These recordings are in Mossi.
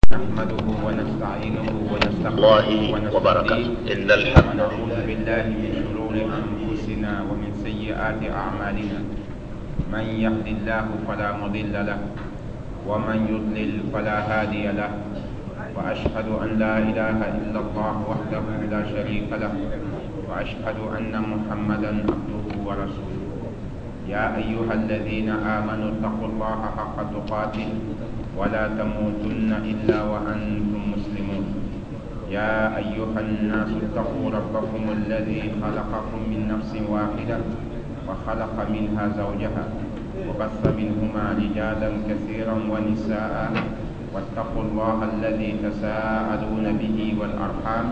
نحمده ونستعينه ونستغفره الله ونستهديه. وبركاته. إن الحمد ونعوذ بالله من شرور أنفسنا ومن سيئات أعمالنا. من يهد الله فلا مضل له، ومن يضلل فلا هادي له. وأشهد أن لا إله إلا الله وحده لا شريك له، وأشهد أن محمدا عبده ورسوله. يا أيها الذين آمنوا اتقوا الله حق تقاته ولا تموتن إلا وأنتم مسلمون. يا أيها الناس اتقوا ربكم الذي خلقكم من نفس واحدة وخلق منها زوجها وبث منهما رجالا كثيرا ونساء، واتقوا الله الذي تساءلون به والأرحام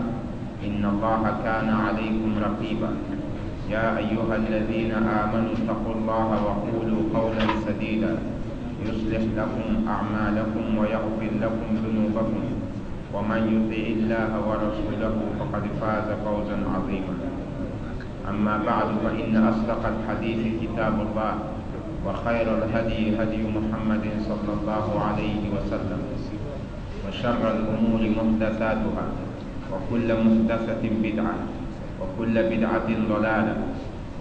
إن الله كان عليكم رقيبا. يا أيها الذين آمنوا اتقوا الله وقولوا قولا سديدا يصلح لكم أعمالكم ويغفر لكم ذنوبكم، ومن يطع الله ورسوله فقد فاز فوزا عظيما. أما بعد، فإن أصدق الحديث كتاب الله، وخير الهدي هدي محمد صلى الله عليه وسلم، وشر الأمور محدثاتها، وكل محدثة بدعة، وكل بدعة ضلالة،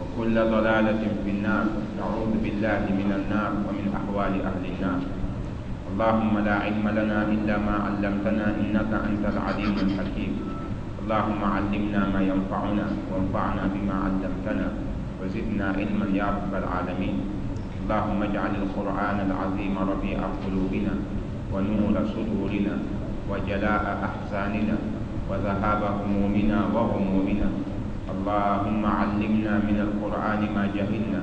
وكل ضلالة في النار. نعوذ بالله من النار ومن أحوال أهل النار. اللهم لا علم لنا إلا ما علمتنا إنك أنت العليم الحكيم. اللهم علمنا ما ينفعنا، وانفعنا بما علمتنا، وزدنا علما يا رب العالمين. اللهم اجعل القرآن العظيم ربيع قلوبنا، ونور صدورنا، وجلاء أحزاننا، وذهاب همومنا وغمومنا. اللهم علمنا من القرآن ما جهلنا،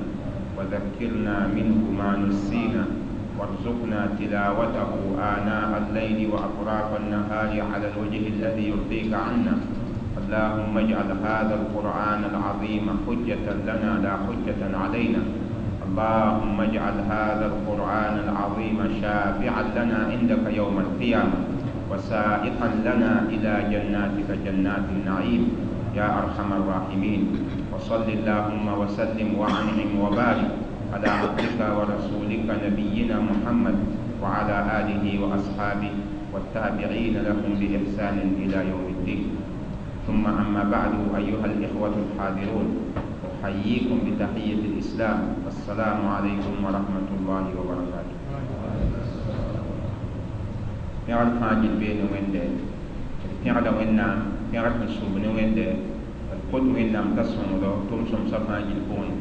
وذكرنا منه ما نسينا، وارزقنا تلاوته آناء الليل وأطراف النهار على الوجه الذي يرضيك عنا. اللهم اجعل هذا القرآن العظيم حجة لنا لا حجة علينا. اللهم اجعل هذا القرآن العظيم شافعا لنا عندك يوم القيامة، وسائقا لنا إلى جناتك جنات النعيم يا أرحم الراحمين. وصل اللهم وسلم وأنعم وبارك على عبدك ورسولك نبينا محمد وعلى آله وأصحابه والتابعين لهم بإحسان إلى يوم الدين. ثم أما بعد، أيها الإخوة الحاضرون، أحييكم بتحية الإسلام: السلام عليكم ورحمة الله وبركاته. Pẽgr fãa gill bee ne Wẽnde, d pẽgda Wẽnnaam, pẽgr sẽn sʋb ne Wẽnde. D kot Wẽnnaam t'a sõngdo tʋm-sõmsã fãa gill pʋgẽ.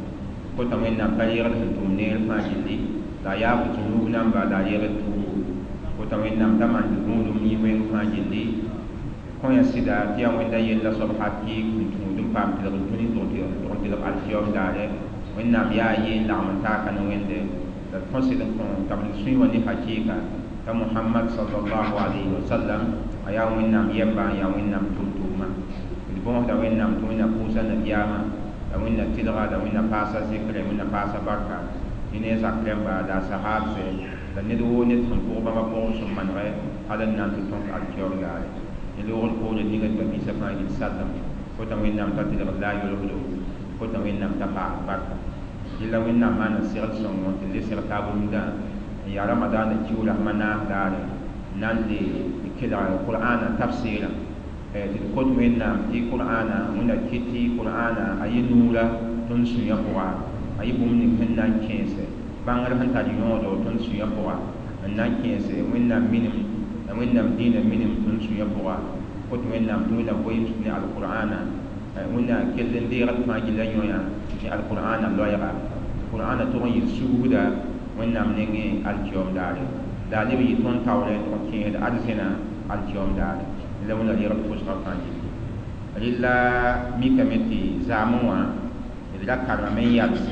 Kota Wẽnnaam t'a reegd sẽn tʋm neer fãa gilli, la a yaab zũnub namba, la a reegd tuubu. Kota Wẽnnaam t'a maan tɩ gũudum yĩ wẽng fãa gilli. Kõ ya sɩda tɩ yaa Wẽnda yella soab hakɩɩk sẽn tũud n paam tɩlg dũni tʋg n tɩlg alkiyom daare. Wẽnnaam yaa a yee n lagm n taaka ne Wẽnde, la d kõ sɩd n kõ t'a b sũy wã ne hakɩɩka t'a Mohamad sallallahu alayhi wa sallam a yaa Wẽnnaam yɛmba, n yaa Wẽnnaam tʋm-tʋʋma. D bõosda Wẽnnaam tɩ Wẽnna pʋʋsa nabiyaamã, la Wẽnna tɩlga, la Wẽnna paasa zɩkrɛ, Wẽnna paasa barka yẽ ne a zak rẽmba la a sahaabsɛ, la ned woo ned sẽn pʋg bãmba pʋgẽ sẽn manegɛ hal n na n tɩ tõk alkiyoom daare. Ne loogr poore ninga tɩ ba-biisã fãa gill sallem. Kota Wẽnnaam t'a tɩlgd la a yolgdo, kota Wẽnnaam t'a paas barka. Yella Wẽnnaam maana segl sõngo tɩ le seg taab rũndã n yaa Ramadaana kiuug rasmã naas daare, n na n le kelg Qur'aana tafsɩɩrã. Tɩ d kot Wẽnnaam tɩ Qur'aana, Wẽnna kɩt tɩ Qur'aana a yɩ nuura tõnd sũyã pʋga, a yɩ bũmb ning sẽn na n kẽese bãngr sẽn tar yõodo tõnd sũyã pʋga, n na n kẽese Wẽnnaam minim la Wẽnnaam dĩinã minim tõnd sũyã pʋga. Kot Wẽnnaam tɩ Wẽnna goeems ne alqur'aana, Wẽnna kell n deegd fãa gilla yõya ne alqur'aana loɛɛga. Qur'aana tʋg n yɩ sugda Wẽnnaam nengẽ alkiyoom daare, la a leb yɩ tõnd taoorẽ tɩ kẽesd arzẽna alkiyoom daare. La Wẽnna reegd pʋsgã fãa gilli. Rɩla mikame tɩ zaamẽ wã d ra karemame n yals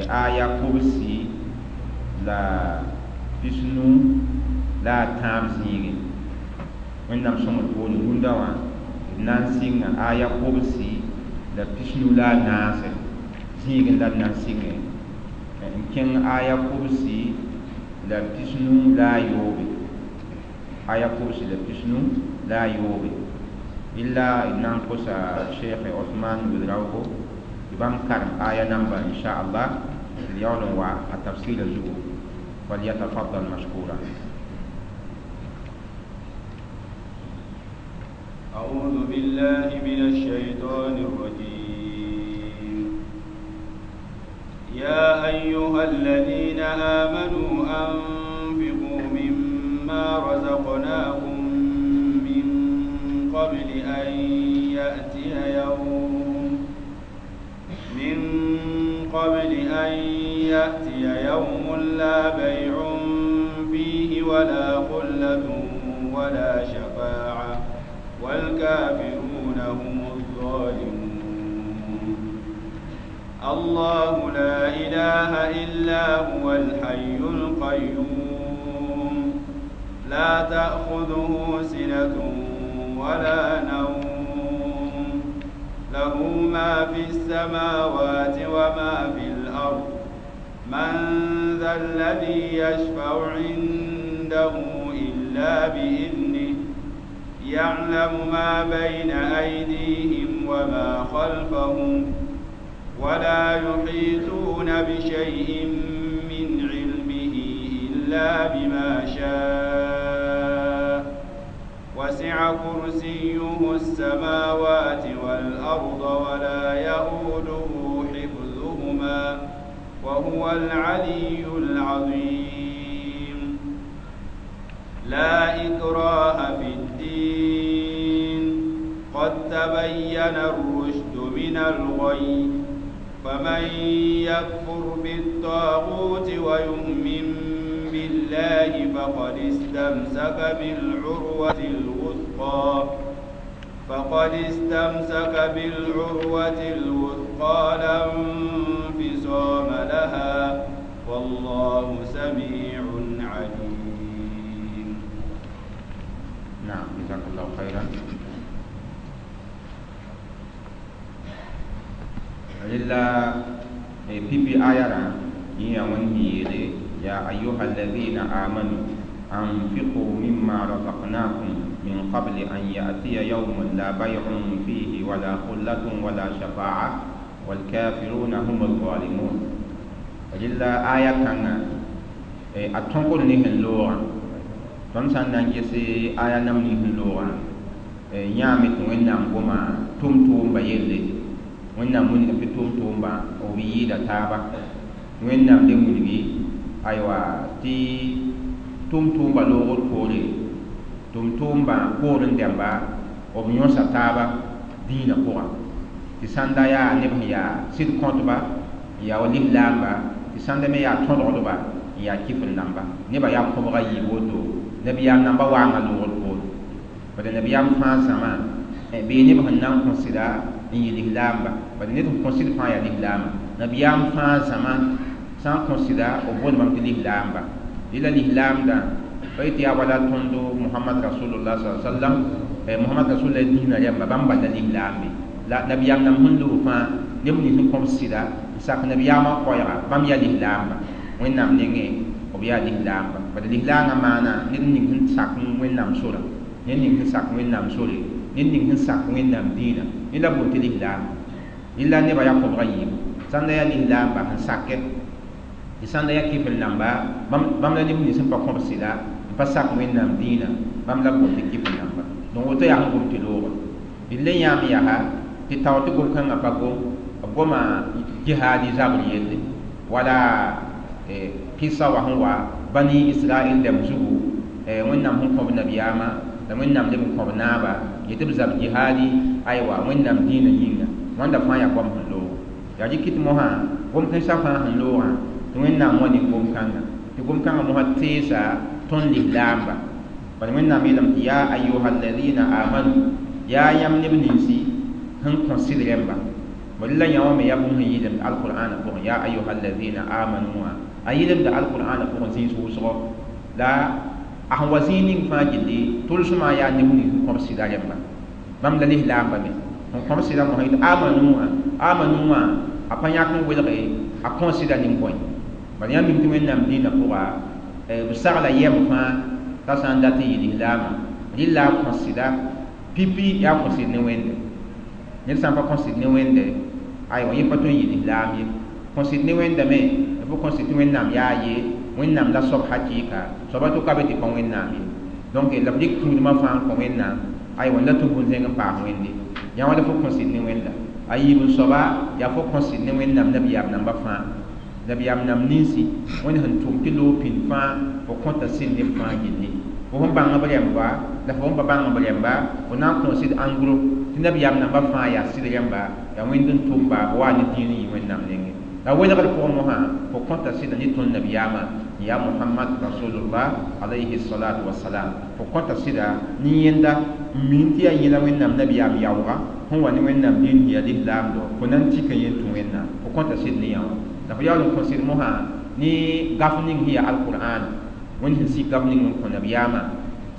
aya 93 zĩigẽ. Wẽnnaam sõngd poore, rũndã wã d na n sɩnga aya 94 zĩigẽ la d na n sɩngẽ n kẽng aya 93, aya 93. Illa d na n kosa Sheikh Osman Ouedraogo tɩ bãmb karem aya namba, inchallah, d yaool n wa a tafsɩɩrã zugu. فليتفضل مشكورا. أعوذ بالله من الشيطان الرجيم. يا أيها الذين آمنوا أنفقوا مما رزقناكم من قبل أن يأتي يوم من قبل أن يأتي يوم لا بيع فيه ولا خلة ولا شفاعة والكافرون هم الظالمون. الله لا إله إلا هو الحي القيوم لا تأخذه سنة ولا نوم له ما في السماوات وما في الأرض من ذا الذي يشفع عنده إلا بإذنه يعلم ما بين أيديهم وما خلفهم ولا يحيطون بشيء من علمه إلا بما شاء وسع كرسيه السماوات والأرض ولا يؤوده حفظهما وهو العلي العظيم. لا إكراه في الدين قد تبين الرشد من الغي فمن يكفر بالطاغوت ويؤمن بالله فقد استمسك بالعروة الوثقى لا انفصام لها والله سميع عليم. نعم جزاك الله خيرا. لله بي بي آيارا يا ونهي يا أيها الذين آمنوا أنفقوا مما رزقناكم من قبل أن يأتي يوم لا بيع فيه ولا خلة ولا شفاعة والكافرون هم الظالمون. لله آية كان أتنقل نهن لورا تنسان نانجسي آية نم نهن لورا يامت وإنام قما تم بيلي وإنام من في تم با أو بيدا تابا وإنام دمولي أيوة تي تم با لورا كوري تم با كورن دمبا أو بيونسا تابا دينا كورا تساندا يا نبه يا سيد كونتبا يا ولي لامبا تساندا مي يا تondrodba يا كيف نamba نبا يا كوبرا يبوتو نبي يا نamba وانا لورا كوري bada nabiyam fãa zãma bee neb sẽn na n kõ sɩda n yɩ lislaamba bada ned sẽn kõ sɩd fãa yaa lislaamba nabiyaam fãa zãma sã n kõ sɩda b boond bãmb tɩ lislaamba dɩ la lislaamdã pa yetɩ yaa wala tõndo Muhammad rasulullah sallam Muhammad rasulullah dĩinã rẽmba bãmb bal la lislaambe la nabiyaam nam sẽn loog fãa neb nins sẽn kõb sɩda n sak nabiyaamã koɛɛga bãmb yaa lislaamba Wẽnnaam nengẽ b yaa lislaamba bada lislaangã maana ned ning sẽn sak Wẽnnaam sora ned ning sẽn sak Wẽnnaam sore ned ning sẽn sak Wẽnnaam dĩinã ned la boond tɩ lislaam rɩla nebã yaa kõbga yiibu sãnda yaa lislaamba sẽn sakɛ tɩ sãnda yaa kɩfr namba bãmb la neb nins sẽn pa kõb sɩda n pa sak Wẽnnaam dĩinã bãmb la boond tɩ kɩfr namba donc woto yaa sẽn gom tɩ loogã d le yãam yaa tɩ tao tɩ gom-kãngã pa gom b goma jihaadi zabr yelle wala kɩsa wa sẽn wa bani Israɛl dãmb zugu Wẽnnaam sẽn kõb nabiyaamã la Wẽnnaam leb n kõb naaba yetɩ b zab jihaadi aywa Wẽnnaam dĩinã yĩnga wãnda fãa yaa goam sẽn loogo yaa rɩk tɩ mosã gom-kãensã fãa sẽn loogã tɩ Wẽnnaam wa ne gom-kãnga tɩ gom-kãngã mosã teesa tõnd lislaamba bala Wẽnnaam yeelame tɩ yaa ayuha alladina amanu yaa yãmb neb ninsi sẽn kõ sɩd rẽmba bala la yã wã me yaa bũmb sẽn yɩlemd alqur'ana pʋgẽ yaa ayuha alladina amanu wã a yɩlemda alqur'ana pʋgẽ zĩis wʋsgo la a sẽn wa zĩig ning fãa gilli tʋlsmã yaa neb nins sẽn kõb sɩda rẽmba bãmb la lislaamba me sẽn kõb sɩda mosã yetɩ amanu wã amanu wã a pa yãk n welge a kõ sɩda nin-bõe bala yãmb mim tɩ Wẽnnaam dĩinã pʋga b sagla yɛm fãa t'a sã n dat n yɩ lislaamã rɩla a kõ sɩda pipi yaa kõ sɩd ne Wẽnde ned sã n pa kõ sɩd ne Wẽnde aywa yẽ pa tõe n yɩ lislaam ye kõ sɩd ne Wẽnda me b kõ sɩd tɩ Wẽnnaam yaa ye Wẽnnaam la soab hakɩɩka soaba tʋka be tɩ pa Wẽnnaam ye donc la b rɩk kũudmã fãa n kõ Wẽnnaam Aywa la tʋ bũn-zẽng n paas wẽnde yã wã la fo kõ sɩd ne wẽnda a yiib n soaba yaa fo kõ sɩd ne wẽnnaam nabiyaam namba fãa nabiyaam nam ninsi wẽnd sẽn tʋm tɩ loog pĩnd fãa fo kõta sɩd neb fãa gilli fo sẽn bãng b rẽmba la fo sẽn pa bãng b rẽmba fo na n kõ sɩd ãngro tɩ nabiyaam namba fãa yaa sɩd rẽmba yaa wẽnd n tʋmba b wa ne dĩin n yɩ wẽnnaam nengẽ la welgr pʋgẽ mosã fo kõta sɩda ne tõnd nabiyaamã ya Muhammad rasulullah alayhi salatu wassalam fo kõta sɩda ne yẽnda n min tɩ yaa yẽla wẽnnaam nabiyaam yaooga sẽn wa ne wẽnnaam dĩin yaa lislaam do fo na n tika yẽ tũ wẽnnaam fo kõta sɩd ne yã wã la fo yaool n kõ sɩd mosã ne gaf ning sẽn yaa alqur'an wẽnd sẽn sik gaf ning n kõ nabiyaamã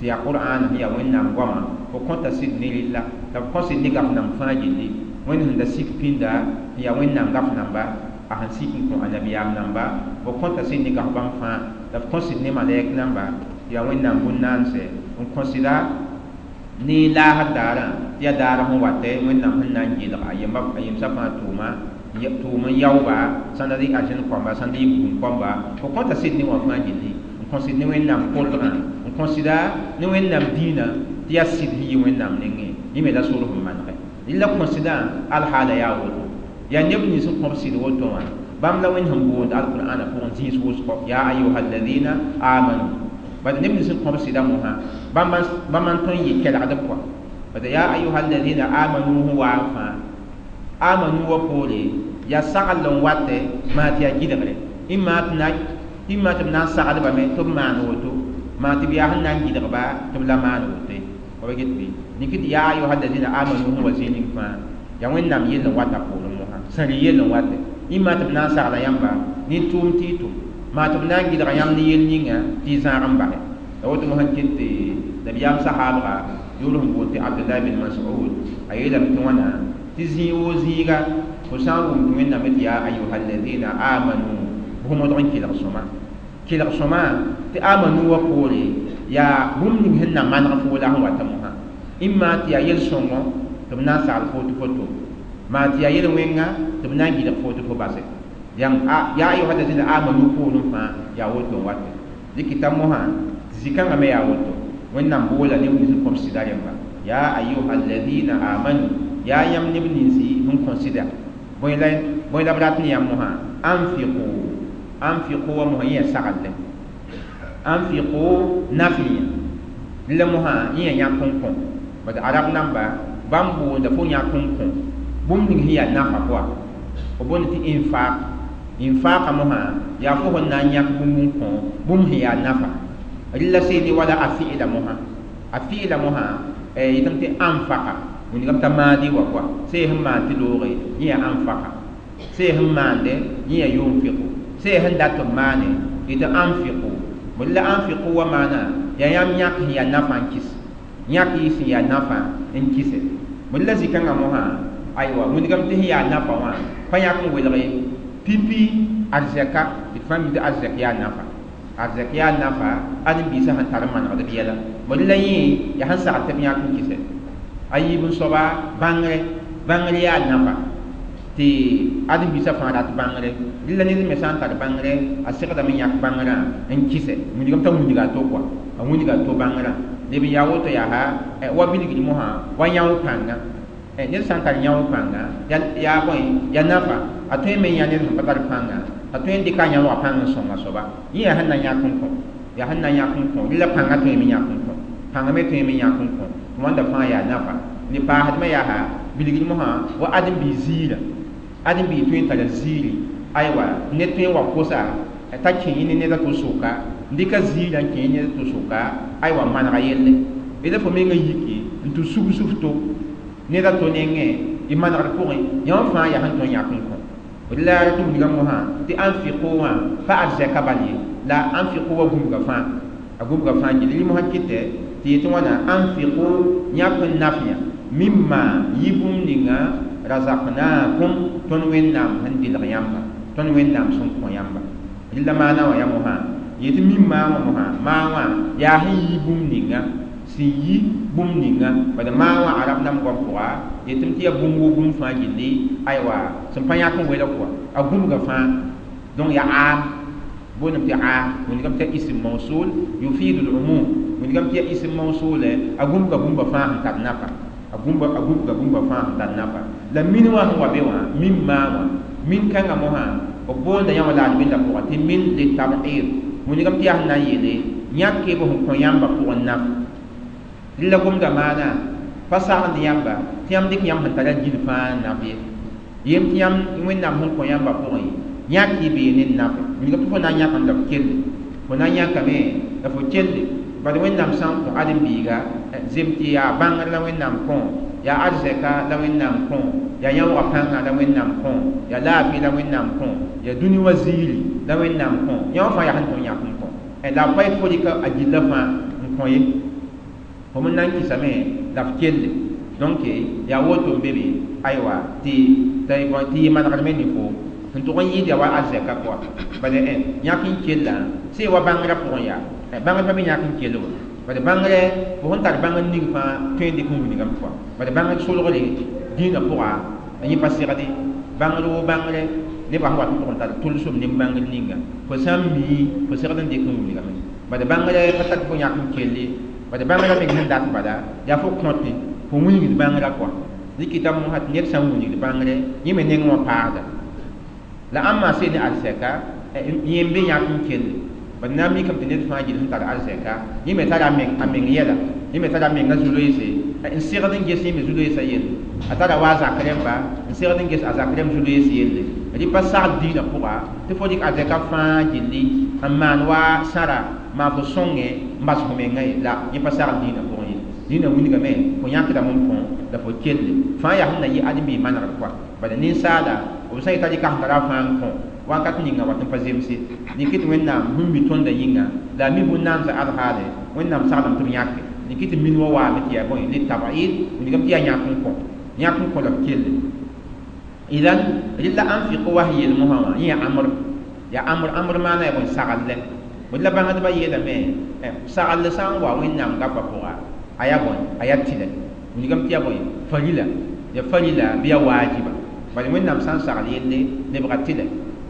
tɩ yaa qur'an sẽn yaa wẽnnaam goama fo kõta sɩd ne rella la fo kõ sɩd ne gaf namb fãa gilli wẽnd sẽn da sik pĩnda sẽn yaa wẽnnaam gaf namba a sẽn sik n kõ a nabiyaam namba fo kõta sɩd ne gaf bãmb fãa la fo kõ sɩd ne malɛk namba tɩ yaa wẽnnaam bũn-naanse n kõ sɩda ne laasr daarã tɩ yaa daar sẽn watɛ wẽnnaam sẽn na n gɩlg a yemsã fãa tʋʋma tʋʋm n yaooba sãn da rɩ arzẽn kõmba sãn da yɩ bugum kõmba fo kõta sɩd ne wã fãa gilli n kõ sɩd ne wẽnnaam kolgã n kõ sɩda ne wẽnnaam dĩinã tɩ yaa sɩd sẽn yɩ wẽnnaam nengẽ yẽ me la sor sẽn manegɛ rɩla kõ sɩdã alhaala yaa woto yaa neb nins n kõb sɩd woto wã bãmb la wẽnd sẽn boond alqur'ana pʋgẽ zĩis wʋsgo yaa ayuha alladina amanu bad neb nins n kõb sɩda mosã bãmb n tõe n yɩ kelgd pʋa bad yaa ayuha alladina amanu sẽn waa n fãa amanu wa poore yaa sagl n watɛ maa tɩ yaa gɩdgre ĩmma tɩ b na n saglbame tɩ b maan woto maa tɩ b yaa sẽn na n gɩdgba tɩ b la maan woto ye wa get bɩ niki tɩ yaa ayuha alladina amanu sẽn wa zĩig ning fãa yaa wẽnnaam yell n wata poorẽ mosã sẽn rɩ yell n watɛ ĩmma tɩ b na n sagla yãmba ne tʋʋm tɩ y tʋm maa tɩ b na n gɩdga yãmb ne yell ninga tɩ y zãag n basɛ la woto mosã ket tɩ nabiyaam sahaabga yʋʋr sẽn boond tɩ Abdullah bin Mas'ud a yeelame tɩ wãna tɩ zĩig woo zĩiga fo sã n wʋm tɩ wẽnnaam tɩ yaa ayuha alladina amanu bʋ modg n kelg sõma kelg sõma tɩ amanu wa poore yaa bũmb ning sẽn na maneg foo la sẽn wata mosã ĩmma tɩ yaa yel-sõngo tɩ b na n sagl foo tɩ fo tʋm maa tɩ yaa yel-wẽnga tɩ b na n gɩdg foo tɩ fo base yaa ayuha alladina amanu poorẽ fãa yaa woto n watɛ dɩkɩta mosã zĩ-kãngã me yaa woto wẽnnaam boola neb nins n kõb sɩda rẽmba yaa ayuha alladina amanu yaa yãmb neb ninsi sẽn kõ sɩda bõe la b rat ne yãmb mosã anfiqu anfiqu wa mosã yẽ yaa saglle anfiqu nafiyã la mosã yẽ yaa yãk n kõ bad arab namba bãmb boonda fo yãk n kõ bũmb ning sẽn yaa nafa pʋa f boond tɩ infaq infaqa mosã yaa fo sẽn na n yãk bũmb n kõ bũmb sẽn yaa nafa rɩla seene wala a fi'la mosã a fi'la mosã yetame tɩ anfaqa wĩndigame t'a maadi wa kɔa see sẽn maan tɩ looge yẽ yaa anfaqa see sẽn maande yẽ yaa yunfiqu see sẽn dat b maane yetɩ anfiqu bõe la anfiqu wa maana yaa yãmb yãk sẽn yaa nafa n kɩs yãk y sẽn yaa nafa n kɩse bõe la zĩ-kãngã mosã aywa wĩndigame tɩ sẽn yaa nafa wã pa yãk n welge pipi arzɛka tɩ fãa mi tɩ arzɛk yaa nafa arzɛk yaa nafa ãdem-biisã sẽn tar n manegd b yɛla bõe la yẽ yaa sẽn sagl tɩ b yãk n kɩsɛ a yiib n soaba bãngre bãngr yaa nafa tɩ ãdem-biisã fãa rat bãngre rɩla ned me sã n tar bãngre a segdame yãk bãngrã n kɩsɛ wĩndigame t'a wĩndiga a to kɔa a wĩndiga a to bãngrã leb n yaa woto yaa wa bilgd mosã wa yão pãnga ned sã n tar yão pãnga yaa bõe yaa nafa a tõe me yã ned sẽn pa tar pãnga a tõe n dɩka a yãoogã pãng n sõng a soaba yẽ yaa sẽn na yãk n kõ yaa sẽn na yãk n kõ rɩla pãngã tõe me yãk n kõ pãngã me tõe me yãk n kõ tɩ wãnda fãa yaa nafa ne paasdmã yaa bilgd mosã wa ãdem-biis ziirã ãdem-biis tõe n tara ziiri aywa ned tõe n wa kosa t'a kẽ yẽ ne ned a to soka n dɩka ziirã n kẽ yẽ ned a to soka aywa manega yelle d fo mengã yiki n tɩ sugs f to ned a to nengẽ y manegd pʋgẽ yã wã fãa yaa sẽn tõe n yãk n kõ la tɩ wilga mosã tɩ anfiqu wã pa arzɛka bal ye la anfiqu wa gũbga fãa a gũbga fãa gilli rɩ mosã kɩtɛ tɩ yetɩ wãna anfiqu yãk n nafyã mimma yɩ bũmb ninga razaqnakum tõnd wẽnnaam sẽn dɩlg yãmba tõnd wẽnnaam sẽn kõ yãmba rɩla maana wã yaa mosã yetɩ mimma wã mosã maa wã yaa sẽn yi bũmb ninga sẽn yi bũmb ninga bad maa wã arab nam goam pʋga yetɩm tɩ yaa bũmb woo bũmb fãa gilli aywa sẽn pa yãk n welg kɔa a gũbga fãa donc yaa aam boondame tɩ aam wĩndigame tɩ ism mawsul yufidu lumum Wingame tɩ yaa ism mawsuule a gũbga bũmba fãa sẽn tar nafa, a gũbga bũmba fãa sẽn tar nafa. La min wã sẽn wa be wã, mimma wã, min kãngã mosã b boonda yã wã la ad-bɩndã pʋgã tɩ min litab'id. Wingame tɩ yaa sẽn na n yeele yãk b sẽn kõ yãmbã pʋgẽ naf. Rɩ la gomda maana pa sagend yãmba tɩ yãmb dɩk yãmb sẽn tara gil fãa n naf ye. Yem tɩ yãmb Wẽnnaam sẽn kõ yãmbã pʋgẽ yãk y bee ne nafe. Wilgame tɩ fo na n yãkame la f kelle, fo na n yãkame la fo kelle. Bad Wẽnnaam sã n kõ ãdem-biiga zem tɩ yaa bãngr la Wẽnnaam kõ, yaa arzɛka la Wẽnnaam kõ, yaa yãoogã pãnga la Wẽnnaam kõ, yaa laafɩ la Wẽnnaam kõ, yaa dũni wã ziiri la Wẽnnaam kõ, yã wã fãa yaa sẽn tõe n yãk n kõ. La b pa yet fo rɩka a gillã fãa n kõ ye, fo me na n kɩsame la f kelle. Donc yaa woto n be be, aywa, tɩ yɩ manegdme ne fo sẽn tʋg n yɩɩd yaa wa arzɛka pʋga. Bala yãk n kellã sẽn wa bãngrã pʋgẽ yaa bãngr pa be yãk n kell wa. Bala bãngrɛ fo sẽn tar bãngr ning fãa tõe n dɩk n wilgame pʋga. Bala bãngr solgre dĩinã pʋga yẽ pa segde bãngr woo bãngrɛ nebã sẽn wat n tʋg n tar tʋlsem ne bãngr ninga fo sã n mii fo segd n dɩk n wilgame. Bala bãngrɛ pa tar tɩ fo yãk n kelle, bala bãngrã meng sẽn dat bala yaa fo kõte fo wilgd bãngrã kɔa. Dɩkɩta mosã tɩ ned sã n wilgd bãngrɛ yẽ me neng wã paasda. La ãmba sẽn ne arzɛka yẽ n be yãk n kelle. Bad na n mikame tɩ ned fãa gil sẽn tar arzɛka yẽ me tara a meng yɛla, yẽ me tara a menga zu-loeese n segd n ges yẽ me zu-loeesã yelle. A tara wa a zak rẽmba n segd n ges a zak rẽmb zu-loees yelle. Rɩ pa sagl dĩinã pʋga tɩ fo dɩk arzɛka fãa gilli n maan wa sãra maan fo sõngẽ n bas fo mengã ye. La yẽ pa sagl dĩinã pʋgẽ ye. Dĩinã wilgame fo yãkdame n kõ la fo kelle fãa yaa sẽn na yɩ ãdem-biig manegr kɔa. Bala ninsaala b sã n yeta rɩka sẽn tara fãa n kõ wakat ninga wat n pa zemse dɩk tɩ Wẽnnaam sẽn mi tõndã yĩnga la a mi bũn-naamsã alhaale Wẽnnaam saglem tɩ b yãke dɩk tɩ min wã waame tɩ yaa bõe litab'id wilgame tɩ yaa yãk n kõ, yãk n kõ la b kelle. Idan rɩla anfiqu wa sẽn yeel mosã wã yẽ yaa amr, yaa amr. Amr maana yaa bõe sagl lɛ. La bãngdbã yeelame sagl sã n wa Wẽnnaam gapa pʋga a yaa bõe a yaa tɩlɛ wilgame tɩ yaa bõe farila, yaa farila bɩ yaa waajiba. Bala Wẽnnaam sã n sagl yelle lebga tɩlɛ.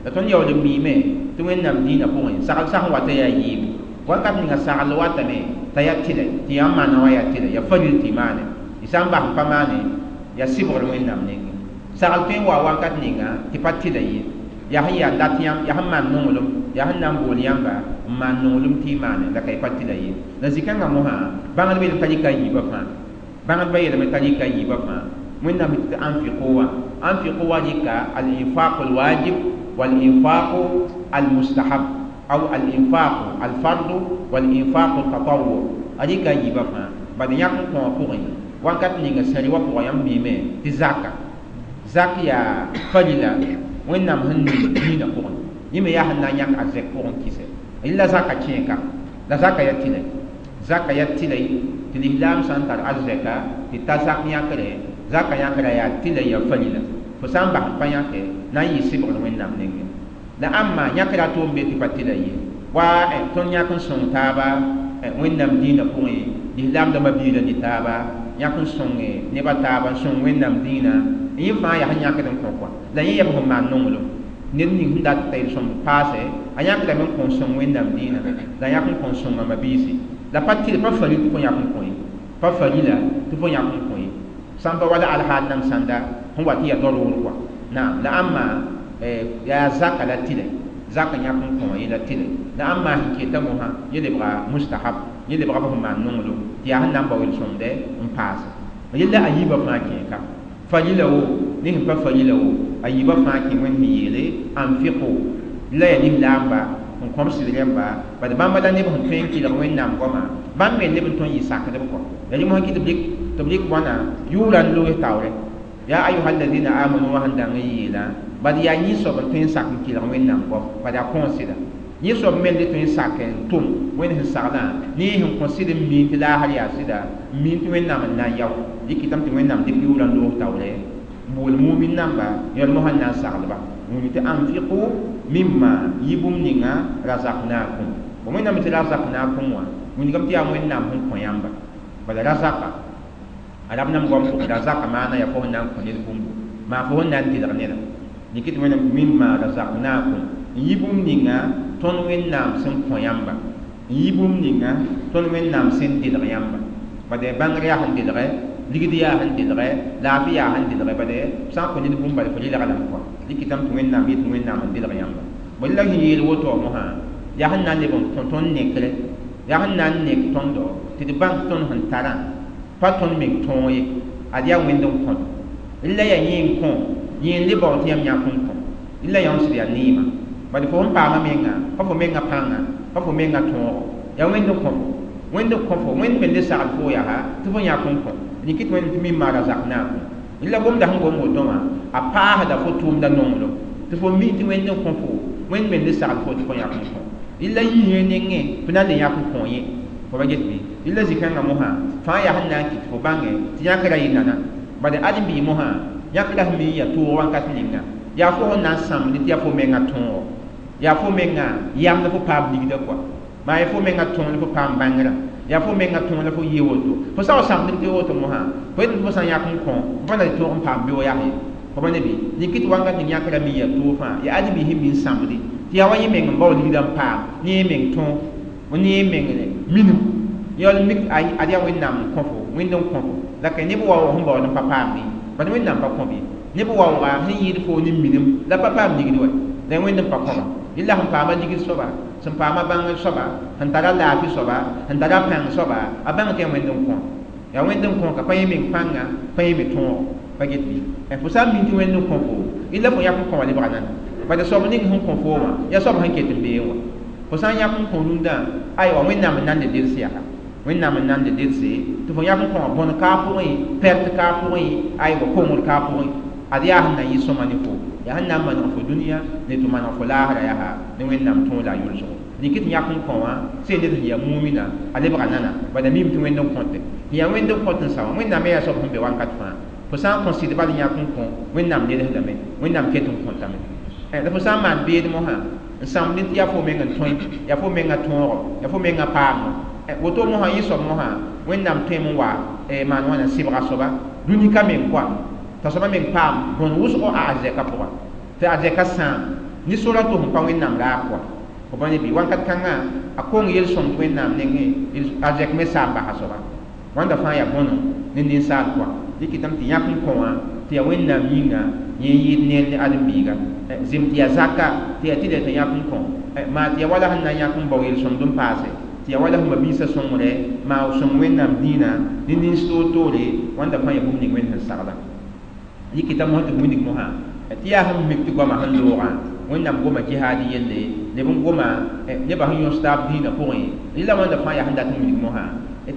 La tõnd yaool n miime tɩ Wẽnnaam dĩinã pʋgẽ sagl sã sẽn wata yaa yiibu. Wakat ninga sagl watame t'a yaa tɩlɛ tɩ yãmb maana wã yaa tɩlɛ, yaa faril tɩ maane. Y sã n bas n pa maane yaa sɩbgr Wẽnnaam nengẽ. Sagl tõe n wa wakat ninga tɩ pa tɩlɛ ye, yaa sẽn yaa dat yãmb, yaa sẽn maan nonglem, yaa sẽn na n bool yãmba n maan nonglem tɩ y maane la ka y pa tɩlɛ ye. La zĩ-kãngã mosã bãngdbã yeelame t'a rɩka a yiibã fãa, bãngdbã yeelame t'a rɩka a yiibã fãa. Wẽnnaam tɩ anfiqu wã, anfiqu wã rɩka al-infaq al-wajib wal-infaq al-mustahab aw al-infaq al-fard wal-infaq al-tatawwu, a rɩka a yiibã fãa. Bad yãk n kõ wã pʋgẽ wakat ninga sẽri wã pʋgã yãmb miime tɩ zaka, zak yaa farila Wẽnnaam sẽn ning dĩinã pʋgẽ, yẽ me yaa sẽn na n yãk arzɛk pʋgẽ kɩsɛ. Rɩla zaka kẽeka, la zaka yaa tɩlɛ, zaka yaa tɩlɛ tɩ lislaam sã n tar arzɛka tɩ ta zak yãkre, zaka yãkra yaa tɩlɛ yaa farila. Fo sã n bas n pa yãke na n yɩ sɩbgr Wẽnnaam nengẽ. La ãmba yãkra tʋʋm be tɩ pa tɩlɛ ye. Wa tõnd yãk n sõng taaba Wẽnnaam dĩinã pʋgẽ, lislaam dãmbã biilã ne taaba yãk n sõnge nebã taaba n sõng Wẽnnaam dĩinã. Yẽ fãa yaa sẽn yãkd n kõ kɔa. La yẽ yaa b sẽn maan nonglem ned ning sẽn dat t'a yel-sõmd paase a yãkdame n kõ n sõng Wẽnnaam dĩinã la yãk n kõ n sõnga mabiisi. La pa tɩl pa faril tɩ fo yãk n kõ ye, pa farila tɩ fo yãk n kõ ye, sã n pa wala alhaal nam sãnda sẽn wa tɩ yaa darʋʋr kɔa. Naam, la ãmba yaa zaka la tɩlɛ, zaka yãk n kõ wã yẽ la tɩlɛ. La ãmba sẽn keta mosã yẽ lebga mustahab, yẽ lebga b sẽn maan nonglem tɩ yaa sẽn na n bao yel-sõmdɛ n paase. Yella a yiibã fãa kẽeka farila wo ne sẽn pa farila wo, a yiibã fãa kẽ Wẽnd sẽn yeele anfiqu la yaa lislaamba n kõm sɩd rẽmba. Bad bãmba la neb sẽn tõe n kɩlg Wẽnnaam goama, bãmb me neb n tõe n yɩ sakdb kɔ. La rẽ mosã kɩ tɩ b rɩk wãna yʋʋra n loes taoorɛ yaa ayuha alladina amanu wã sẽn dãng n yeelã. Bad yaa yẽ soab n tõe n sak n kɩlg Wẽnnaam goam, bad yaa kõon sɩda. Yẽ soab me le tõe n sak n tʋm Wẽnd sẽn saglã ne yẽ sẽn kõ sɩd n miin tɩ laasr yaa sɩda, n miin tɩ Wẽnnaam n na n yao. Dɩkɩtame tɩ Wẽnnaam dɩk yʋʋrã n loos taoorɛ n bool mumin namba yãl mosã n na n saglba wĩnd tɩ anfiqu mimma yɩ bũmb ninga razaqnakum. Bõ Wẽnnaam tɩ razaqnakum wã wilgame tɩ yaa Wẽnnaam sẽn kõ yãmba. Bala razaka arab nam goam pʋgẽ razaka maana yaa fo sẽn na n kõ ned bũmbu, maa fo sẽn na n tɩlg neda. Dɩk tɩ Wẽnnaam mimma razaqnakum n yɩ bũmb ninga tõnd Wẽnnaam sẽn kõ yãmba, n yɩ bũmb ninga Tõnd Wẽnnaam sẽn dɩlg yãmba bade bãngr yaa sẽn dɩlge ligd yaa sẽn dɩlge laafɩ yaa sẽn dɩlge bade sã n kõ ned bũmb bala fo rɩlga lame kɔa dɩkɩtame tɩ Wẽnnaam yet Wẽnnaam n dɩlg yãmba bõe la sẽn yeel woto wã mosã yaa sẽn na n leb n kõ tõnd nekre yaa sẽn na n nek tõndo tɩ d bãng tõnd sẽn tarã pa tõnd meng tõog ye ad yaa Wẽnd n kõt la yaa yẽ n kõ yẽ n le bao tɩ yãmb yãk n kõ la yã sɩd yaa neema bad fo sẽn paama menga pa fo menga pãnga pa fo menga tõogo yaa Wẽnd n kõ fo Wẽnd n kõ fo Wẽnd me le sagl fo yaa tɩ fo yãk n kõ rɩkɩ tɩ Wẽnd tɩ mimma razaqnakum la gomda sẽn gom woto wã a paasda fo tʋʋmda nonglem tɩ fo mi tɩ Wẽnd n kõ fo Wẽnd me le sagl fo tɩ fo yãk n kõ la yĩngã nengẽ fo na n le yãk n kõ yẽ fo ba get bɩ la zĩ-kãngã mosã fãa yaa sẽn na n kɩt fo bãnge tɩ yãkra yɩ nana bad ãdem-biig mosã yãkra sẽn mi n yaa toog wãnkat ninga yaa fo sẽn na n sãmd tɩ yaa fo menga tõogo yaa fo menga yamd fo paam ligda kɔa maa yaa fo menga tõog la fo paam bãngrã yaa fo menga tõog la fo yɩ woto fo sã wa sãmd tɩ woto mosã fo yet tɩ fo sã n yãk n kõ fo pa na tɩ tõog n paam beoog yaa ye fo pa ne bɩ rɩk tɩ wankat ning yãkra mi yaa toog fãa yaa ãdem-biis sẽn mi n sãmde tɩ yaa wa yẽ meng n bao ligda n paam ne yẽ meng tõog ne yẽ meng minim yaool mik ad yaa Wẽnnaam n kõ fo Wẽnd n kõ fo la ka neb waoog sẽn baood n pa paamdẽ bad Wẽnnaam pa kõ bɩ neb waooga sẽn yɩɩd fo ne minim la pa paam ligd wa la Wẽnd n pa kõba la sẽn paama ligd soaba sẽn paama bãngr soaba sẽn tara laafɩ soaba sẽn tara pãng soaba a bãng tɩ yaa Wẽnd n kõ yaa Wẽnd n kõ ka pa yẽ meng pãnga pa yẽ me tõogo pa get bɩ fo sã n min tɩ Wẽnd n kõ fo la fo yãk n kõ wã lebga nana bad soab ning sẽn kõ fo wã yaa soab sẽn ket n beẽ wã fo sã n yãk n kõ rũndã aywa Wẽnnaam n na n le delse yaa Wẽnnaam n na n le delse tɩ fo yãk n kõ wã bõn kaa pʋgẽ pɛrt kaa pʋgẽ aywa kongr kaa pʋgẽ ad yaa sẽn na n yɩ sõma ne fo yaa sẽn na n maneg fo dũniyã ne tɩ maneg fo laasra yaa ne Wẽnnaam tõog la a yʋlsgo rɩk tɩ yãk n kõ wã sẽn ned sẽn yaa mumina a lebga nana bad a mim tɩ Wẽnd n kõte tɩ yaa Wẽnd n kõt n sa wã Wẽnnaam me yaa soab sẽn be wankat fãa fo sã n kõ sɩd bal yãk n kõ Wẽnnaam lelsdame Wẽnnaam ket n kõtame la fo sã n maan beed mosã n sãmd tɩ yaa fo meng n tõe yaa fo menga tõogo yaa fo menga paamo woto mosã yẽ soab mosã Wẽnnaam tõem n wa maan wãna sɩbga soaba dũni ka meng koa t'a soaba meng paam bõn wʋsgo a arzɛka pʋga tɩ arzɛka sãam ne sora tɩ sẽn pa Wẽnnaam raag koa fo pa ne bɩ wankat kãngã a kong yel-sõmd Wẽnnaam nengẽ arzɛk me saam basa soaba wãnda fãa yaa bõno ne ninsaal koa dɩkɩtame tɩ yãk n kõ wã tɩ yaa Wẽnnaam yĩnga yẽ n yɩɩd neer ne ãdem-biiga zem tɩ yaa zaka tɩ yaa tɩ lɛ tɩ yãk n kõ maa tɩ yaa wala sẽn na n yãk n bao yel-sõmd n paase tɩ yaa wala sẽn mabiisã sõngre maa sõng Wẽnnaam dĩinã ne nins toor-toore wãnda fãa yaa bũmb ning Wẽnd sẽn sagla yikita mosã tɩ wilg mosã tɩ yaa sẽn mik tɩ goamã sẽn loogã Wẽnnaam goma jihaad yelle leb n goma nebã sẽn yõs taab dĩinã pʋgẽ rɩla wãnda fãa yaa sẽn dat n wilg mosã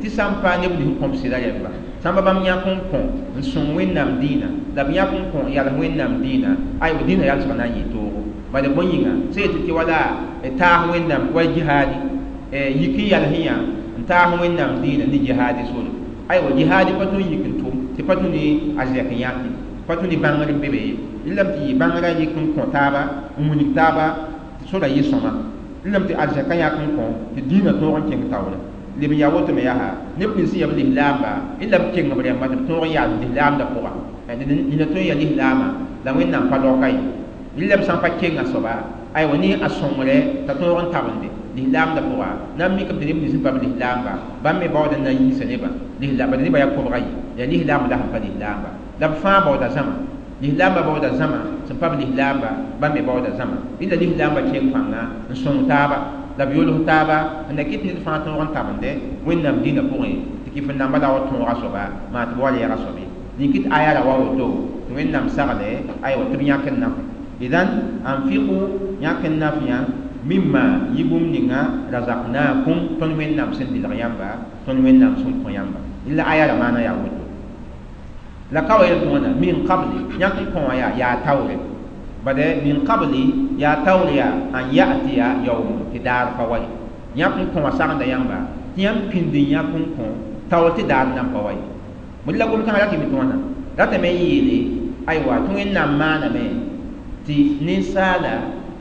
tɩ sã n pa neb nins kõm sɩda rẽmba sãmba bãmb yãk n kõ n sõng Wẽnnaam dĩinã la b yãk n kõ n yals Wẽnnaam dĩinã aywa dĩinã yalsg na n yɩ toogo bala bõe yĩnga sẽn yetɩ tɩ wala taas Wẽnnaam wa jihaadi yik n yals yã n taas Wẽnnaam dĩinã ne jihaadi sore aywa jihaadi pa tõe n yik n tʋm tɩ pa tũ ne a zɛk n yãke pa tũ ne bãngr n be be ye lame tɩ yɩ bãngrã yik n kõ taaba n wilg taaba tɩ sora yɩ sõma lame tɩ arzɛka yãk n kõ tɩ dĩinã tõog n kẽng taoore leb n yaa woto me yaa neb nins sẽn yaa b lislaamba la b keng b rẽmba tɩ b tõog n yaa lislaamdã pʋga nina tõe n yaa lislaamã la Wẽnnaam pa laoka ye la b sã n pa kenga soaba aywa ne a sõngre t'a tõog n tabende lislaamdã pʋga na n mikame tɩ neb nins sẽn pa b lislaamba bãmb me baooda n na n yiisa nebã bad nebã yaa kobga ye yaa lislaamba la sẽn pa lislaamba la b fãa baooda zãma lislaamba baooda zãma sẽn pa b lislaamba bãmb me baooda zãma la lislaamba keng pãnga n sõng taaba la b yʋls taaba n na kɩt ned fãa tõog n tabende Wẽnnaam dĩnã pʋgẽ tɩ kɩf n namba la wa tõoga soaba maa tɩ b wa reega soabe nink tɩ aya ra wa woto tɩ Wẽnnaam sagle aywa tɩ b yãk n naf idan anfiqu yãk n naf yã mimma yɩ bũmb ninga razaqnakum tõnd Wẽnnaam sẽn dɩlg yãmba tõnd Wẽnnaam sẽn kõ yãmba la aya ra maana yaa woto la ka wa yel tɩ wãna min qabli yãk n kõ wã yaa taoore bade min qabli yaa taoor yaa an ya'tiya yawm tɩ daar pa wa ye yãk n kõ wã sagenda yãmba tɩ yãmb pĩnd n yãk n kõ taoor tɩ daar nan pa wa ye bõe la gom-kãngã ratɩ me tɩ wãna ratame n yeele aywa tɩ Wẽnnaam maaname tɩ ninsaala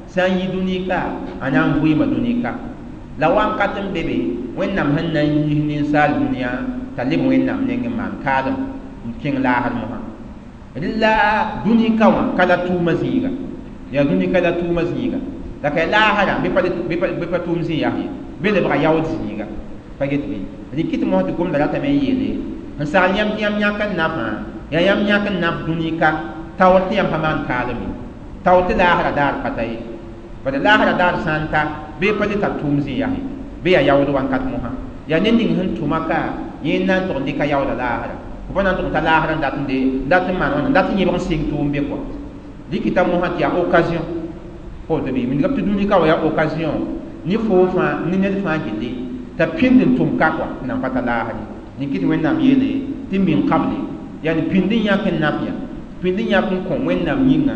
sã n yi dũni ka a na n vɩɩma dũni ka la wãnkat n be be Wẽnnaam sẽn na n yiis ninsaal dũniyã t'a leb Wẽnnaam neng n maan kaalem n kẽng laasr mosã la dũni ka wã ka la tʋʋma zĩiga yaa dũni ka la tʋʋma zĩiga la ka laasrã bɩ pa tʋʋm zĩ yaa ye bɩ lebga yaood zĩiga Pa get bɩ rɩk tɩ mosã tɩ gomda ratame n yeele n sagl yãmb tɩ yãmb yãk n nafã yaa yãmb yãk n naf dũni ka taoor tɩ yãmb pa maan kaalem ye taoor tɩ laasra daar pa ta ye bala laasra daar sã n ta bee pa le tar tʋʋm zĩ yaa ye bɩ yaa yaood wãnkat mosã yaa ned ning sẽn tʋma ka yẽ n na n tʋg n dɩka yaooda laasra fo pa na n tʋg n ta laasra n dat n de n dat n maan wãna n dat n yẽbg n sɩng tʋʋm be kɔa dɩkɩta mosã tɩ yaa occasion woto bɩ wilgame tɩ dũni ka wa yaa occasion ne foo fãa ne ned fãa gilli t'a pĩnd n tʋm ka kɔa tɩ nan pa ta laasr ye rẽn kɩ tɩ Wẽnnaam yeele tɩ min qable yani pĩnd n yãk n naf ya pĩnd n yãk n kõ Wẽnnaam yĩnga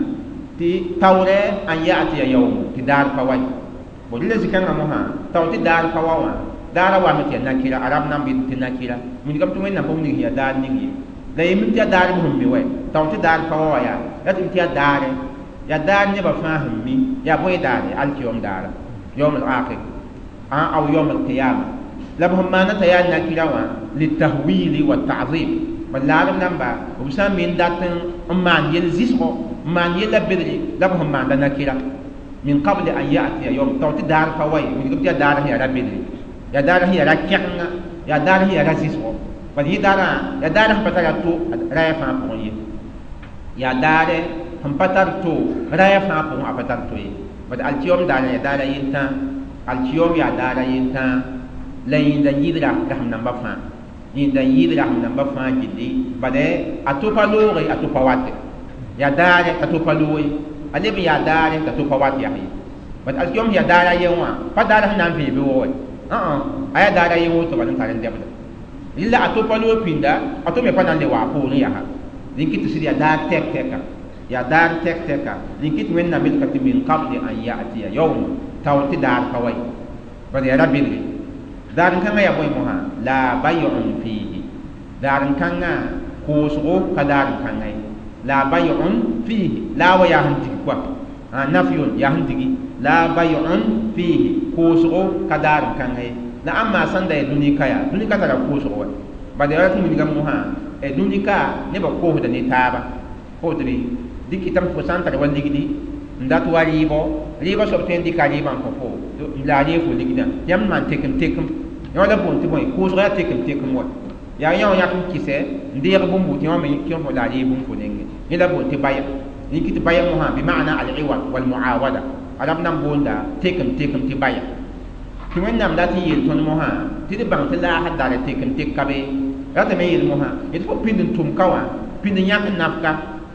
tɩ taoorɛ an ya'tiya yawm tɩ daar pa wa ye bon rɩla zĩ-kãngã mosã tao tɩ daar pa wa wã daara wame tɩ yaa nakira arab nan bɩ tɩ nakira wilgame tɩ Wẽnnaam pa wilg sẽn yaa daar ning ye la yemim tɩ yaa daar b sẽn mi wɛ tao tɩ daar pa wa wã yaa la tɩ tɩ yaa daare yaa daar nebã fãa sẽn mi yaa bõe daare alkiyom daara yawm al-akhir aw yawm al-qiyama la b sẽn maana t'a yaa nakira wã litahwili wa ta'zim bal laadb namba b sã n me n dat n maan yel zɩsgo n maan yella bedre la b sẽn maanda nakira min qable an ya'tiya yawm tao tɩ daar pa wa ye wilgame tɩ yaa daar sẽn yaa ra bedre yaa daar sẽn yaa ra kɛgenga yaa daar sẽn yaa ra zɩsgo bal yẽ daarã yaa daar sẽn pa tara to raya fãa pʋgẽ ye yaa daare sẽn pa tar to raya fãa pʋgẽ a pa tar to ye bad alkiyom daara yaa daara yentã alkiyom yaa daara yentã la yẽnda n yɩɩd rasem namba fãa yẽnda n yɩɩd rasem namba fãa gilli bad a to pa looge a to pa wate yaa daare t'a to pa looge a leb n yaa daare t'a to pa wat yaa ye bad alkiyom yaa daara yen wã pa daara sẽn na n vẽe bɩ wa a yaa daara yen woto bal n tar n dɛbda rɩla a to pa loog pĩnda a to me pa na n le wa a poorẽ yaa rẽn kɩ tɩ sɩd yaa daar tɛk tɛka yaa daar tɛk tɛka rẽn kɩ tɩ Wẽnnaam yelka tɩ min qable an ya'tiya yawm taoor tɩ daar pa wa ye bad yaa ra bedre daar n kãngã yaa bõe mosã la bay'un fihi daar n kãngã koosgo ka daar n kãngã ye la bay'un fihi la wa yaa sẽn dig kɔa nafyun yaa sẽn digi la bay'un fihi koosgo ka daar n kãngã ye la ãmba sãn da yaa dũni ka yaa dũni ka tara koosgo wa bad yaa tɩ wilgame mosã dũni ka nebã koosda ne taaba woto bɩ dɩkɩtame fo sã n tar wa ligdi n dat wa rɩɩbɔ rɩɩbã soab tõe n dɩka rɩɩbã n kõ fo la a reeg fo ligdã tɩ yãmb maan tekem tekem yã la boond tɩ bõe koosg yaa tekem tekem wa yaa yã wã yãk n kɩsɛ n deeg bũmbu tɩ yã me kẽ fo la a reeg bũmb fo nengẽ yẽ la boond tɩ baya rẽn kɩ tɩ baya mosã bima'na al-iwad wal-muawada arab nan boonda tekem tekem tɩ baya tɩ Wẽnnaam dat n yeel tõnd mosã tɩ d bãng tɩ laasr daara tekem tek ka be ratame yeel mosã yetɩ fo pĩnd n tʋm ka wã pĩnd n yãk n naf ka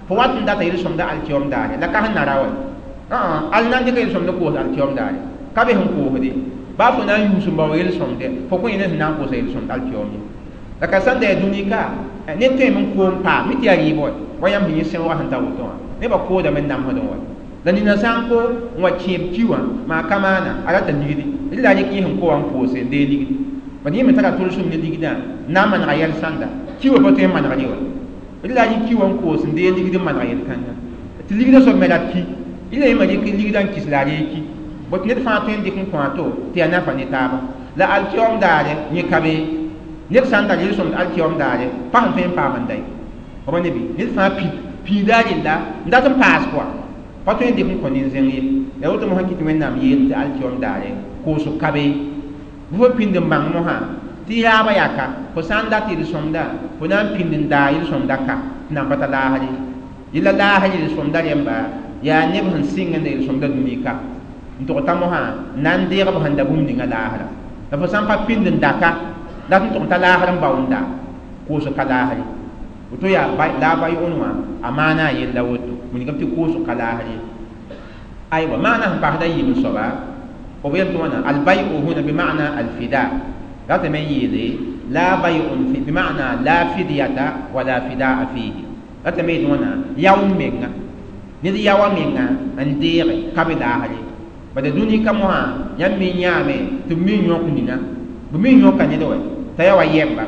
fo wat n data yel-sõmda alkiyom daare la ka sẽn na ra wɛ al na n dɩka yel-sõmd koos alkiyom daare ka be sẽn koosde baa fo na n yuus n bao yel-sõmde fo kõ yẽ sẽn na n koosa yel-sõmd alkiyom ye la ka sãn da yaa dũni ka ned tõeme n koom paam mi tɩ yaa rɩɩbɔ wɛ wa yãmb sẽn yẽ sẽoogã sẽn ta woto wã nebã koodame n namsdẽ wɛ la nina sã n ko n wa kẽeb ki wã maa ka maana a rata ligdi rɩ la a rɩk yẽ sẽn ko wã n koose n dee ligdi bad yẽ me tara tʋlsem ne ligdã n na n manega yɛl sãnda ki wã pa tõe n manegr ye wa rɩ la a rɩk ki wã n koos n dee ligd n maneg yel-kãnga tɩ ligdã soab me rat ki rɩ la yẽ me rɩk ligdã n kis la a reeg ki bot ned fãa tõe n dɩk n kõ a to tɩ yaa nafa ne taaba la alkiyom daare yẽ ka be ned sã n tar yel-sõmd alkiyom daare pa sẽn tõe n paam n da ye b ne bɩ ned fãa piida a rella n dat n paas kɔa pa tõe n dɩk n kõ nin-zẽng ye la woto mosã kɩ tɩ Wẽnnaam yeel tɩ alkiyom daare koosg ka be bɩ fo pĩnd n bãng mosã tɩ yaabã yaa ka fo sã n dat yel-sõmda fo na n pĩnd n daa yel-sõmda ka tɩ nan pa ta laasr ye yella laasr yel-sõmda rẽmba yaa neb sẽn sɩng n da yel-sõmda dũni ka n tʋg t'a mosã n na n deeg b sẽn da bũmb ninga laasra la fo sã n pa pĩnd n daka la tɩ n tʋg n ta laasr n bao n da koosg ka laasr ye woto yaa la a bayʋʋn wã a maana a yella woto wilgame tɩ koosg ka laasr ye aywa maana sẽn paasda yiib n soaba b yel tɩ wãna albay'u huna bima'na alfida ratame n yeele la bay'un fi bima'na la fidyata wala fidaa fihi ratame yeel wãna yao n menga ned yaoa menga n deege ka be laasr ye bad dũni ka mosã yãmb me yãame tɩ b me yõk nina b me yõka ned wɛ t'a yaa wa yɛmba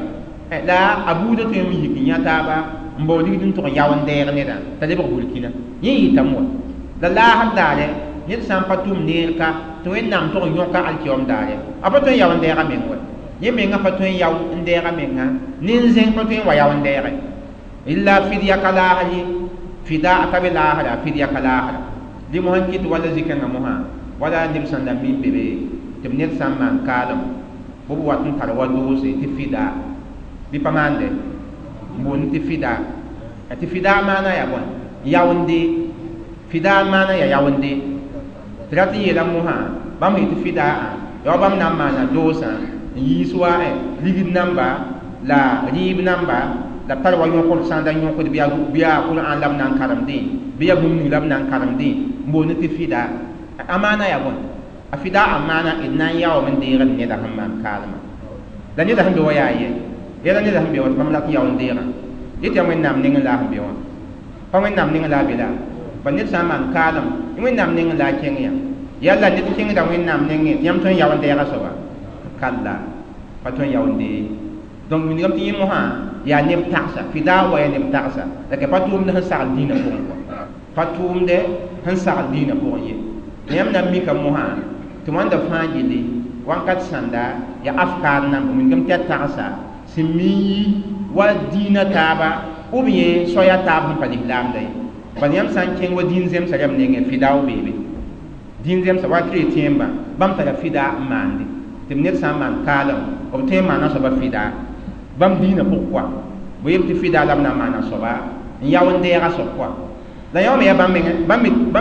la a buudã tõe n yik n yã taaba n bao ligd n tʋg n yao n deeg nedã t'a lebg burkina yẽ yɩtame wa la laasr daare ned sã n pa tʋm neer ka tɩ Wẽnnaam tʋg n yõka alkiyom daare a pa tõe n yao n deega meng wɛ yẽ menga pa tõe n yao n deega menga nin-zẽng pa tõe n wa yao n deege illa fidya ka laasr ye fida ka be laasra fidya ka laasra dɩ mosã n kɩt wala zĩ-kãngã mosã wala neb sẽn da min be be tɩ b ned sã n maan kaalem b wat n tar wa doose tɩ fida bɩ pa maande n boond tɩ fida tɩ fida maana yaa bõe yaoonde fida maana yaa yaoonde tɩ rat n yeela mosã bãmb sẽn tɩ fida yaa wa bãmb na n maana doosã n yiis wa ligd namba la rɩɩb namba la b tar wa yõkd sã n da yõkd bɩ yaa Qur'an la b na n karemdẽ bɩ yaa bũmb ning la b na n karemdẽ n boond tɩ fida a maana yaa bõe a fida a maana d na n yaoom n deegd neda sẽn maan kaalmã la neda sẽn be wa yaa ye yɛla neda sẽn be wa tɩ bãmb rat n yao n deegã yetɩ yaa Wẽnnaam nengẽ la a sẽn be wã pa Wẽnnaam nengẽ la a be la ba ned sã n maan kaalem Wẽnnaam nengẽ la a kẽng yã yalla ned kẽngda Wẽnnaam nengẽ tɩ yãmb tõe n yao n deega soaba kalla pa tõe n yao n dee donc wilgame tɩ yẽ mosã yaa neb tagsa fida wa yaa neb tagsa la ka pa tʋʋmd sẽn sagl dĩinã pʋgẽ kɔa pa tʋʋmdɛ sẽn sagl dĩinã pʋgẽ ye yãmb na n mika mosã tɩ wãnda fãa gilli wãnkat sãnda yaa afkaar namba wilgame tɩ yaa tagsa sẽn mi n yi wa dĩinã taaba ou bien soaya taab sẽn pa lislaamda ye bala yãmb sã n kẽng wa dĩin zemsã rãmb nengẽ fida w beebe dĩin zemsã wa chrétienbã bãmb tara fida n maande tɩ b ned sã n maan kaalem b tõe n maana soaba fida bãmb dĩinã pʋg kɔa bɩ yem tɩ fida la b na n maana soaba n yao n deega soab kɔa la yã me yaa bãmb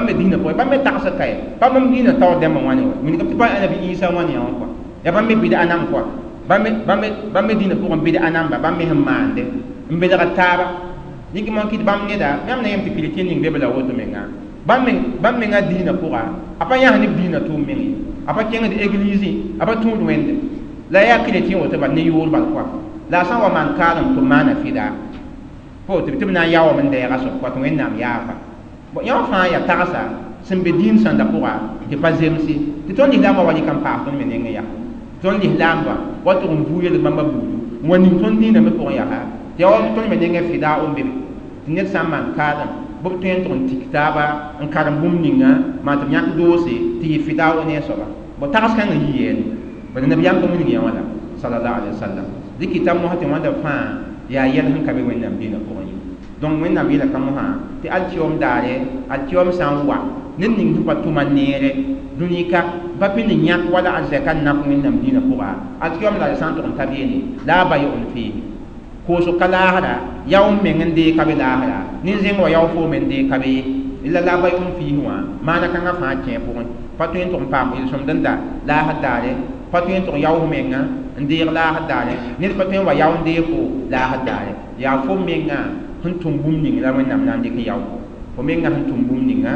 me dĩinã pʋgẽ bãmb me tagsd ka ye pa bãmb dĩinã taoor dẽmbã wãne wa wilgame tɩ pa anabi Isa wãne yã wã kɔa yaa bãmb me bɩd-a nam kɔa bãmb me dĩinã pʋgẽ bɩd-a namba bãmb me sẽn maande n belgd taaba yĩng moon kɩt bãmb neda yãmb na yem tɩ chrétien ning be b la woto menga bãmb menga dĩinã pʋga a pa yãs neb dĩinã tʋʋm meng ye a pa kẽngd église a pa tũud wẽnde la yaa chrétien woto bal ne yʋʋr bal kɔa la a sã n wa maan kaalem tɩ b maana fida fo tɩ b na n yaoom n deega soab kɔa tɩ Wẽnnaam yaafa yã wã fãa yaa tagsa sẽn be dĩin sãnda pʋga tɩ pa zemse tɩ tõnd lislaambã wa rɩk n paas tõnd me nengẽ yaa tõnd lislaambã wa tʋg n vuu yel bãmba buudu n wa ning tõnd dĩinã me pʋgẽ yaa tɩ yaa wa tõnd me nengẽ fida n be be tɩ ned sã n maan kaalem bɩ b tõe n tʋg n tik taaba n karem bũmb ninga maan tɩ b yãk doose tɩ yɩ fida ne a soaba bõ tags kãngã yi yeene bala nabiyaam pa wilg yã wã la sallallahu alaihi wasallam dɩkɩta mosã tɩ wãnda fãa yaa yɛl sẽn ka be Wẽnnaam dĩinã pʋgẽ ye donc Wẽnnaam yeela ka mosã tɩ alkiom daare alkiom sã n wa ned ning sẽn pa tʋma neere dũni-ka pa pĩnd yãk wala arzɛka n nak Wẽnnaam dĩinã pʋga alkiom daare sã n tʋg n ta beene la a bayʋ-n fee koosg ka laasra yao n meng n dee ka be laasra nin-zẽng wa yao fo me n dee ka be ye la la bayʋ-n fiis wã maana kãngã fãa kẽ pʋgẽ pa tõe n tʋg n paam yel-sõmd n da laasr daare pa tõe n tʋg yaoos menga n deeg laasr daare ned pa tõe n wa yao n deeg fo laasr daare yaa fo menga sẽn tʋm bũmb ning la Wẽnnaam na n dɩk n yao fo menga sẽn tʋm bũmb ninga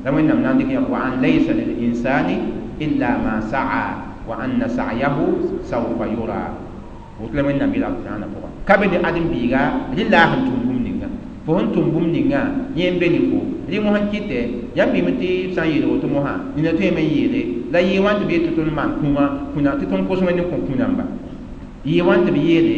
la Wẽnnaam na n dɩk n yao wa an laysa lil insani illa ma sa'a wa anna sa'yahu sawfa yura woto la Wẽnnaam yeela alqur'ana pʋgã ka be ne ãdem-biiga rẽ la a sẽn tʋm bũmb ninga fo sẽn tʋm bũmb ninga yẽ n be ne fo rẽ mosã n kɩtɛ yãmb bɩme tɩ b sã n yeel woto mosã nina tõeme n yeele la yɩɩ wãn tɩ b yet tɩ tõnd maan kũumã kũna tɩ tõnd kos Wẽnd n kõ kũ-namba yɩɩ wãn tɩ b yeele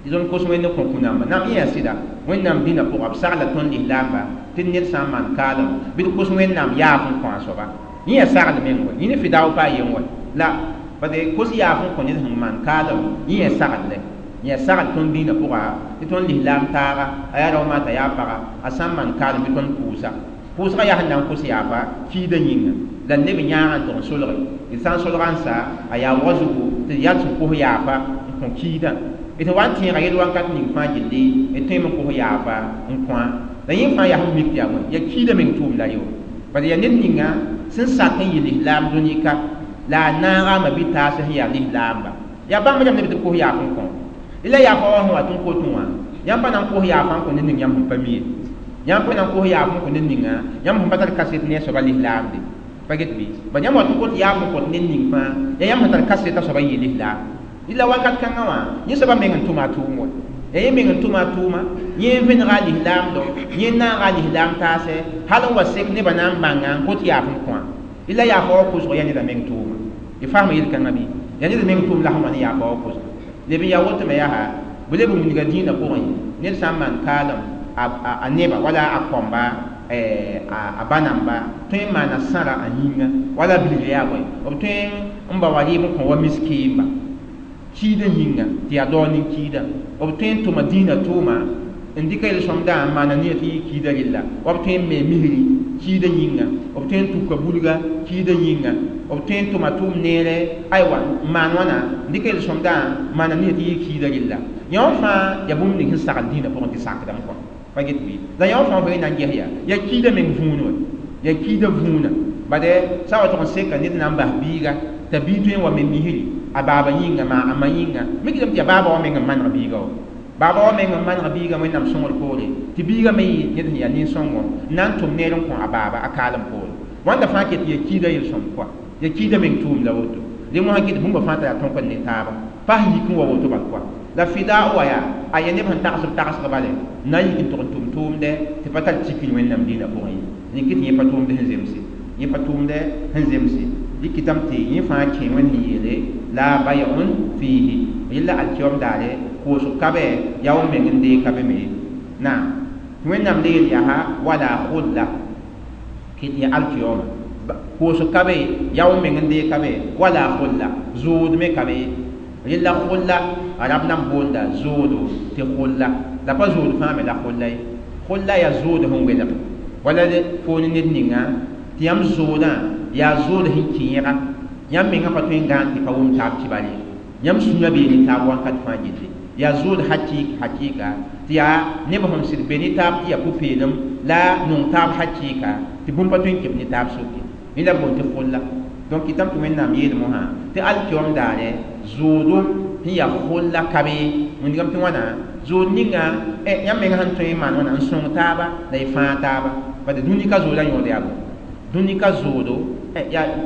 tɩ tõnd kos Wẽnd n kõ kũ-namba nam yẽ yaa sɩda Wẽnnaam dĩnã pʋga b sagla tõnd lislaamba tɩ ned sã n maan kaalem bɩ d kos Wẽnnaam yaaf n kõ a soaba yẽ yaa sagl meng wa yẽ ne fidao pa a yen wa la parce kos yaaf n kõ ned sẽn maan kaalem yẽ yaa saglẽ yaa sagl tõnd dĩinã pʋga tɩ tõnd lislaam taaga a yaa rao maata yaa paga a sã n maan kaalem bɩ tõnd pʋʋsa pʋʋsgã yaa sẽn na n kos yaafa kiidã yĩnga la neb yãagã n tʋg n solge d sã n solga n sa a yaa wa zugu tɩ yaa sẽn kos yaafa n kõ kiidã d sẽn wa n tẽega yel wãnkat ning fãa gilli d tõeme n kos yaafa n kõa la yẽ fãa yaa sẽn mik tɩ yaa bõe yaa kiidã meng tʋʋm la yo parce yaa ned ninga sẽn sak n yɩ lislaam dũni-ka la a naaga a ma-bi-taas sẽn yaa lislaamba yaa bãmb rãmb neb tɩ b kos yaaf n kõ la yaafa wã sẽn wa tɩ n kotẽ wã yãmb pa na n kos yaafa n kõ ned ning yãmb sẽn pa mi ye yãmb pa na n kos yaaf n kõ ned ninga yãmb sẽn pa tar kaset ne a soaba lislaamde pa get bɩ ba yãmb wa tɩ n kot yaaf n kõt ned ning fãa yaa yãmb sẽn tar kaset a soaba n yɩ lislaam la wakat kãngã wã yẽ soaba meng n tʋma a tʋʋm wa yaa yẽ meng n tʋma a tʋʋma yẽ n vẽnega a lislaamdo yẽ n naaga a lislaam taasɛ hal n wa sek nebã na n bãnga n kot yaaf n kõa la yaafa wa kʋsg yaa neda meng tʋʋma y fasma yel-kãngã bɩ yaa ned meng tʋʋm la sẽn wa ne yaafa wa kʋsg leb n yaa woto me yaa bɩ leb n wilga dĩinã pʋgẽ ned sã n maan kaalem a neba wala a kõmba a ba namba tõe n maana sãra a yĩnga wala bilg yaa bõe b tõe n ba wa rɩɩb n kõ wa miskiimba kiidã yĩnga tɩ yaa dao nin-kiidã b tõe n tʋma dĩinã tʋʋma N dɩka yel-sõmdã n maana niyã tɩ yɩ kiida rella wa b tõe n me misri kiidã yĩnga b tõe n tuka bulga kiidã yĩnga b tõe n tʋma tʋʋm neere aywa n maan wãna n dɩka yel-sõmdã n maana niyã tɩ yɩ kiida rella yã wã fãa yaa bũmb ning sẽn sagl dĩinã pʋgẽ tɩ sakdame kɔa pa get bɩ la yã wã fãa fo na n ges yaa yaa kiidã meng vũun wa yaa kiidã vũuna bade sã wa tʋg n seka ned na n bas biiga t'a bii tõe n wa me misri a baaba yĩnga maa a ma yĩnga mikdame tɩ yaa baaba wã meng n maneg biiga wa baaba wa meng n maneg biiga wẽnnaam sõngr poore tɩ biiga me yɩ ned sẽn yaa nin-sõngo n na n tʋm neer n kõ a baaba a kaalem poore wãnda fãa ket yaa kiida yel-sõm kɔa yaa kiida meng tʋʋm la woto dẽ mosã kɩt bũmba fãa t'a yaa tõk n ne taaba pa sẽn yik n wa woto bal kɔa la fida wa yaa a yaa neb sẽn tagsb tagsg bale n na n yik n tʋg n tʋm tʋʋmdɛ tɩ pa tar tikr wẽnnaam dĩinã pʋgẽ ye rẽ kɩ tɩ yẽ pa tʋʋmd sẽn zemse yẽ pa tʋʋmdɛ sẽn zemse dɩkɩtame tɩ yẽ fãa kẽ wẽnd sẽn yeele la bay'un fiihi yella alkiyom daare koosg ka bɛ yaa w meng n deeg ka be me ye naam tɩ wẽnnaam le yel yaa wala khulla kɩ tɩ yaa alkiyoma koosg ka be yaa w meng n deeg ka be wala khulla zʋʋd me ka be ye rella khulla arab nan boonda zʋʋdo tɩ khulla la pa zʋʋd fãa me la khulla ye khulla yaa zʋʋd sẽn welg wala fo ne ned ninga tɩ yãmb zʋʋdã yaa zʋʋd sẽn kẽega yãmb menga pa tõe n gãan tɩ pa wʋm taab kibar ye yãmb sũyã bee ne taab wãnkat fãa gilli yaa zʋʋd hakɩɩka tɩ yaa neb sẽn sɩd be ne taab tɩ yaa pʋ-peelem la nong taab hakɩɩka tɩ bũmb pa tõe n keb ne taab soke rẽ la boond tɩ khulla donc kɩtame tɩ wẽnnaam yeel mosã tɩ alkiom daare zʋʋdo sẽn yaa khulla ka be wĩndgame tɩ wãna zʋʋd ninga yãmb menga sẽn tõe n maan wãna n sõng taaba la y fãag taaba bad dũni ka zʋʋda yõod yaa bõ dũni ka zʋʋdo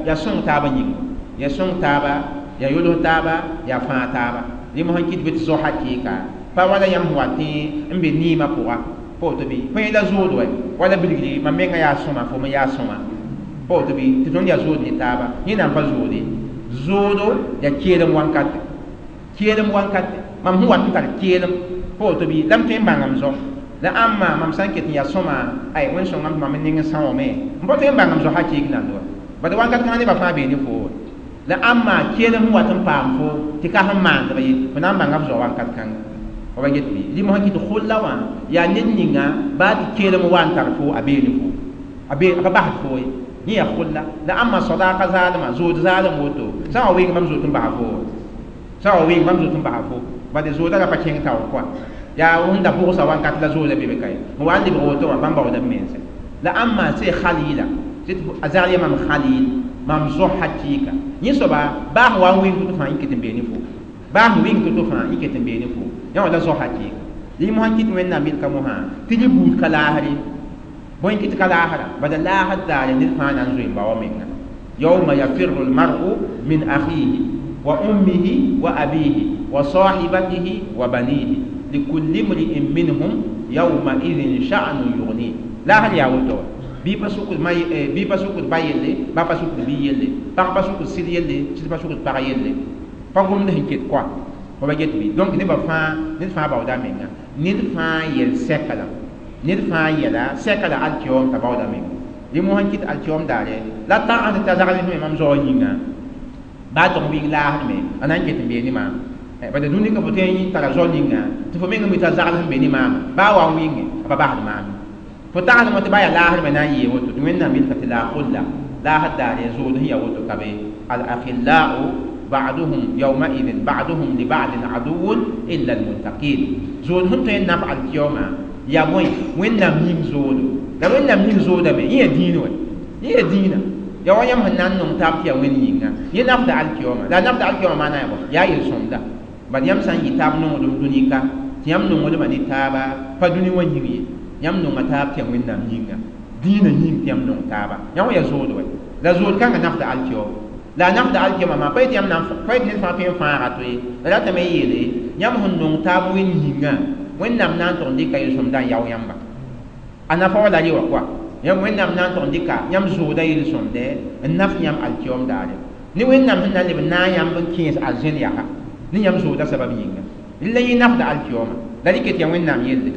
yaa sõng taaba yĩnga yaa sõng taaba yaa yols taaba yaa fãag taaba rẽ mosã kɩt bɩ tɩ zo hakɩɩka pa wala yãmb sẽn wa tẽ n be niimã pʋga pa woto bɩ põe la zʋʋd wɛ wala bilgri mam menga yaa sõma fo me yaa sõma pa woto bɩ tɩ tõnd yaa zʋʋd ne taaba yẽ na n pa zʋʋde zʋʋdo yaa keelem wankate keelem wankate mam sẽn wat n tar keelem pa woto bɩ la m tõe n bãng m zo la ãmba mam sã n ket n yaa sõma ay wẽn-sõngame tɩ mam n ning n sãoome m pa tõe n bãng m zo hakɩɩk nand wa bad wakat kãngã nebã fãa bee ne fo la ãmba keelem sẽn wat n paam fo tɩ ka sẽn maandb ye fo na n bãnga f zoa wakat kãnga fa ba get bɩ rɩ mosã kɩ tɩ khulla wã yaa ned ninga baa tɩ keelem wa n tar fo a bee ne fo a bee a pa basd fo ye yẽ yaa khulla la ãmba sadaaka zaalmã zʋʋd zaalem woto sã n wa wɩng bãmb zoet n basa fo sã n wa wɩng bãmb zoet n basa fo bad zʋʋda ra pa kẽng taoor kɔa yaa sẽn da bʋgsa wakat la zʋʋda be be ka ye n wa n lebg woto wã bãmb baooda b mense la ãmba sẽ khalila a zagl yaa mam khalil mam zo hakɩɩka yẽ soaba baa sẽn wa n wɩng tɩ fãa yẽ ket n bee ne fo baa sẽn wɩng to-to fãa yẽ ket n bee ne fo yã wã la zo hakɩɩka rẽ mosã kɩt wẽnnaam yelka mosã tɩ rẽ buud ka laasr ye bõe kɩt ka laasra bala laasr daare ned fãa na n zoe n ba wa menga yawma yafirru lmaru min akhihi wa ummihi wa abihi wa sahibatihi wa banihi likulli mri'in minhum yawma idhin sha'nun yughni laasr yaa woto wa bɩ pa sʋkd ma bɩ pa sʋkd ba yelle ba pa sʋkd bi yelle pag pa sʋkd sɩd yelle sɩd pa sʋkd pag yelle pa gomd sẽn ket koa fa ba get bɩ donc nebã fãa ned fãa baooda menga ned fãa yel sɛka la ned fãa yɛla sɛka la alkiom t'a baooda menga rẽ mosã kɩt alkiom daare la tagsd t'a zagl me mam zaoã yĩnga baa tʋg wɩng laasd me a na n ket n bee ne maam bad dũni ka fo tõe n tara zao ninga tɩ fo meng mi t'a zagl sẽn be ne maama baa wa n wɩnge a pa basd maam fo tagsdme tɩ baa yaa laasd me na n yee woto tɩ wẽnnaam yelka tɩ la khulla laasd daare zʋʋd sẽn yaa woto ka be al akhillau ba'duhum yawma'idhin ba'duhum li ba'din aduwwun illa almuttaqin zʋʋd sẽn tõe n naf alkiyoma yaa bõe wẽnnaam yĩng zoodo la wẽnnaam yĩng zoodame yẽ yaa dĩin wɛ yẽ yaa dĩinã yaa wa yãmb sẽn na n nong taab tɩ yaa wẽnd yĩnga yẽ nafda alkiyoma la a nafda alkiyoma maana yaa bõ yaa yel-sõmda bad yãmb sã n yɩ taab nongdem dũnika tɩ yãmb nongdmã ne taaba pa dũni wã yĩng ye yãmb nonga taab tɩ yaa wẽnnaam yĩnga dĩinã yĩng tɩ yãmb nong taaba yã wã yaa zʋʋd wɛ la zʋʋd kãngã nafda alkiyoma la a nafda alkiyoma maa pa yetɩ yãmb na pa yetɩ ned fãa tõe n fãaga to ye la ratame n yeele yãmb sẽn nong taab wẽnd yĩngã wẽnnaam na n tʋg n dɩka yel-sõmdã n yao yãmba a nafa wa la rɩ wã koa yãmb wẽnnaam na n tʋg n dɩka yãmb zʋʋda yel-sõmdɛ n naf yãmb alkiyom daare ne wẽnnaam sẽn na n leb n naag yãmb n kẽes arzẽn yaa ne yãmb zʋʋda sabab yĩnga la yẽ nafda alkiyoma la rɩ ket yaa wẽnnaam yelle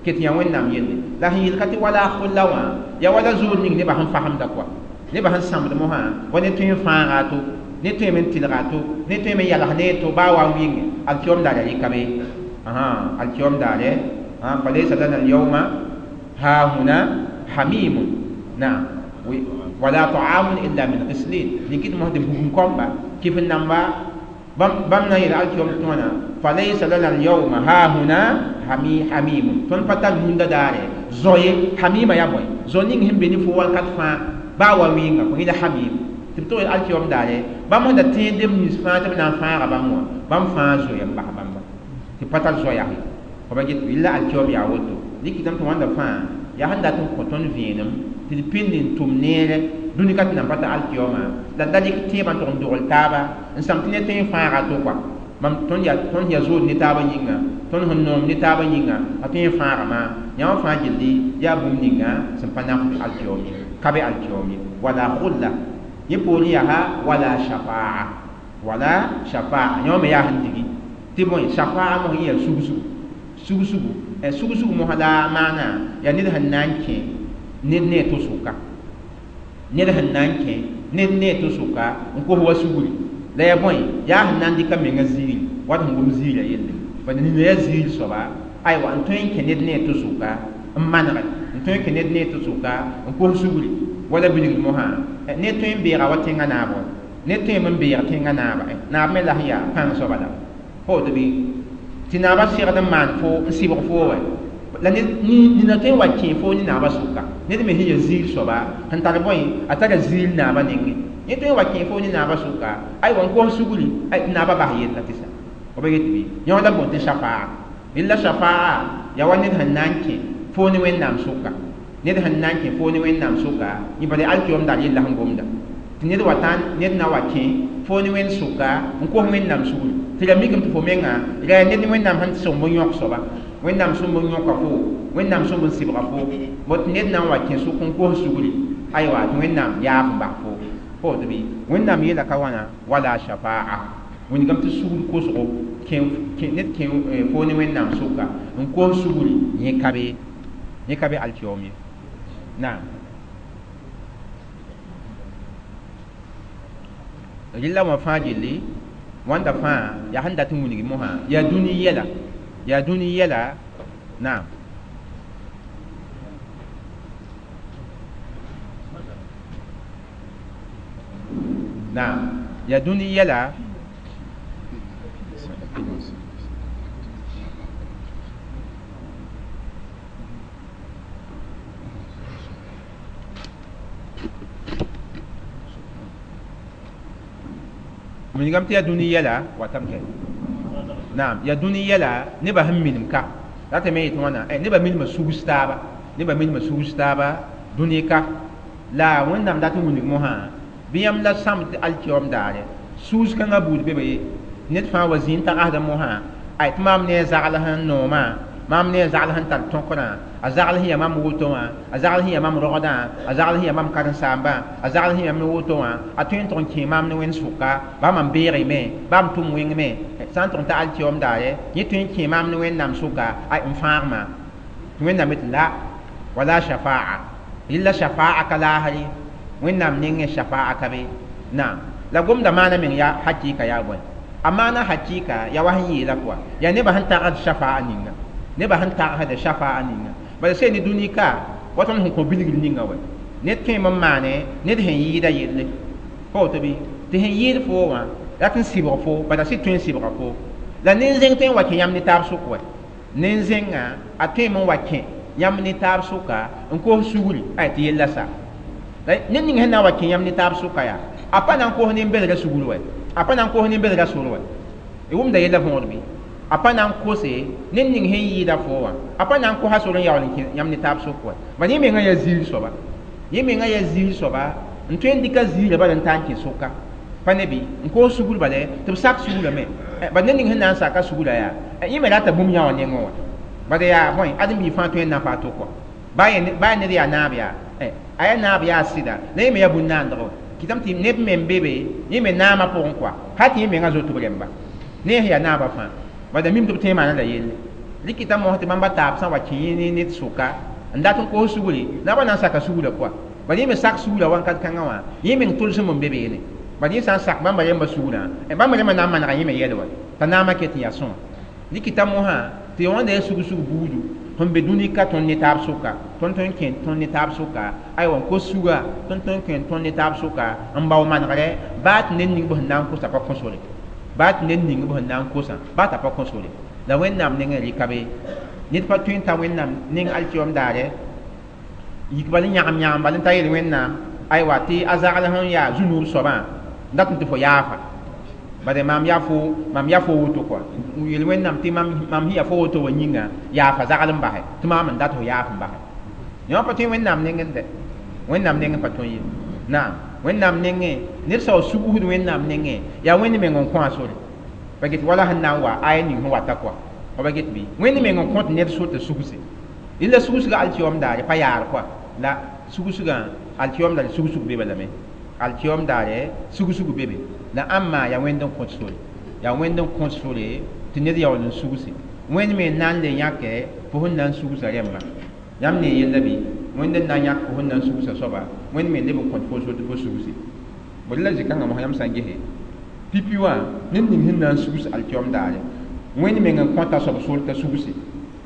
ket yaa wẽnnaam yelle la sẽn yelka tɩ wala khulla wã yaa wala zʋʋd ning nebã sẽn fasemda koa nebã sẽn sãmbd mosã wa ne tõe n fãaga to ne tõeme n tɩlga to ne tõeme n yals ne to baa wa n wɩnge alkiyom daare rɩka be alkiyom daare Falaysa lana al-yawma hahuna hamimun. Naam. Wala ta'amun illa min ghislin. Likit mo de bugum komba kifin namba bam na yel alkiyom tona falaysa lana al-yawma hahuna hamimun. Ton patal nunda dare zoye hamima ya boy zoning himbe ni fo wal kat fa ba wa winga ko ila hamim tɩ b tog alkiyom daare bãmb sẽn da tẽed neb nins fãa tɩ b na n fãaga bãmb wã bãmb fãa zoe n bas bãmba tɩ pa tar zoa-yase f ba get yella alkiyom yaa woto dɩkɩtame tɩ wãnda fãa yaa sẽn dat n kõ tõnd vẽenem tɩ d pĩnd n tʋm neere dũni ka tɩ nan pa ta alkiyoma la da dɩk tẽebã n tʋg n dogl taaba n sãm tɩ ne tõe n fãaga to kɔa mam tõnd yaa zood ne taabã yĩnga tõnd sẽn noom ne taabã yĩnga a tõe n fãaga maa yã wã fãa gilli yaa bũmb ninga sẽn pa nafd alkiyom ye ka be alkiyom ye wala khulla yẽ poorẽ yaa wala shafaa wala shafaa yõ me yaa sẽn digi tɩ bõe shafaa mos yẽ yaa sugsugu sugsugu sugsugu mosã la maana yaa ned sẽn na n kẽ ned ne a to sʋka ned sẽn na n kẽ ned ne a to sʋka n kos wa sugri la yaa bõe yaa sẽn na n dɩka menga ziiri wat sẽn gom ziirã yelle bala nina yaa ziir soaba aywa n tõe n kẽ ned ne a to sʋka n manege n tõe n kẽ ned ne a to sʋka n kos sugri wala bilgd mosã ne tõe n beega wa tẽngã naab wa ne tõe n beeg tẽngã naaba naab me la sẽn yaa pãng soaba la fo woto bɩ tɩ naabã segd n maan fo n sɩbg foo wɛ la nina tõe n wa kẽ foo ne naabã sʋka ned me sẽn ya ziir soaba sẽn tar bõe a tara ziir naabã nengẽ yẽ tõe n wa kẽ foo ne naabã sʋka aywa n kos sugri tɩ naabã bas yella tɩ sa f ba get bɩ yõ la boond tɩ shafaa yella shafaa yaa wa ned sẽn na n kẽ foo ne Wẽnnaam sʋka ned sẽn na n kẽ foo ne Wẽnnaam sʋka yẽ bala alkiyom dar yella sẽn gomda tɩ ned wa tã ned na wa kẽ foo ne Wẽnd sʋka n kos Wẽnnaam sugri tɩ la mikame tɩ fo menga ra ned Wẽnnaam sẽn sõmb n yõk soaba Wẽnnaam sõmb n yõka fo Wẽnnaam sõmb n sɩbga fo bot ned na n wa kẽ sʋk n kos sugri aywa tɩ Wẽnnaam yaaf n bas fo fo woto bɩ Wẽnnaam yeela ka wãna wala shafaa wingame tɩ sugr kosgo ned kẽ foo ne Wẽnnaam sʋka n kos sugri yẽ ka be alkiyom ye naam rɩla wã fãa gilli wãnda fãa yaa sẽn dat n wilg mosã yaa dũni yɛla yaa dũni yɛla naam naam yaa dũni yɛla wilgame tɩ yaa dũni yɛla watam kɛ naam yaa dũni yɛla nebã sẽn minim ka ratame yetɩ wãna nebã minimã sugs taaba nebã minimã sugs taaba dũni ka la Wẽnnaam dat n wilg mosã bɩ yãmb la sãmb tɩ alkiyom daare suus kãngã buud be be ye ned fãa wa zĩ n tagsda mosã ay tɩ maam ne a zagl sẽn noomã maam ne a zagl sẽn tar tõkrã a zagl sẽn yaa mam woto wã a zagl sẽn yaa mam rogdã a zagl sẽn yaa mam karen-saambã a zagl sẽn yaa mam woto wã a tõe n tʋg n kẽ maam ne Wẽnd sʋka baa mam beegme baa m tʋm wẽngme sã n tʋg n ta alkiyom daare yẽ tõe n kẽ maam ne Wẽnnaam sʋka ay n fãagma tɩ Wẽnnaam yetɩ la wala shafaa yella shafaa ka laasre Wẽnnaam nengẽ shafaa ka be naam la gomda maana meng yaa hakɩɩka yaa bõe a maana hakɩɩka yaa wa sẽn yeela pʋga yaa nebã sẽn tagsd shafaa ninga nebã sẽn tagsda shafaa ninga bala sẽn ne dũni ka wa tõnd sẽn kõ bilgr ninga wɛ ned tõeme n maane ned sẽn yɩɩda yelle pa woto bɩ tɩ sẽn yɩɩd foo wã rat n sɩbg fo bala sɩd tõe n sɩbga fo la nin-zẽng tõe n wa kẽ yãmb ne taab sʋk wɛ nin-zẽngã a tõeme n wa kẽ yãmb ne taab sʋka n kos sugri ay tɩ yella sa la ned ning sẽn na n wa kẽ yãmb ne taab sʋka yaa a pa na n kos nin-belga sugr wɛ a pa na n kos nin-belga sor wɛ y wʋmda yella võor bɩ a pa na n kose ned ning sẽn yɩɩda fo wã a pa na n kosa sor n yaool n kẽ yãmb ne taab sʋk wɛ bala yẽ mengã yaa ziir soaba yẽ mengã yaa ziir soaba n tõe n dɩka ziirã bala n taa n kẽ sʋka pa ne bɩ n koos sugr bala tɩ b sak sugrame bala ned ning sẽn na n saka sugrã yaa yẽ me rata bũmb yã wã nengẽ wã bala yaa bõe ãdem-biig fãa tõe n nafa a to kɔa baa ned yaa naab yaa a yaa naab yaa sɩda la yẽ me yaa bũn-naandgo kɩtame tɩ neb me n be be yẽ me naamã pʋgẽ kɔa hal tɩ yẽ mengã zoet b rẽmba ne sẽn yaa naabã fãa bala mim tɩ b tõe n maana la yelle rɩkɩta mos tɩ bãmba taab sã n wa kẽ yẽ ned sʋka n dat n kos sugri naabã na n saka sugrã pʋga bala yẽ me sak sugrã wãnkat kãngã wã yẽ meng tʋlsem n be beene bala yẽ sã n sak bãmba rẽmbã sugrã bãmba rẽmbã na n manega yẽ me yɛl wa t'a naamã ket n yaa sõa rɩkɩta mosã tɩ wãnda yaa sug-sug buudu Sẽn be dũni ka tõnd ne taab sʋka, tõnd tõe n kẽ tõnd ne taab sʋka, aywa, n kos suga, tõnd tõe n kẽ tõnd ne taab sʋka n bao manegre, baa tɩ ned ning b sẽn na n kosa pa kõ sore, baa tɩ ned ning b sẽn na n kosã baa t'a pa kõ sore. La Wẽnnaam nengẽ rɩka be ned pa tõe n ta Wẽnnaam neng alkiyom daare yik bal n yãgem yãgem bal n ta yel Wẽnnaam, aywa, tɩ a zagl sẽn yaa zu-nuub soabã n dat n tɩ fo yaafa. Bade mam yaa fo, mam yaa fo woto kɔa, n yel Wẽnnaam tɩ mam sẽn yaa fo woto wa yĩnga yaafa zagl n basɛ tɩ maam n dat fo yaaf n basɛ. Yõ pa tõe Wẽnnaam nengẽ dɛ, Wẽnnaam nengẽ pa tõe ye. Naam, Wẽnnaam nengẽ ned sao sugusd Wẽnnaam nengẽ yaa Wẽnd meng n kõ a sore pa get wala sẽn na n wa aya ning sẽn wata kɔa pa get bɩ Wẽnd meng n kõt ned sor tɩ sugse. La sugsga alkiyom daare pa yaar kɔa, la sugsgã alkiyom daare sugsg be balame, alkiyom daare sugsg bebe. La ãmma yaa Wẽnd n kõt sore, yaa Wẽnd n kõt sore tɩ ned yaool n sugse. Wẽnd me n na n le yãke fo sẽn na n sugsa rẽmbã. Yãmb ne yella bɩ Wẽnd n na n yãk fo sẽn na n sugsa soaba, Wẽnd me leb n kõt fo sor tɩ fo sugse. Bõe la zĩ-kãngã mosã yãmb sã n gese pipi wã ned ning sẽn na n sugs alkiyom daare, Wẽnd meng n kõta soab sor t'a sugse.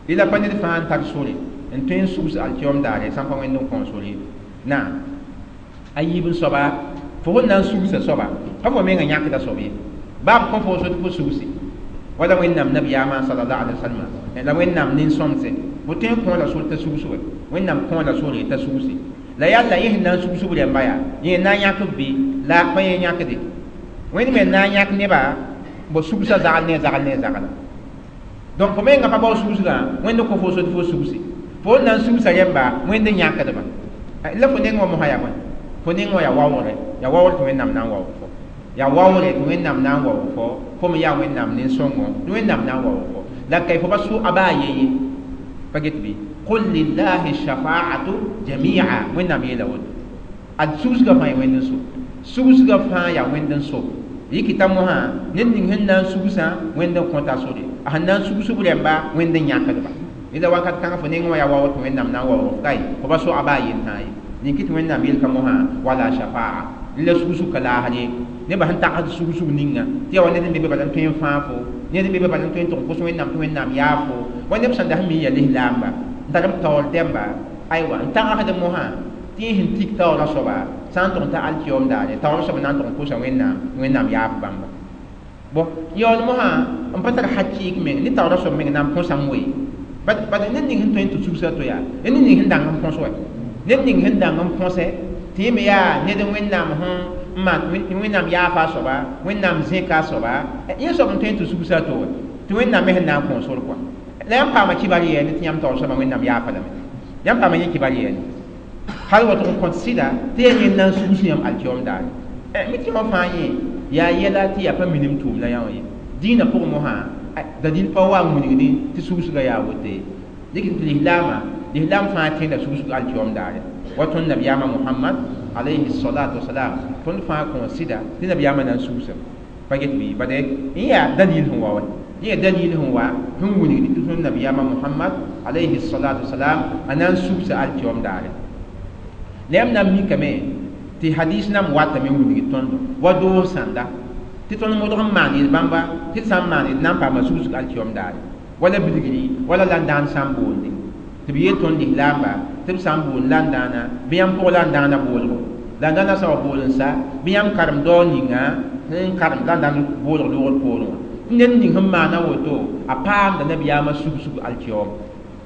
La pa ned fãa n tar sore n tõe n sugs alkiyom daare sã n pa Wẽnd n kõ sore. Naam, a yiib n soaba fo sẽn na n sugsa soaba pa fo mengã yãkda soab ye, baa b kõ fo sor tɩ fo sugse. Wala Wẽnnaam nabiyaamã sallallahu alaihi wasallam la Wẽnnaam nin-sõmse bõ tõe n kõ la sor t'a sugs we, Wẽnnaam kõ la sore t'a sugse. La yalla yẽ sẽn na n sugsb rẽmba yaa yẽ na n yãk b bɩ la pa yẽ yãkde. Wẽnd me n na n yãk nebã bo sugsa zagl ne zagl ne zagla. Donc fo mengã pa bao sugsgã, Wẽnd kõ fo sor tɩ fo sugse. Fo n na n sugsa rẽmba, Wẽnd n yãkdba. La fo neng wã mosã yaa bõe? Fo neng wã yaa waoogre, yaa waoogr tɩ Wẽnnaam na n waoog fo, yaa waoogre tɩ Wẽnnaam na n waoog fo, fo me yaa Wẽnnaam nin-sõngo tɩ Wẽnnaam na n waoog fo. La kay fo pa sʋ a baa ye ye pa get bɩ qul lillahi shafaatu jamia. Wẽnnaam yeela woto ad sugsgã fãa yaa Wẽnd n so, sugsgã fãa yaa Wẽnd n so. Yikita mosã ned ning sẽn na n sugsã Wẽnd n kõta sore, a sẽn na n sugsb rẽmba Wẽnd n yãkdba. La wakat kãngã fo neng wã yaa waoog tɩ Wẽnnaam na n waoog fo kai fo pa so a baa yentãa ye. Nin kɩ tɩ Wẽnnaam yelka mosã wala shafaa la sugsug ka laasd ye. Nebã sẽn tagsd sugsug ninga tɩ yaa wa ned n be be bala n tõe n fãag fo, ned n be be bala n tõe n tʋg n kos Wẽnnaam tɩ Wẽnnaam yaa fo. Wa neb sẽn da sẽn mi yaa lislaamba n tar b taoor dẽmba, aywa, n tagsd mosã tɩ yẽ sẽn tik taoorã soaba sã n tʋg n ta alkiyom daare taoorã soaba na n tʋg n kosa Wẽnnaam tɩ Wẽnnaam yaaf bãmba. Bõ yaool mosã n pa tar hakɩɩk meng ne taoorã soab meng na n põsame we. Bad ned ning sẽn tõe n tɩ sugsa to yaa ned ning sẽn dãng n põs wa, ned ning sẽn dãng n põsɛ tɩ yẽ me yaa ned Wẽnnaam sẽn maan Wẽnnaam yaafa a soaba, Wẽnnaam zẽka a soaba, yẽ soab n tõe n tɩ sugsa to wa tɩ Wẽnnaam me sẽn na n kõ sor kɔa. La yãmb paama kibar yɛɛne tɩ yãmb taoor soabã Wẽnnaam yaafa lame, yãmb paama yẽ kibar yɛɛne hal wa tʋg n kõt sɩda tɩ yaa yẽnd na n sugs yãmb alkiyom daare. Mi tɩ wã fãa yẽ yaa yɛla tɩ yaa pa minim tʋʋm la yã wã ye. Dĩinã pʋgẽ mosã dalil pa wa n wilgdẽ tɩ sugsgã yaa woto ye. Dɩk tɩ lislaamã lislaam fãa tẽeda sugsg alkiyom daare wa tõnd nabiyaamã Mohamad alayhi salatu wasalam tõnd fãa kõ sɩda tɩ nabiyaamã na n sugsame pa get bɩ bade yẽ yaa dalil sẽn wa wa, yẽ yaa dalil sẽn wa sẽn wilgd tɩ tõnd nabiyaamã Mohamad alayhi salatu wasalam a na n sugsa alkiyom daare. La yãmb na n mikame tɩ hadis nam watame n wilgd tõndo wa doos sãnda tɩ tõnd modg n maan yel-bãmba tɩ d sã n maan d na n paama sugsg alkiyom daare wala bilgri wala landaan sã n boonde tɩ b yeel tõnd lislaamba tɩ b sã n boond landãana bɩ yãmb pʋg landãana boolgo, landãana sã wa bool n sa bɩ yãmb karem dao ninga sẽn karem landãan boolg loogr poorẽ wã. Tɩ ned ning sẽn maana woto a paamda nabiyaamã sugsg alkiyom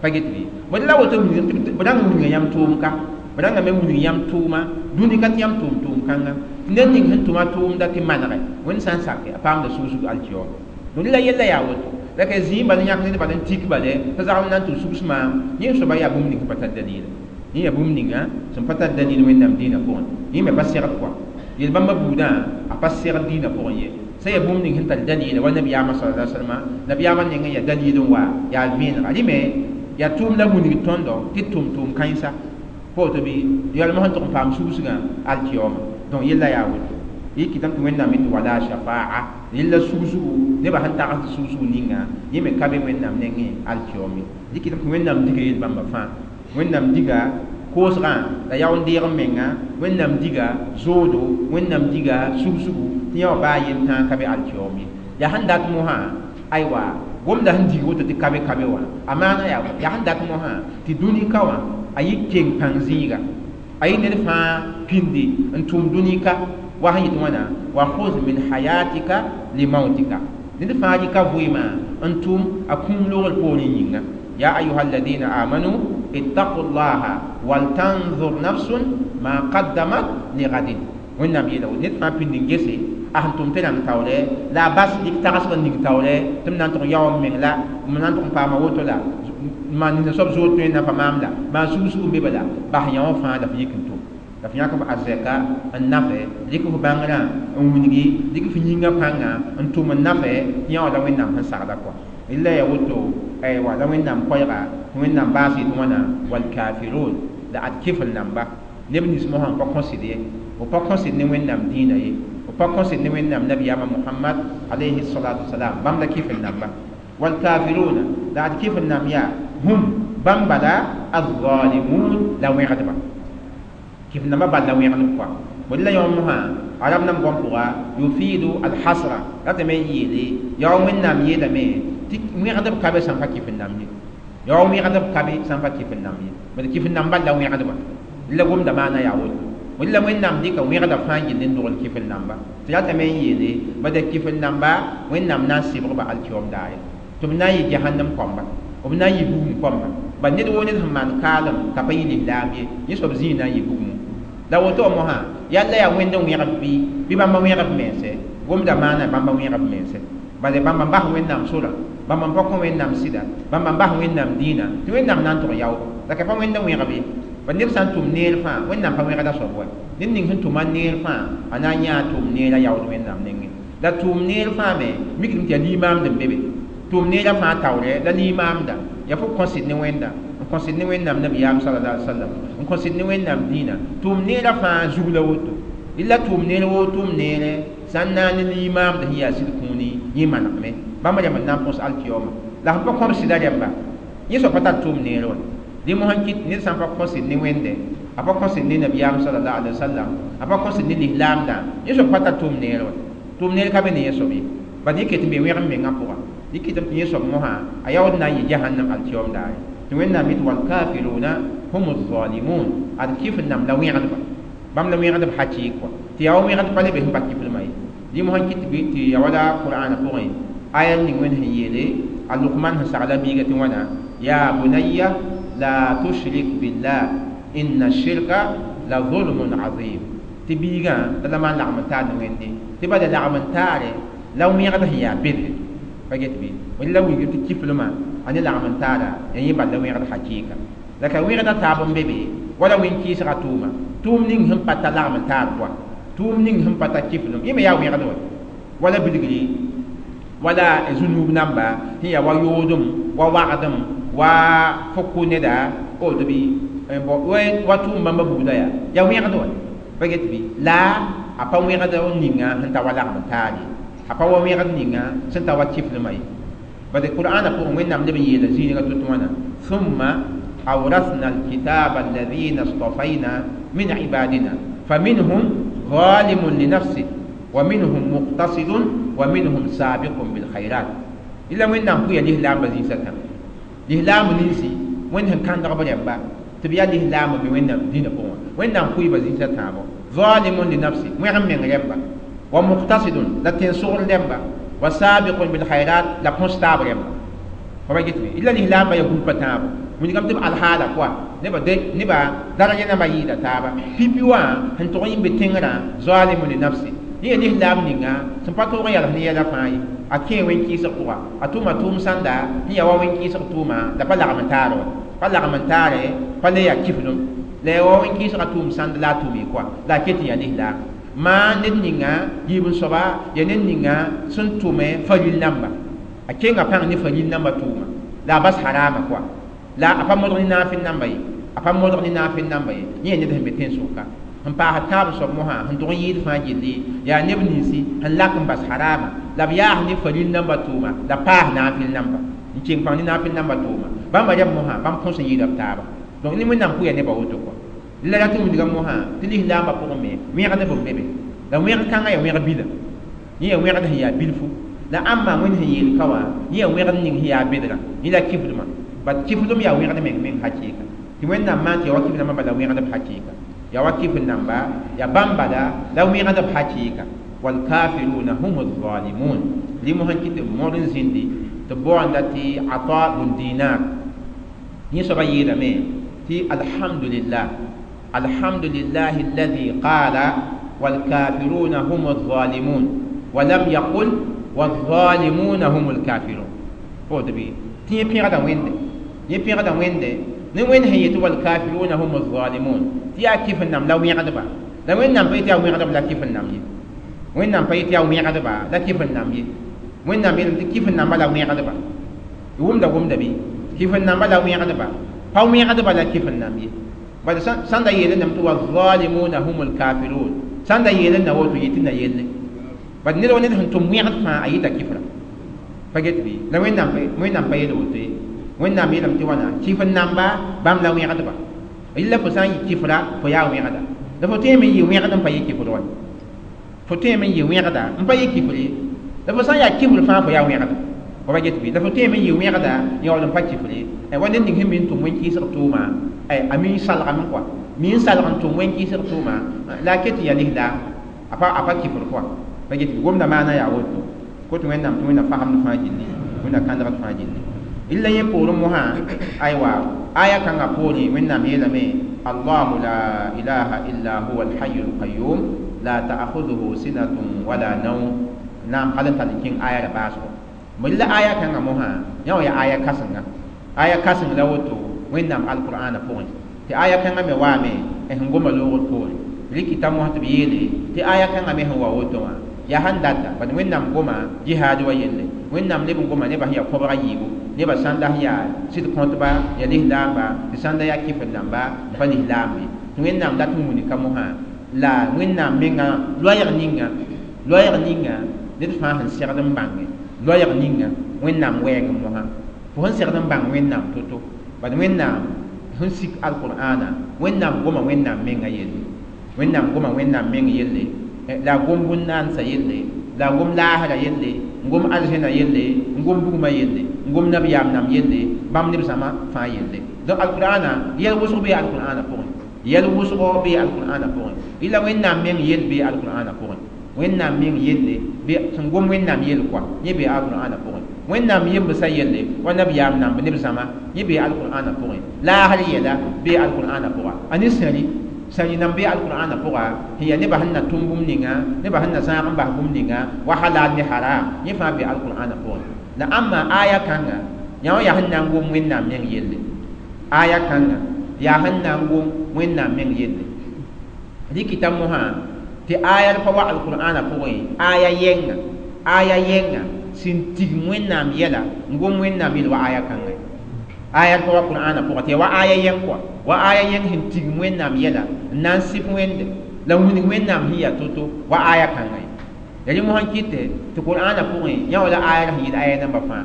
pa get bɩ bõe la woto b rãng wilga yãmb tʋʋm ka, b rãngame wilg yãmb tʋʋma dũni ka tɩ yãmb tʋʋm tʋʋm kãnga tɩ ned ning sẽn tʋma tʋʋmda tɩ manege Wẽnd sã n sake a paamda sugsg alkiyom. Donc la yella yaa woto la ka zĩig bal n yãk ned bal n tik bale t'a zagl na n tɩ sugs maam yẽ soaba yaa bũmb ning sẽn pa tar dalila, yẽ yaa bũmb ninga sẽn pa tar dalil Wẽnnaam dĩinã pʋgẽ, yẽ me pa segd kɔa yel-bãmba buudã a pa segd dĩinã pʋgẽ ye. Sã yaa bũmb ning sẽn tar dalila wa nabiyaamã sallallahu alaihi wasallam nabiyaamã nengẽ yaa dalil n wa yaa vẽenega rẽ me yaa tʋʋm la wilg tõndo tɩ tʋm tʋʋm kãensa pa woto bɩ yalmã sẽn tʋg n paam sugsgã alkiyoma. Donc yella yaa woto yɩ kɩtame tɩ Wẽnnaam tɩ wala shafaa yella sugsgu nebã sẽn tagsd sugsg ninga yẽ me ka be Wẽnnaam nengẽ alkiyom ye. Yɩ kɩtame tɩ Wẽnnaam diga yel-bãmba fãa, Wẽnnaam diga koosgã la yaoon-deeg n menga, Wẽnnaam diga zoodo, Wẽnnaam diga sugsgu tɩ yã wã baa yentãag ka be alkiyom ye. Yaa sẽn dat mosã aywa Gomda sẽn dig woto tɩ kabe kabe wã a maana yaa yaa sẽn dat mosã tɩ dũni ka wã a yɩ keng pãng zĩiga a yɩ ned fãa pĩndi n tʋm dũni ka wa sẽn yet wãna wa khuz min hayatika limautika ned fãa rɩka vɩɩmã n tʋm a kũum logr poorẽ yĩnga ya ayuha alladina amanu ittaqu llaha waltanzur nafsun ma qaddamat ligadin wẽnnaam yeela woto ned fãa pĩnd n gese a sẽn tʋm tɩ rãng taoorɛ la a bas dɩk tagsg n ning taoorɛ tɩ m na n tʋg yao m meng la m na n tʋg n paama woto la maan nins soab zood tõe n na pa maam la maan sug-sug n be bala bas yã wã fãa la f yik n tʋm la f yãk f arzɛka n nafɛ dɩk f bãngrã n wilgi dɩk f yĩngã pãnga n tʋm n nafɛ tɩ yã wã la wẽnnaam sẽn sagla kɔa la ya woto aywa la wẽnnaam koɛɛga wẽnnaam baas yetɩ wãna walkafirun la ad kɩfl namba neb nins mosã n pa kõsd ye b pa kõsd ne wẽnnaam dĩinã ye b pa kõsd ne wẽnnaam nabiyaamã mohamad alayhi salatu wasalam bãmb la kɩfl namba walkafiruna la ad kɩfl nam yaa hum bãmb bala alzalimun la wẽgdba kɩf nambã bal la wẽgdb kɔa bõe la yõ mosã arab nam gom pʋga yufidu alhasra ratame n yeele yaa wẽnnaam yeelame tɩ wẽgdb ka be sãn pa kɩf n nam ye yaa wẽgdb ka be sãn pa kɩf n nam ye bad kɩf n nam bal la wẽgdba la gomda maana yaa woto wẽnd la wẽnnaam dɩka wẽgda fãa gill n dogl kɩf n namba tɩ ratame n yeele bad kɩf n namba wẽnnaam na n sɩbgba alkiom daare tɩ b na n yɩ jahannam kõmba b na n yɩ bugum kõmba bad ned woo ned sẽn maan kaalem t'a pa yɩ lislaam ye yẽ soab zĩig na n yɩ bugumẽ la woto wã mosã yalla yaa wẽnd n wẽgb bɩ bɩ bãmba wẽgb mense gomda maana bãmba wẽgb mense bala bãmba n bas wẽnnaam sorã bãmba n pa kõ wẽnnaam sɩda bãmba n bas wẽnnaam dĩinã tɩ wẽnnaam na n tʋg yao la ka pa wẽnd n wẽgb ye ba neb sã n tʋm neer fãa wẽnnaam pa wẽgda soab wa ned ning sẽn tʋma neer fãa a na n yãa tʋʋm neerã yaood wẽnnaam nengẽ la tʋʋm neer fãa me mikdame tɩ yaa limaamd n be be tʋʋm neerã fãa taoorɛ la limaamda yaa fo kõsd ne wẽnda n kõsd ne wẽnnaam nabiyaam sallallahu alaihi wasallam n kõsd ne wẽnnaam dĩinã tʋʋm neerã fãa zug la woto la tʋʋm neer woo tʋʋm neere sã n naane limaamd sẽn yaa sɩd kũuni yẽ manegme bãmb rẽmb n na n põs alkiyooma la sẽn pa kõb sɩda rẽmba yẽ soab pa tar tʋʋm neer wã dẽ mosã n kɩt ned sã n pa kõsd ne wẽnde a pa kõsd ne nabiyaam sallallahu alaihi wasallam a pa kõsd ne lislaamdã yẽ soab pa tar tʋʋm neer wã tʋʋm neer ka be ne yẽ soab ye bad yẽ ket n be wẽgem mengã pʋga yẽ kɩtame tɩ yẽ soab mosã a yaood na n yɩ jahannam alkiyoom daare tɩ wẽnnaam yetɩ walkafiruna hum zalimun ad kɩf n nam la wẽgdba bãmb la wẽgdb hakɩɩk kɔa tɩ yaa wa wẽgd pa le be sẽn pa kɩflmã ye dẽ mosã n kɩt tɩ ya wala qur'ana pʋgẽ aya ning wẽnd sẽn yeele a lukman sẽn sagla biiga tɩ wãna ya bunayya la tushrik billah inna shirka la zulmun azim tɩ biigã la la maan lagm n taar ne wẽnde tɩ bala lagm n taare la wẽgd sẽn yaa bede pa get bɩ wẽnd la wilg tɩ kiflmã a ne lagm n taara ya yẽ bal la wẽgd hakɩɩka la ka wẽgda taab n be be wala wẽn-kɩɩsga tʋʋma tʋʋm ning sẽn pa ta lagm n taar pʋa tʋʋm ning sẽn pa ta kiflem yẽ me yaa wẽgd wa wala bilgri wala zũnuub namba sẽn yaa wa yoodem wa wagdem wa fo kʋ neda woto bɩ wa tʋʋm bãmba buudã yaa yaa wẽgd wa pa get bɩ la a pa wẽgd ninga sẽn ta wa lagm n taar ye a pa wa wẽgd ninga sẽn ta wa kiflmã ye bad qur'ana pʋgẽ wẽnnaam leb n yeela zĩiga tɩ wãna thumma awrasna alkitaba alladhina اصطفينا من عبادنا فمنهم ظالم لنفسه ومنهم مقتصد ومنهم سابق بالخيرات إلا وين نام كويا الإسلام بزين سكن الإسلام ننسي وين هم كان دغبر يبا تبيا الإسلام بوين دين بوا وين نام كوي بزين سكن ظالم لنفسه وين هم من يبا ومقتصد لا تنصر يبا وسابق بالخيرات لا كونستابل يبا فما جيت إلا الإسلام يقول بتابو wĩnigame tɩ b alhaala koa nebã nebã daraja nambã yɩɩda taaba pipi wã sẽn tʋg n yĩmbe tẽngrã zalimu li nafsi yẽ yaa lislaam ninga sẽn pa tõog n yals ne yɛla fãa ye a kẽe wẽn-kɩɩsg pʋga a tʋma tʋʋm sãnda sẽn yaa wa wẽn-kɩɩsg tʋʋma la pa lagm n taar wa pa lagm n taare pa le yaa kiflem la yaa wa wẽn-kɩɩsga tʋʋm sãnd la a tʋʋm koa la a ket n yaa lislaam maa ned ninga yiib n soaba yaa ned ninga sẽn tʋme faril namba a kenga pãng ne faril namba tʋʋma la a bas harama koa la a pa modg ne naafɩl namba ye a pa modg ne naafɩl namba ye yẽ ned sẽn be tẽn-sʋka sẽn paas tãab soab mosã sẽn tʋg n yɩɩd fãa gilli yaa neb ninsi sẽn lak n bas harama la b yaas ne faril namba tʋʋma la paas naafɩl namba n keng pãng ne naafɩl namba tʋʋma bãmba rɛb mosã bãmb põs n yɩɩda b taaba donc ne wẽnnaam pʋya nebã woto kɔa la rat n wilga mosã tɩ lislaambã pʋgẽ me wẽgdb n be be la wẽg kãngã yaa wẽg bila yẽ yaa wẽgd sẽn yaa bilfu La ãmba wẽnd sẽn yeel ka wã yẽ yaa wẽgd ning sẽn yaa bedrã yẽ la kifdmã bat kifdem yaa wẽgd meng meng hakɩɩka tɩ Wẽnnaam maan tɩ ya wa kif nambã bala wẽgdb hakɩɩka ya wa kif namba ya bãmb bala la wẽgdb hakɩɩka walkafiruna hum zalimun limo sẽn kɩ tɩ b mõd n zĩndi tɩ b baoonda tɩ Ata bun Dinar yẽ soabã yeelame tɩ alhamdulillah alhamdulillahi alladhi qala walkafiruna hum zalimun ولم يقل والظالمون هم الكافرون. فوت بي تي بيغدا ويند يي بيغدا ويند ne wẽnd sẽn yetɩ walkafiruna hum zalimun tɩ yaa kɩf n nam la wẽgdba la Wẽnnaam pa yetɩ yaa wẽgdb la kɩf n nam ye Wẽnnaam pa yetɩ yaa wẽgdba la kɩf n nam ye Wẽnnaam yeelame tɩ kɩf n namba la wẽgdba wʋmda gomda bɩ kɩf n namba la wẽgdba pa wẽgdba la kɩf n nam ye bala sãn da yeelẽ tɩ wazalimuna hum lkafirun sãn da yeelẽ na woto yetɩ na yelle bad ned wa ned sẽn tʋm wẽgd fãa a yɩta kɩfra pa get bɩ la Wẽnnaam pa yeel woto ye Wẽnnaam yeelame tɩ wãna kɩf n namba bãmb la wẽgdba yella fo sã n yɩ kɩfra fo yaa wẽgda la fo tõeme n yɩ wẽgd n pa yɩ kɩfr wa fo tõeme n yɩ wẽgda n pa yɩ kɩfr ye la fo sã n yaa kɩfr fãa fo yaa wẽgda fo pa get bɩ la fo tõeme n yɩ wẽgda yaool n pa kɩfr ye wa ned ning sẽn mi n tʋm wẽn-kɩɩsg tʋʋma a mi n salgame kɔa mi n salg n tʋm wẽn-kɩɩsg tʋʋma la a ket n yaa lislaam a pa kɩfr kɔa pa get bɩ gomda maana yaa woto ko tɩ Wẽnnaam tɩ Wẽnnaam fagemd fãa gilli Wẽnnaam kãndgd fãa gilli illa yẽ poorẽ mosã aywa aya kãngã poorẽ Wẽnnaam yeelame allahu la ilaha illa huwa alhayu alqayum la ta'khudhuhu sinatun wala nawm naam hal n tall n kẽng aya ra baasgo la aya kãngã mosã yã wã yaa aya kãsenga aya kãseng la woto Wẽnnaam alqur'ana pʋgẽ tɩ aya kãngã me waame sẽn goma loogr poorẽ rikita mosã tɩ b yeele tɩ aya kãngã me sẽn wa woto wã yaa sãn data bad Wẽnnaam goma jihaad wa yelle Wẽnnaam leb n goma nebã sẽn yaa kobga yiibu nebã sãnda sẽn yaa sɩd kõtba yaa lislaamba tɩ sãnda yaa kɩf n namba n pa lislaam ye tɩ Wẽnnaam dat n wuni ka mosã la Wẽnnaam menga loɛɛg ninga ned fãa sẽn segd n bãnge loɛɛg ninga Wẽnnaam wɛɛg mosã fo sẽn segd n bãng Wẽnnaam to-to bad Wẽnnaam sẽn sik alqur'ana Wẽnnaam goma Wẽnnaam menga yelle Wẽnnaam goma Wẽnnaam meng yelle la gom bũn-naandsã yelle la gom laasrã yelle n gom arzẽna yelle n gom bugmã yelle n gom nabiyaam nam yelle bãmb neb zãma fãa yelle donc alqur'ana yɛl wʋsg bee alqur'ana pʋgẽ yɛl wʋsgo bee alqur'ana pʋgẽ ila Wẽnnaam meng yell bee alqur'ana pʋgẽ Wẽnnaam meng yelle sẽn gom Wẽnnaam yell kɔa yẽ bee alqur'ana pʋgẽ Wẽnnaam yembsã yelle wa nabiyaam namb neb zãma yẽ bee alqur'ana pʋgẽ laasr yɛla bee alqur'ana pʋga a ne sẽri sãri nam bee alqur'ana pʋga sẽn yaa nebã sẽn na tʋm bũmb ninga nebã sẽn na zãag n bas bũmb ninga wa halal ne haram yẽ fãa bee alqur'ana pʋgẽ la ãmba aya kãnga yã wã yaa sẽn na n gom Wẽnnaam meng yelle aya kãnga yaa sẽn na n gom Wẽnnaam meng yelle rikita mosã tɩ aya pa wa alqur'ana pʋgẽ aya yɛnga sẽn tigm Wẽnnaam yɛla n gom Wẽnnaam yell wa aya kãnga aya pa wa qur'ana pʋgã tɩ ya wa aya yɛng kɔa wa aya yɛng sẽn tigm Wẽnnaam yɛla n na n sɩp Wẽnde la wilg Wẽnnaam sẽn yaa to-to wa aya kãnga ye ya rẽ mosã n kɩte tɩ qur'ana pʋgẽ yã wã la aya sẽn yɩɩd aya namba fãa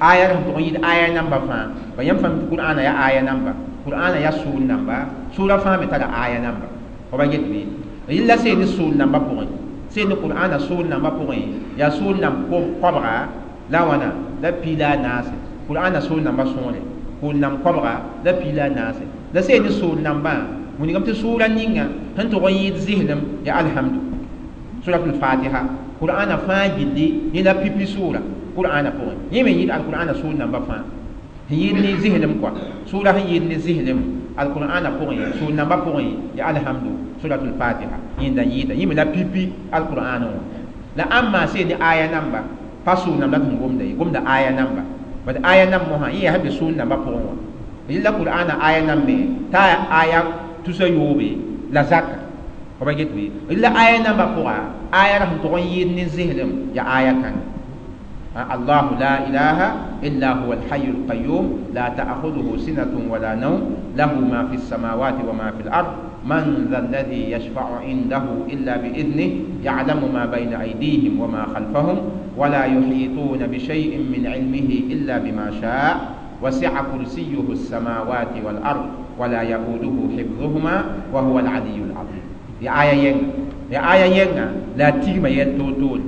aya sẽn tʋg n yɩɩd aya namba fãa ba yãmb fãa tɩ qur'ana yaa aya namba qur'ana yaa sʋʋr namba sʋʋra fãa me tara aya namba fo ba get bɩ yella seen ne sʋʋr namba pʋgẽ seen ne qur'ana sʋʋr namba pʋgẽ yaa sʋʋr namb koabga la wãna la piila a naase qur'ana sʋʋr namba sõore kʋʋl namb koabga la piila a naase la seen ne sʋʋr nambã wilgame tɩ sʋʋra ninga sẽn tʋg n yɩɩd zɩslem yaa alhamdu suratul fatiha qur'ana fãa gilli yẽ la pipi sʋʋra qur'ana pʋgẽ yẽ me yɩɩd alqur'ana sʋʋr namba fãa sẽn yɩɩd ne zɩslem kɔa sʋʋra sẽn yɩɩd ne zɩslem alqur'ana pʋgẽ sʋʋr namba pʋgẽ yaa alhamdu suratul fatiha yẽnda yɩɩda yẽ me la pipi alqur'ana wã la ãmba seen ne aya namba pa sʋʋr namba tɩ gomda ye gomda aya namba bad aya nam mosã yẽ yaa sẽn be sʋʋr namba pʋgẽ wã yella qur'ana aya nam me t'a aya tusa yoobe la zaka fo pa get bɩ la aya namba pʋga aya ra sẽn tʋg n yɩɩd ne zɩslem yaa aya kãnga الله لا إله إلا هو الحي القيوم لا تأخذه سنة ولا نوم له ما في السماوات وما في الأرض من ذا الذي يشفع عنده إلا بإذنه يعلم ما بين أيديهم وما خلفهم ولا يحيطون بشيء من علمه إلا بما شاء وسع كرسيه السماوات والأرض ولا يؤوده حفظهما وهو العلي العظيم. يا آية ينغا يا آية ينغا لا تيما يلتوتول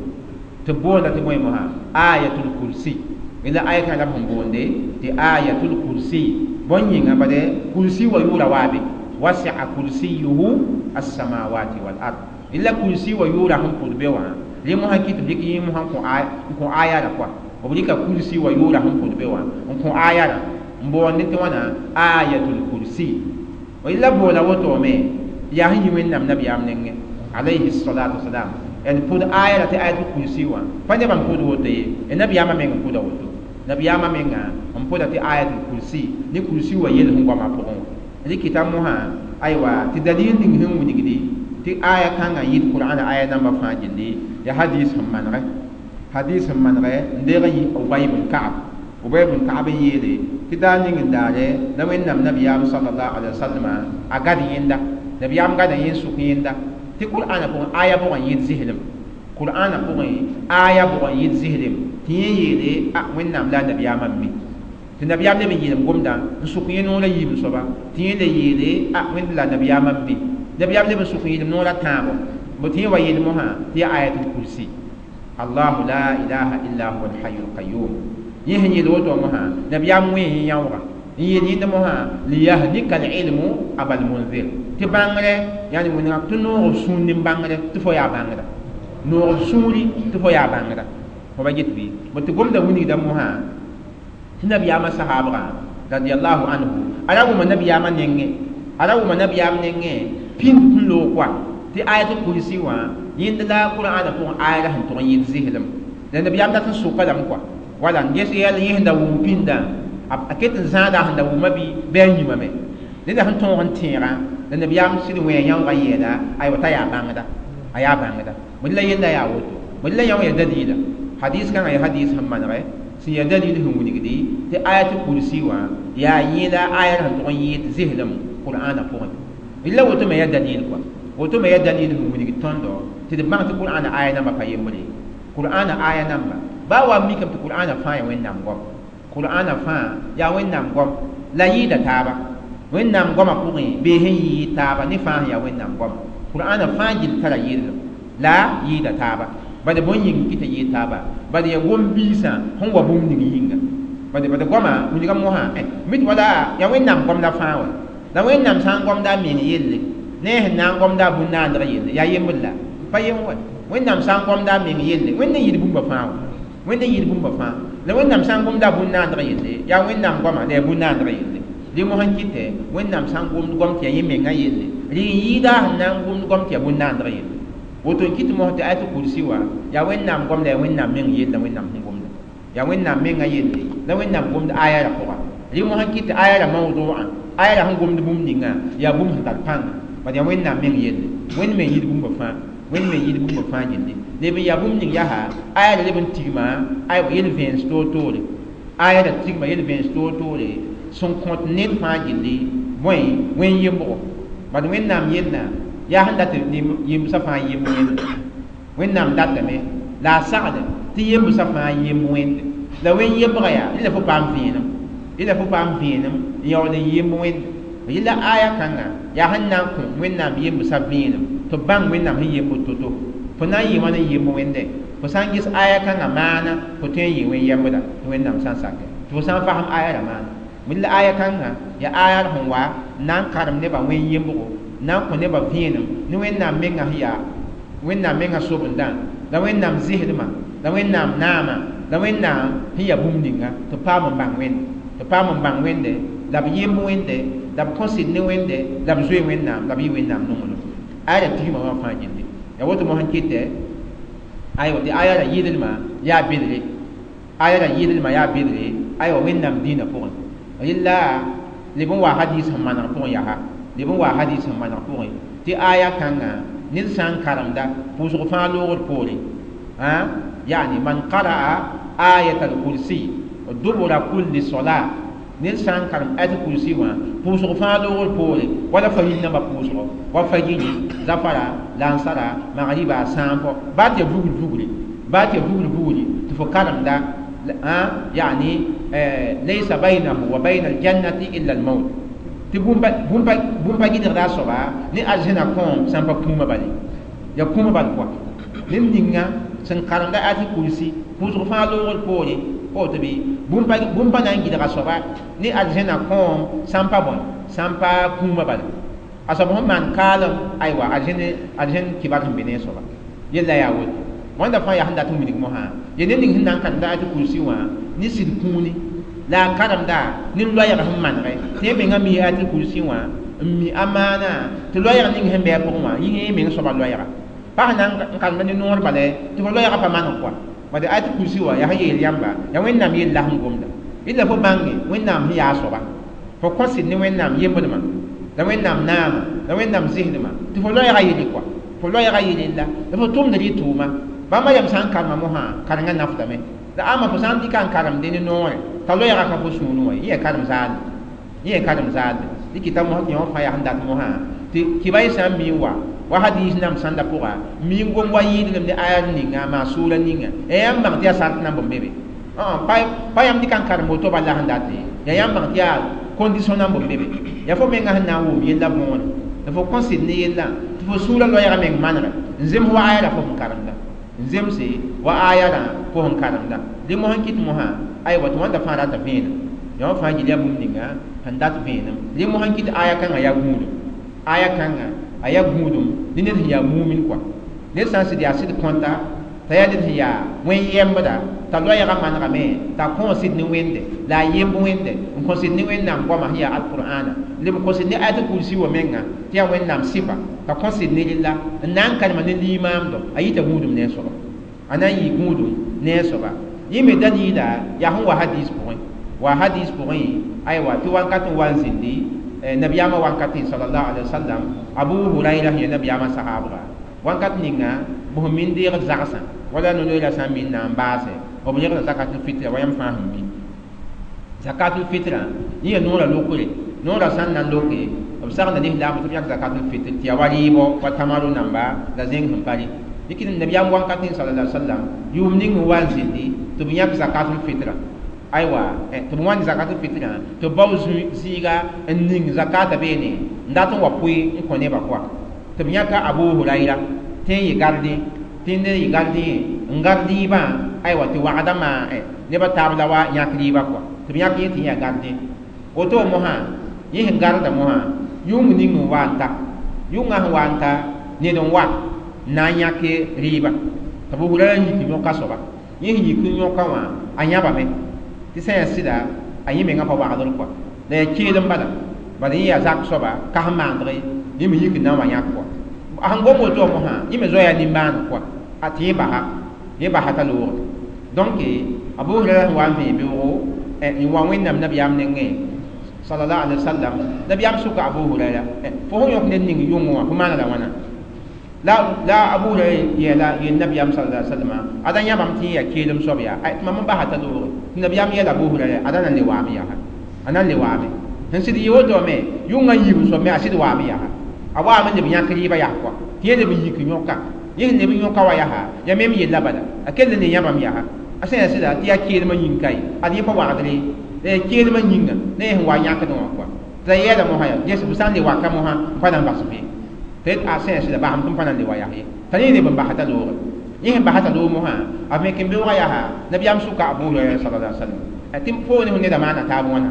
Tɩ boonda tɩ bõe mosã ayatul kursi la aya kãngã la b sẽn boonde tɩ ayatul kursi bõn yĩnga bade kursi wa yʋʋra waabe wasi'a kursiyuhu as-samawati wal ard illa kursi wa yʋʋra sẽn pʋd be wã rẽ mosã kɩ tɩ b dɩk yẽ mosã n kõ aya ra pʋa b rɩka kursi wa yʋʋra sẽn pʋd be wã n kõ aya rã n boonde tɩ wãna ayatul kursi la boola wotome yaa sẽn yi wẽnnaam nabiyaam nengẽ alayhi salatu wasalam n pʋd aya ra tɩ ayatul kursi wã pa nebã n pʋd woto ye nabiyaamã meng n pʋda woto nabiyaamã menga n pʋda tɩ ayatul kursi ne kursi wa yel sẽn goamã pʋgẽ wã rɩkɩta mosã aywa tɩ dalil ning sẽn wilgdi tɩ aya kãngã yit qur'ana aya namba fãa gilli ya hadis sẽn manegɛ hadis sẽn manegɛ n deeg n yi Ubay bn Ka'b Ubay bn Ka'b n yeele tɩ daar ning n daare la wẽnnaam nabiyaam sallallahu alaihi wasallam a gad yẽnda nabiyaam gada yẽn sʋk yẽnda tɩ qur'ana pʋgẽ aya bʋgã yɩd zislem qur'ana pʋgẽ aya bʋgã yɩd zislem tɩ yẽ yeele a wẽnnaam la a nabiyaamã n mi tɩ nabiyaam leb n yeelem gomdã n sʋk yẽ noorã yiib soaba tɩ yẽ le yeele a wẽnd la nabiyaamã n mi nabiyaam leb n sʋk yẽlem noorã tãabo bõ tɩ yẽ wa yeel mosã tɩ yaa ayatul kursi allahu la ilaha illa huwa alhayu alqayum yẽ sẽn yeel woto mosã nabiyaam wẽ yẽ yãooga n yeel yẽnd mosã liyahnika alilmu abal munzir tɩ bãngre yani wẽnega tɩ noog b sũur ne bãngre tɩ fo yaa bãngrã noog b sũuri tɩ fo yaa bãngrã fo ba get bɩ bõ tɩ gomda wilgda mosã tɩ nabiyaamã sahaabgã radiallahu anhu a ra wʋma nabiyaamã nengẽ a ra wʋma nabiyaam nengẽ pĩnd n loog koa tɩ ayatul kursi wã yẽnd la qur'ana pʋgẽ aya la sẽn tʋg n yɩɩd zislem la nabiyaam dat n sʋka lame koa wala n ges yɛl yẽ sẽn da wʋm pĩndã a ket n zãada sẽn da wʋma bɩ bɩ a yĩmame neda sẽn tõog n tẽegã la nabiyaam sɩd wẽ yãoogã yeela aywa t'a yaa bãngda a yaa bãngda bõe la yella yaa woto bõe la yão ya dalila hadis kãngã ya hadis sẽn manegɛ sẽn ya dalil sẽn wilgdi tɩ ayatul kursi wã yaa yẽla aya sẽn tʋg n yɩɩd zislem qur'ana pʋgẽ la woto me ya dalil kɔa woto me ya dalil sẽn wilgd tõndo tɩ d bãng tɩ qur'ana aya namba pa yembre qur'ana aya namba baa wa mikame tɩ qur'ana fãa ya wẽnnaam goam qur'ana fãa yaa wẽnnaam goam la yɩɩda taaba wẽnnaam goamã pʋgẽ bee sẽn yɩɩ taaba ne fãa sẽn yaa wẽnnaam goama qur'ana fãa gill tara yɩɩdlem la yɩɩda taaba bad bõn yĩng kɩ tɩ yɩɩ taaba bad ya gom-biisã sẽn wa bũmb ning yĩnga bad bad goamã wilga mosã mit wala yaa wẽnnaam gomda fãa wa la wẽnnaam sã n gomda a meng yelle ne a sẽn na n gomda a bũn-naandg yelle yaa yembr la pa yem wa wẽnnaam sã n gomda a meng yelle wẽnd n yɩɩd bũmba fãa wa wẽnd n yɩɩd bũmba fãa la wẽnnaam sã n gomda a bũn-naandg yelle yaa wẽnnaam goama la yaa bũn-naandg yelle rẽ mosã n kɩtɛ wẽnnaam sã n gomd gom tɩ yaa yẽ mengã yelle rɩ n yɩɩda sẽn na n gomd gom tɩ yaa bũn-naandg yelle woto n kɩt mos tɩ ayatul kursi wã yaa wẽnnaam gom la yaa wẽnnaam meng yelle la wẽnnaam sẽn gomda yaa wẽnnaam mengã yelle la wẽnnaam gomd aya ra pʋga rẽ mosã n kɩt tɩ aya ra mawdu'a aya ra sẽn gomd bũmb ninga yaa bũmb sẽn tar pãnga bad yaa wẽnnaam meng yelle wẽnd me yɩɩd bũmba fãa wẽnd me yɩɩd bũmba fãa gilli leb n yaa bũmb ning yaa aya ra leb n tigma aywa yel-vẽens toor-toore aya ra tigma yel-vẽens toor-toore sẽn kõt ned fãa gilli bõe wẽn yembgo bad wẽnnaam yella yaa sẽn dat yembsã fãa yemb wẽnde wẽnnaam datame la a sagde tɩ yembsã fãa yemb wẽnde la wẽn yembga yaa rẽ la fo paam vẽenem rẽ la fo paam vẽenem n yaool n yemb wẽnde yella aya kãnga yaa sẽn na n kõ wẽnnaam yembsã vẽenem tɩ b bãng wẽnnaam sẽn yemb to-to fo na n yɩ wãn n yemb wẽnde fo sã n ges aya kãngã maana fo tõe n yɩ wẽn yembda tɩ wẽnnaam sã n sakɛ tɩ fo sã n fasem aya ra maana bõe la aya kãngã yaa aya sẽn wa n na n karem nebã wẽn yembgo na n kõ nebã vẽenem ne wẽnnaam mengã sẽn yaa wẽnnaam mengã sobendã la wẽnnaam zɩsdmã la wẽnnaam naamã la wẽnnaam sẽn yaa bũmb ninga tɩ paam n bãng wẽnde tɩ paam n bãng wẽnde la b yemb wẽnde la b kõ sɩd ne wẽnde la b zoe wẽnnaam la b yɩ wẽnnaam nonglem aya ra tigma wã fãa gilli yaa woto mosã kɩtɛ aywa tɩ aya ra yɩɩdlmã yaa bedre aya ra yɩɩdlmã yaa bedre aywa wẽnnaam dĩinã pʋgẽ rɩla leb n wa hadis sẽn maneg pʋgẽ yaa leb n wa hadis sẽn maneg pʋgẽ tɩ aya kãngã ned sã n karemda pʋʋsg fãa loogd poore yani man qara'a ayat al-kursi dubura kulli solat ned sã n karem ayat al-kursi wã pʋʋsg fãa loogd poore wala fajir namba pʋʋsgo wa fajiri zafara lansara magriba sãampo baa tɩ ya vugl vugre baa tɩ ya vugl vugre tɩ fo karemda yani laysa baynahu wa bayna aljannati illa almaut tɩ bũmb pa gɩdgda a soaba ne arzẽna kõom sã n pa kũumã bale ya kũumã bal kɔa ned ninga Sẽn karemda ayatul kursi pʋʋsg fãa loogr poore woto bɩ bũmb pa na n gɩdga soaba ne arzẽna kõom sãn pa bõe sãn pa kũumã bala a soab sẽn maan kaalem aywa arzẽn kibar sẽn be ne a soaba yella yaa woto wãnda fãa yaa sẽn dat n wilg mosã ye ned ning sẽn na n karemda ayatul kursi wã ne sɩd kũuni la a karemda ne loɛɛg sẽn manegɛ tɩ yẽ mengã mi ayatul kursi wã n mi a maana tɩ loɛɛg ning sẽn bɩ a pʋgẽ wã yẽ meng soaba loɛɛga pa sẽn na n karemda ne noor bala tɩ fo loɛɛgã pa maneg kɔa bad ayatul kursi wã yaa sẽn yeel yãmba yaa Wẽnnaam yell la sẽn gomda yella fo bãnge Wẽnnaam sẽn yaa a soaba fo kõ sɩd ne Wẽnnaam yembdmã la Wẽnnaam naama la Wẽnnaam zɩsdmã tɩ fo loɛɛgã yelle kɔa fo loɛɛgã yelle la fo tʋmd rɩ tʋʋma bãmba yam sã n karema mosã karengã nafdame la ama fo sã n dɩka n karemde ne noorẽ t'a loɛɛgã ka fo sũurẽ wã yẽ karem zaalde yẽ karem zaalde dɩ kɩta mosã tɩ yõ fãa yaa sẽn dat mosã tɩ kɩba y sã n mi n wa hadis nam sãnda pʋga mi n gom wa yɩɩdlem ne aya ninga maa sʋʋra ninga ya yãmb bãng tɩ yaa sart nan bõmb be be pa yãmb dɩka n karem woto bala sẽn dat ye ya yãmb bãng tɩ yaa condition nan bõmb be be yaa fo menga sẽn na n wʋm yella võore la fo kõ sɩd ne yella tɩ fo sũurã loɛɛgã meng manegɛ n zems wa aya la fo sẽn karemda n zemse wa aya rã fo sẽn karemda dẽ mosã n kɩt mosã aywa tɩ wãnda fãa rata vẽenem yã fãa gil yaa bũmb ninga sẽn dat vẽenem dẽ mosã n kɩt aya kãngã yaa gũudum aya kãngã a yaa gũudum ne ned sẽn yaa mumin kɔa ned sã n sɩd yaa sɩd kõta t'a yaa ned sẽn yaa wẽn-yembda t'a loɛɛgã manegame t'a kõ sɩd ne Wẽnde la a yemb Wẽnde n kõ sɩd ne Wẽnnaam goamã sẽn yaa alqur'ana leb n kõ sɩd ne ayatul kursi wã menga tɩ yaa Wẽnnaam sɩfa t'a kõ sɩd ne rella n na n karema ne limaamdo a yita gũudum ne a soaba a na n yɩ gũudum ne a soaba yẽ me dalila yaa sẽn wa hadis pʋgẽ wa hadis pʋgẽ aywa tɩ wankat n wa n zĩndi nabiyaamã wankatẽ sallallahu alaihi wasallam Abu Huraira sẽn yaa nabiyaamã sahaabga wankat ninga b sẽn min deegd zagsã wala nonoeera sã n min na n baase b yegda zakatul fitra wa yãmb fãa sẽn mi zakatul fitra yẽ yaa noorã lokre noorã sã n na n loke b sagenda lislaam tɩ b yãk zakatul fitr tɩ yaa wa rɩɩbɔ wa tamaru namba la zẽng sẽn pa rɩ dɩk nabiyaam wankatẽ sallallahu alaihi wasallam yʋʋm ning n wa n zĩndi tɩ b yãk zakatul fitra aywa tɩ b wãnd zakatul fitra tɩ b bao zɩɩga n ning zakata beene n dat n wa pʋɩ n kõ nebã kɔa tɩ b yãka Abu Huraira tɩ n yɩ gardẽ tɩ ned yɩ gardẽ n gard rɩɩbã aywa tɩ wagda maa nebã taab la wa yãk rɩɩbã kɔa tɩ b yãk yẽ tɩ yã gardẽ woto mosã yẽ sẽn garda mosã yʋng ning n wa n ta yʋngã sẽn wa n ta ned n wa n na n yãk rɩɩbã tɩ Abu Huraira yik yõka soaba yẽ sẽn yik n yõka wã a yãbame tɩ sã yaa sɩda a yẽ mengã pa wagdr kɔa la yaa keelem bala bala yẽ yaa zak soaba ka sẽn maandg yẽ me yik n na n wa yãk kɔa a sẽn gom woto wã mosã yẽ me zoa yaa nimbãaneg kɔa a tɩ yẽ basa t'a loogd donc Abu Huraira sẽn wa n vẽe beoogo n wa Wẽnnaam nabiyaam nengẽ sallallahu alaihi wasallam nabiyaam sʋka Abu Huraira fo sẽn yõk ned ning yʋngẽ wã fo maana la wãna la Abu Huraira yeela yel nabiyaam sallallahu alaihi wasallam ada yãbame tɩ yẽ yaa keelem soab yaa tɩ mam n basa t'a loogre tɩ nabiyaam yeela Abu Huraira ada na n le waame yaa a na n le waame sẽn sɩd yɩ woto me yʋngã yiib soab me a sɩd waame yaa a waame leb yãk rɩɩbã yaa kɔa tɩ yẽ leb n yik yõka yẽ sẽn leb n yõka wa yaa yaa mem yella bala a kell ne yãbame yaa a sã yaa sɩda tɩ yaa keelmã yĩng ka ye ad yẽ pa wagdre la yaa keelmã yĩnga ne yẽ sẽn wa yãkdẽ wã kɔa tɩ la yɛɛla mosã yaa ges b sã n le waka mosã n pa na n bas be tɩ a sã yaa sɩda basem tɩ n pa na n le wa yaa ye t'a yẽ leb n basa t'a loogre yẽ sẽn basa t'a loog mosã a me ken beoogã yaa nabiyaam sʋka Abu Huraira sallallahu alaihi wasallam tɩ fo ne fo neda maana taab wãna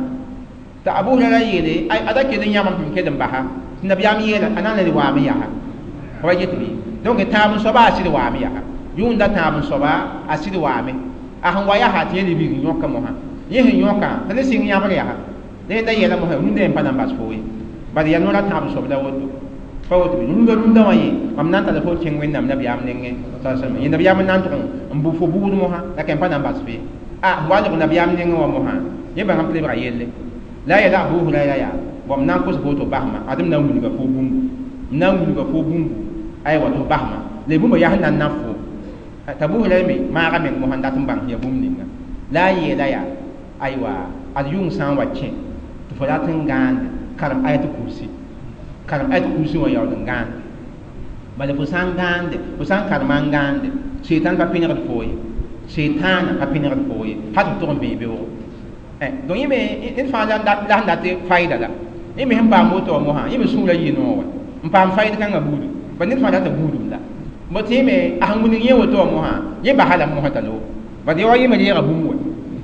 tɩ Abu Huraira yeele ada kell n yãbame tɩ m kell n basa tɩ nabiyaam yeela a na n le waame yaa fa wa get bɩ donc tãab n soaba a sɩd waame yaa yʋʋnda tãab n soaba a sɩd waame a sẽn wa yaa tɩ yẽ lebg n yõka mosã yẽ sẽn yõka t'a le sɩng yãbr yaa la yẽnda yɛla mosã rũndã yẽ pa na n bas fo ye bala yaa noorã tãab n soab la woto pa woto bɩ rũndã rũndã wã yẽ mam na n tara fo kẽng Wẽnnaam nabiyaam nengẽ sallallahu yẽ nabiyaam n na n tʋg n bʋ fo buud mosã la kẽm pa na n bas fe a wa leb nabiyaam nengẽ wã mosã yẽ bãngame tɩ lebga yelle la a yeela Abu Huraira yaa bõm na n kos fo tɩ f basma ad m na n wilga fo bũmbu m na n wilga fo bũmbu aywa tɩ f basma la bũmba yaa sẽn na n naf fo t'a Abu Huraira me maaga meng mosã n dat n bãng yaa bũmb ninga la a yeela yaa aywa ad yʋng sã n wa kẽ tɩ fo rat n gãande karem ayatul kursi karem ayatul kursi wã yaool n gãande bala fo sã n gãande fo sã n karema n gãande seitan pa pẽnegd fo ye seitaana pa pẽnegd fo ye hal tɩ f tʋg n vẽe beoogo donc yẽ me ned fãa la sẽn dat fayda la yẽ me sẽn paam woto wã mosã yẽ me sũurã yɩ noog wa n paam fayd kãngã buudu ba ned fãa rata buudum la Mo tẽeme a sẽn wilg yẽ woto wã mosã yẽ basa lame mosã t'a loog bad ya wa yẽ me reega bũmb wa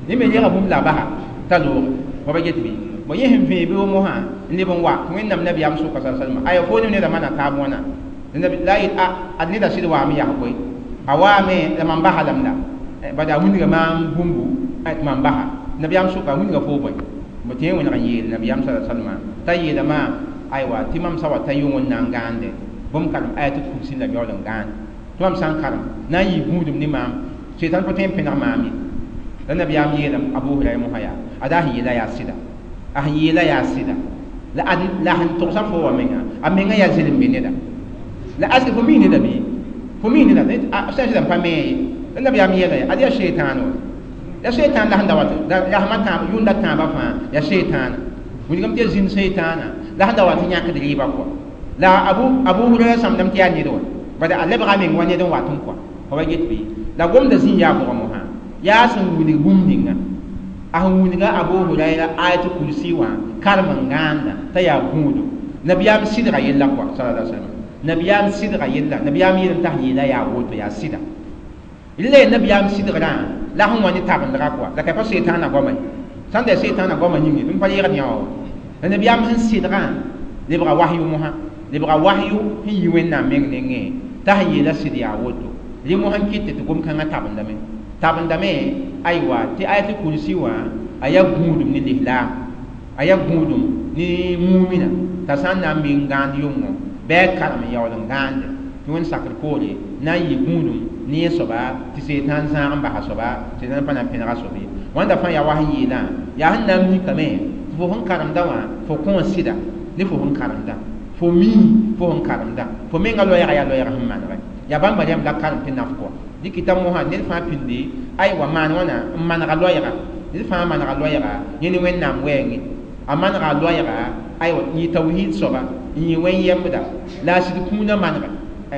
yẽ me reega bũmb la a basa t'a looge fa ba get bɩ bo yẽ sẽn vẽe bɩ mosã n leb n wa tɩ wẽnnaam nabiyaam sʋka sa salma aya fo ne neda maana taab wãna la a yet a ad neda sɩd waame yaa koe a waame la mam basa lame la bad a wilga maam bũmbu tɩ mam basa nabiyaam sʋka a wilga fo bõe bo tɩ yẽ wẽneg n yeel nabiyaam sa salma t'a yeela maam aywa tɩ mam sa wa ta yʋng n na n gãande bõmb karem ayat kursi la yaool n gãand tɩ mam sã n karem na n yɩ gũudum ne maam sɩtan pa tõe n pẽneg maam ye la nabiyaam yeelame Abu Hurayra mosã yaa ada sẽn yeela yaa sɩda a sẽn yeela yaa sɩda la la sẽn togsa fo wa menga a menga yaa zɩlem be neda la aske fo mi neda bɩ fo mi neda sã n sɩda n pa me ye la nabiyaam yeela ya ad yaa seitan wa ya seitan la sẽn da wat la sẽma tãab yʋnda tãabã fãa ya seitaana wilgame tɩ ya zĩnd seitaana la sẽn da wat n yãkd rɩɩbã kɔa la Abu Hurayra sãmdame tɩ yaa ned wa bad a lebga meng wa ned n wat n kɔa fa ba get bɩ la gomda zĩ yaa bʋga mosã yaa sẽn wilg bũmb ninga a sẽn wilga Abu Hurayra ayat kursi wã karem n gãanda t'a yaa gũudo nabiyaam sɩdga yella kɔa sallallahu alaihi wasallam nabiyaam sɩdga yella nabiyaam yeelame t'a sẽn yeela yaa woto yaa sɩda la nabiyaam sɩdgrã la sẽn wa ne tabendga kɔa la ka pa setaana goama ye sãn da setaana goama yĩnge tɩ m pa yegd yã wa la nabiyaam sẽn sɩdgã lebga wahyu mosã lebga wahyu sẽn yi wẽnnaam meng nengẽ t'a sẽn yeela sɩd yaa woto rẽ mosã n kɩt tɩ gom-kãngã tabendame tabendame aywa tɩ ayat kursi wã a yaa gũudum ne lislaam a yaa gũudum ne mumina t'a sã n na n mi n gãand yʋngo bɩ a karem n yaool n gãande tɩ wẽnd sakr poore na n yɩ gũudum ne yẽ soaba tɩ seetãan zãag n basa soaba tɩ pa na n pẽnega soab ye wãnda fãa yaa wa sẽn yeelã yaa sẽn na n mikame tɩ fo sẽn karemda wã fo kõ sɩda ne fo sẽn karemda fo mii fo sẽn karemda fo menga loɛɛga yaa loɛɛg sẽn manegɛ yaa bãmba rẽmb la karem tɩ naf kɔa dɩkɩta mosã ned fãa pĩndi aywa maan wãna n manega loɛɛga ned fãa manega loɛɛga yẽ ne wẽnnaam wɛɛngẽ a manega loɛɛga aywa n yɩ tawhiid soaba n yɩ wẽn-yembda la a sɩd kũunã manegɛ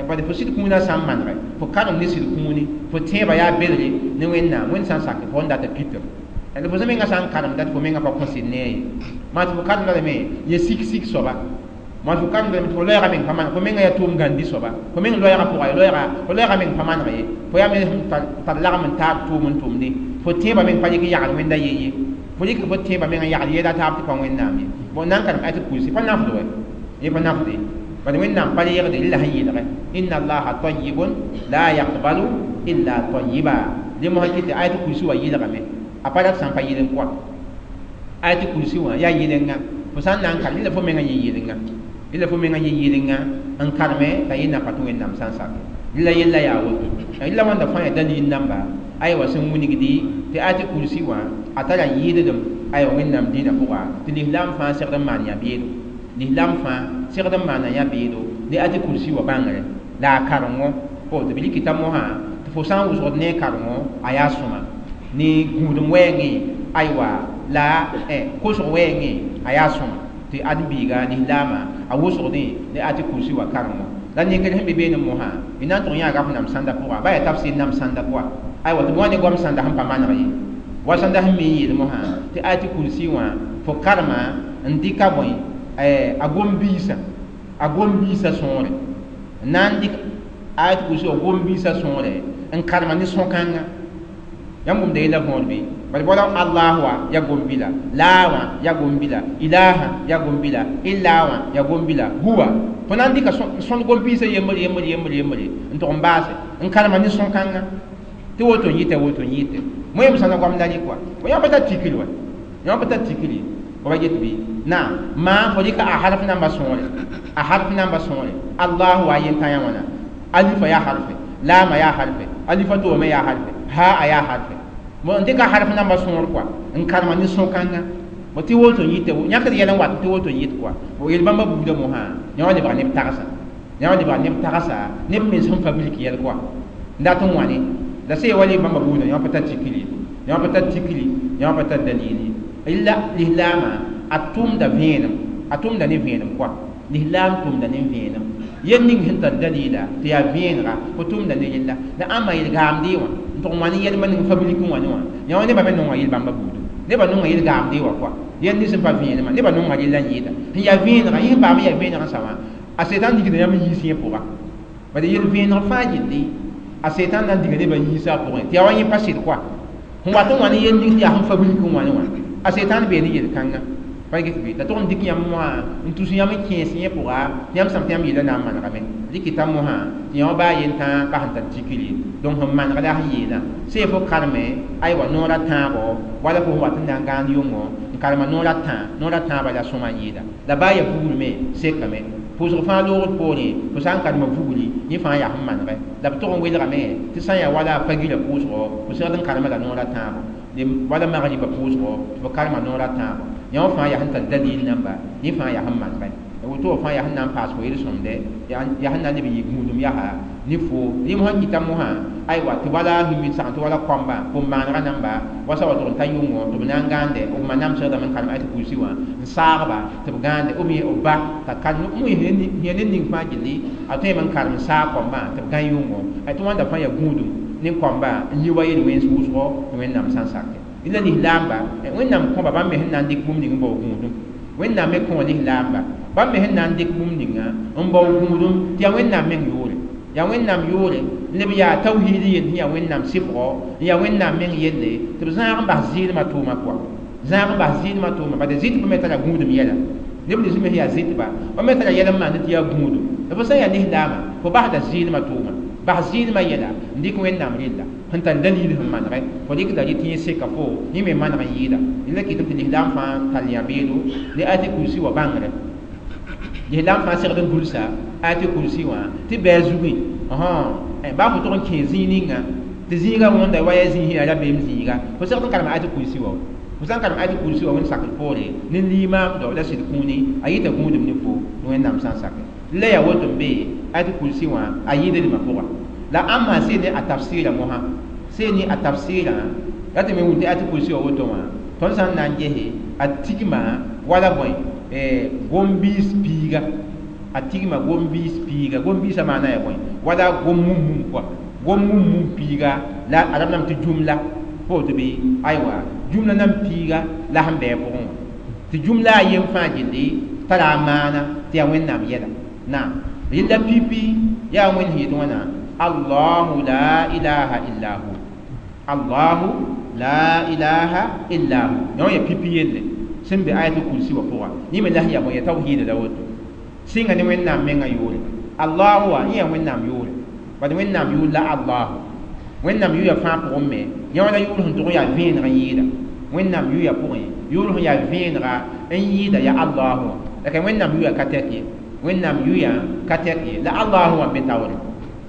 bad fo sɩd kũunã sã n manegɛ fo karem ne sɩd kũuni fo tẽebã yaa belge ne wẽnnaam wẽnd sã n sak fo n dat pitem la fo menga sã n karemda tɩ fo menga pa kõ sɩd nee ye maa tɩ fo karemda lame yẽ sik sik soaba maa fo karemda lame tɩ fo loɛɛga meng pa maneg fo menga yaa tʋʋm gãndi soaba fo meng loɛɛga pʋga ye loɛɛga fo loɛɛga meng pa maneg ye fo yaa me tar lagem n taab tʋʋm n tʋmde fo tẽebã meng pa rɩk n yagd wẽnda ye ye fo rɩk fo tẽebã meng n yagd yeela taab tɩ pa wẽnnaam ye bon na n karem ayat kursi pa nafd wɛ yẽ pa nafde bad wẽnnaam pa reegde rɩla sẽn yeelgɛ inna allaha tayyibun la yaqbalu illa tayyiba dẽ mosã kɩ tɩ ayat kursi wã yɩlgame a pa rat sã n pa yɩl n kɔa ayat kursi wã yaa yɩlenga fo sã n na n karem rɩla fo menga yẽ yɩlenga rɩla fo menga yẽ yɩlenga n kareme t'a yẽnna pa tɩ wẽnnaam sã n sake rɩla yella yaa woto rɩla wãnda fãa yaa dalil namba aywa sẽn wilgdi tɩ ayat kursi wã a tara yɩɩddem aywa wẽnnaam dĩinã pʋga tɩ lislaam fãa segd n maan yã-beedo lislaam fãa segd n maana yã-beedo ne ayat kursi wã bãngre la a karengo fo tɩ b rɩkɩta mosã tɩ fo sã n wʋsgd ne a karengo a yaa sõma ne gũudum wɛɛngẽ aywa la kosg wɛɛngẽ a yaa sõma tɩ ãdem-biiga lislaamã a wʋsgdẽ ne ayat kursi wã karengo la ninkr sẽn be beene mosã y na n tʋg yãaga f nam sãnda pʋga ba yaa tafsir nam sãnda pʋga aywa tɩ b wa ne goam sãnda sẽn pa maneg ye wa sãnda sẽn mi n yeel mosã tɩ ayat kursi wã fo karema n dɩka bõe a gom-biisã sõore n na n dɩk ayat kursi wã gom-biisã sõore n karema ne sõkãnga yãmb wʋmda yella võor bɩ bad bala Allah wã ya gom-bila laa wã ya gom-bila ilaha ya gom-bila illa wã ya gom-bila huwa fo na n dɩka sõnd gom-biisã yembr yembr yembr yembre n tʋg n baase n karema ne sõkãnga tɩ woto n yɩta woto n yɩte moẽm sãna goamda rɩ kɔa fo yã pa tar tikri wa yã pa tar tikri fo ba get bɩ naam maa fo rɩka a harf namba sõore a harf namba sõore allahu wa yentã yã wãna alifa yaa harfe laama yaa harfe alifa toome yaa harfe ha a yaa harfe bo n dɩka harf namba sõor kɔa n karema ne sõkãnga bo tɩ woto n yɩte yãkd yɛl n wat tɩ woto n yɩt kɔa bo yel bãmba buudã mosã yã wã lebga neb tagsa yã wã lebga neb tagsa neb mens sẽn fabrike yɛl kɔa n dat n wãne la sẽn wa le bãmba buudã yã wã pa tar tikri yã wã pa tar tikri yã wã pa tar dalili illa lislaamã a tʋmda vẽenem a tʋmda ne vẽenem kɔa lislaam tʋmda ne vẽenem yel ning sẽn tar dalila tɩ yaa vẽenega fo tʋmda ne yella la ãmba yel-gaamdɩ wã n tʋg n wã ne yɛlmã ning fabrike wã ne wã yã wã nebã me nonga yel bãmba buudu nebã nonga yel-gaamdɩ wã kɔa yel nins sẽn pa vẽenemã nebã nonga rella n yɩɩda sẽn yaa vẽenega yẽ sẽn paam n yaa vẽeneg n sa wã a setan digda yãmb n yiis yẽ pʋga Bala yel vẽeneg fãa gilli a setan na n diga nebã yiisã pʋgẽ tɩ yaa wa yẽ pa sɩd koa sẽn wat n wa ne yel ning tɩ yaa sẽn fa wilg n wa ne wã a setan bee ne yel-kãngã pa get bɩ la tʋg n dɩk yãmb wã n tus yãmb n kẽes yẽ pʋga tɩ yãmb sãm tɩ yãmb yeela na n manegame rɩkɩta mosã tɩ yã wã baa yen tãa pa sẽn tar tikr ye donc sẽn maneg la sẽn yeelã see fo karme aywa noor a tãabo wala fo sẽn wat n na n gãand yʋngo n karema noor a tã noor a tãabã la sõma n yɩɩda la baa ya vugr me sekame pʋʋsg fãa loogd poorẽ fo sã n karema vugri yẽ fãa yaa sẽn manegɛ la b tʋg n welgame tɩ sã n yaa wala a fagirã pʋʋsgo fo segd n karema la noor a tãabo wala magribã pʋʋsgo tɩ fo karema noor a tãabo yã wã fãa yaa sẽn tar dalil namba yẽ fãa yaa sẽn manegɛ woto wã fãa yaa sẽn na n paas fo yel-sõmde yaa sẽn na n leb n yɩ gũudum yaa ne fo rẽm sẽn kɩta mosã aywa tɩ wala sẽn tɩ wala kõmba pʋm-maanegã namba wa sa wa tʋg n ta yʋngo tɩ b na n gãande b ma namsgdame n karem ayat kursi wã n saagba tɩ b gãande b b ba t'a karem yẽ ned ning fãa gilli a tõeme n karem n saag kõmbã tɩ b gã yʋngo tɩ wãnda fãa yaa gũudum ne kõmba n yi wa yel wẽns wʋsgo tɩ Wẽnnaam sã n sake la lislaamba Wẽnnaam kõba bãmb me sẽn na n dɩk bũmb ning n bao gũudum Wẽnnaam me kõ lislaamba bãmb me sẽn na n dɩk bũmb ninga n bao gũudum tɩ yaa Wẽnnaam meng yʋʋre yaa Wẽnnaam yʋʋre leb yaa tawhiid yell sẽn yaa Wẽnnaam sɩbgɔ n yaa Wẽnnaam meng yelle tɩ b zãag n bas zɩɩlmã tʋʋmã pʋga zãag n bas zɩɩlmã tʋʋma bala zɩtbã me tara gũudum yɛla neb nins me sẽn yaa zɩtba b me tara yɛl n maand tɩ yaa gũudum la fo sã n yaa lislaamã fo basda zɩɩlmã tʋʋma bas zɩɩlmã yɛla n dɩk Wẽnnaam rella sẽn tar dalil sẽn manegɛ fo rɩkda rɩ tɩ yẽ seka fo yẽ me maneg n yɩɩda la kɩtame tɩ lislaam fãa tar yã-beedo ne ayat kursi wã bãngrɛ lislaam fãa segd n gʋlsa ayat kursi wã tɩ bɩ zugẽ baa fo tʋg n kẽ zĩig ninga tɩ zĩiga wõnda wa yaa zĩig sẽn yaa rabeem zĩiga fo segd n karem ayat kursi wã fo sã n karem ayat kursi wã wẽnd sakr poore ne limaamdo la sɩd kũuni a yɩta gũudum ne fo Wẽnnaam sã n sake la yaa woto n be ayat kursi wã a yɩɩda pʋga la ãmba see ne a tafsɩɩra mosã see ne a tafsɩɩrã la tɩ me wʋm tɩ ayat kursi wã woto wã tõnd sã n na n gese a tigma wala bõe gom-biis piiga a tigma gom-biis piiga gom-biisã maana yaa bõe wala gom-mum-mum pʋga gom-mum-mum piiga la a rab tɩ jumla pa woto bɩ aywa jumla nan piiga la sẽn bɩ a pʋgẽ wã tɩ jumla a yem fãa gilli tara a maana tɩ yaa Wẽnnaam yɛla naam rɩlla pipi yaa Wẽnd sẽn yet wãna Allahu la ilaha illa hu Allahu la ilaha illa hu yã wã yaa pipi yelle sẽn be ayat kursi wã pʋga yẽ me la sẽn yaa bõe yaa tawhiida la woto sɩnga ne Wẽnnaam mengã yʋʋre Allahu wã yẽ yaa Wẽnnaam yʋʋre bad Wẽnnaam yʋʋr la Allahu Wẽnnaam yʋʋya fãa pʋgẽ me yã wã la yʋʋr sẽn tʋg n yaa vẽeneg n yɩɩda Wẽnnaam yʋʋya pʋgẽ yʋʋr sẽn yaa vẽenega n yɩɩda yaa Allahu wã la ka Wẽnnaam yʋʋya ka tɛk ye Wẽnnaam yʋʋya ka tɛk ye la Allahu wã n be taoore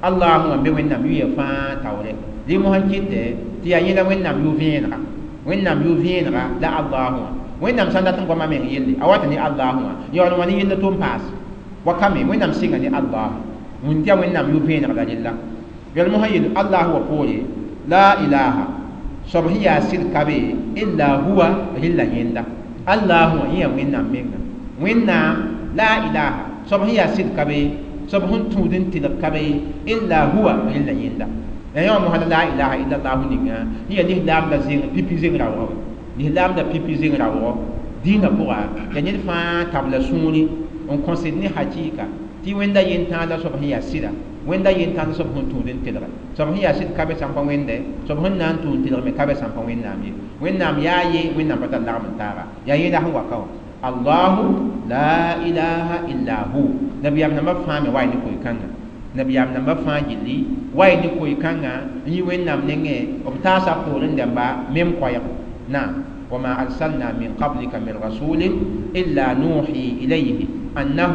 Allahu wã n be Wẽnnaam yʋʋya fãa taoore rɩ mosã n kɩtɛ tɩ yaa yẽ la Wẽnnaam yʋ vẽenega Wẽnnaam yʋ vẽenega la Allahu wã Wẽnnaam sã n dat n goama meng yelle a wata ne Allahu wã yaool n wa ne yella tʋ n paas wa ka me Wẽnnaam sɩnga ne Allahu wũn tɩ yaa Wẽnnaam yʋ vẽeneg la rella yɛl mosã yel Allahu wã poore la ilaha soab sẽn yaa sɩd ka be illa huwa rella yẽnda Allahu wã yẽ yaa Wẽnnaam menga Wẽnnaam la ilaha soab sẽn yaa sɩd ka be soab sẽn tũud n tɩlg ka be illa huwa rella yẽnda la yã wã mosã la ilaha illa llahu ninga yẽ yaa lislaam la zeng pipi zeng raoogã wa lislaam la pipi zeng raoogɔ dĩinã pʋga yaa ned fãa tabla sũuri n kõsd ne hakɩɩka tɩ wẽnda yentãag la soab sẽn yaa sɩda wẽnda yentãag la soab sẽn tũud n telge soab sẽn yaa sɩd ka be sã n pa wẽnde soab sẽn na n tũud n telg me ka be sã n pa Wẽnnaam ye Wẽnnaam yaa ye Wẽnnaam pa tar lagm n taaga yaa yẽla sẽn wa ka wã Allahu la ilaha illa hu nabiyaam nambã fãa me wa ne koe-kãngã nabiyaam nambã fãa gilli wa ne koe-kãngã n yi Wẽnnaam nengẽ b taasa poorẽ dãmba mem koɛɛg naam وما أرسلنا من قبلك من رسول إلا نوحي إليه أنه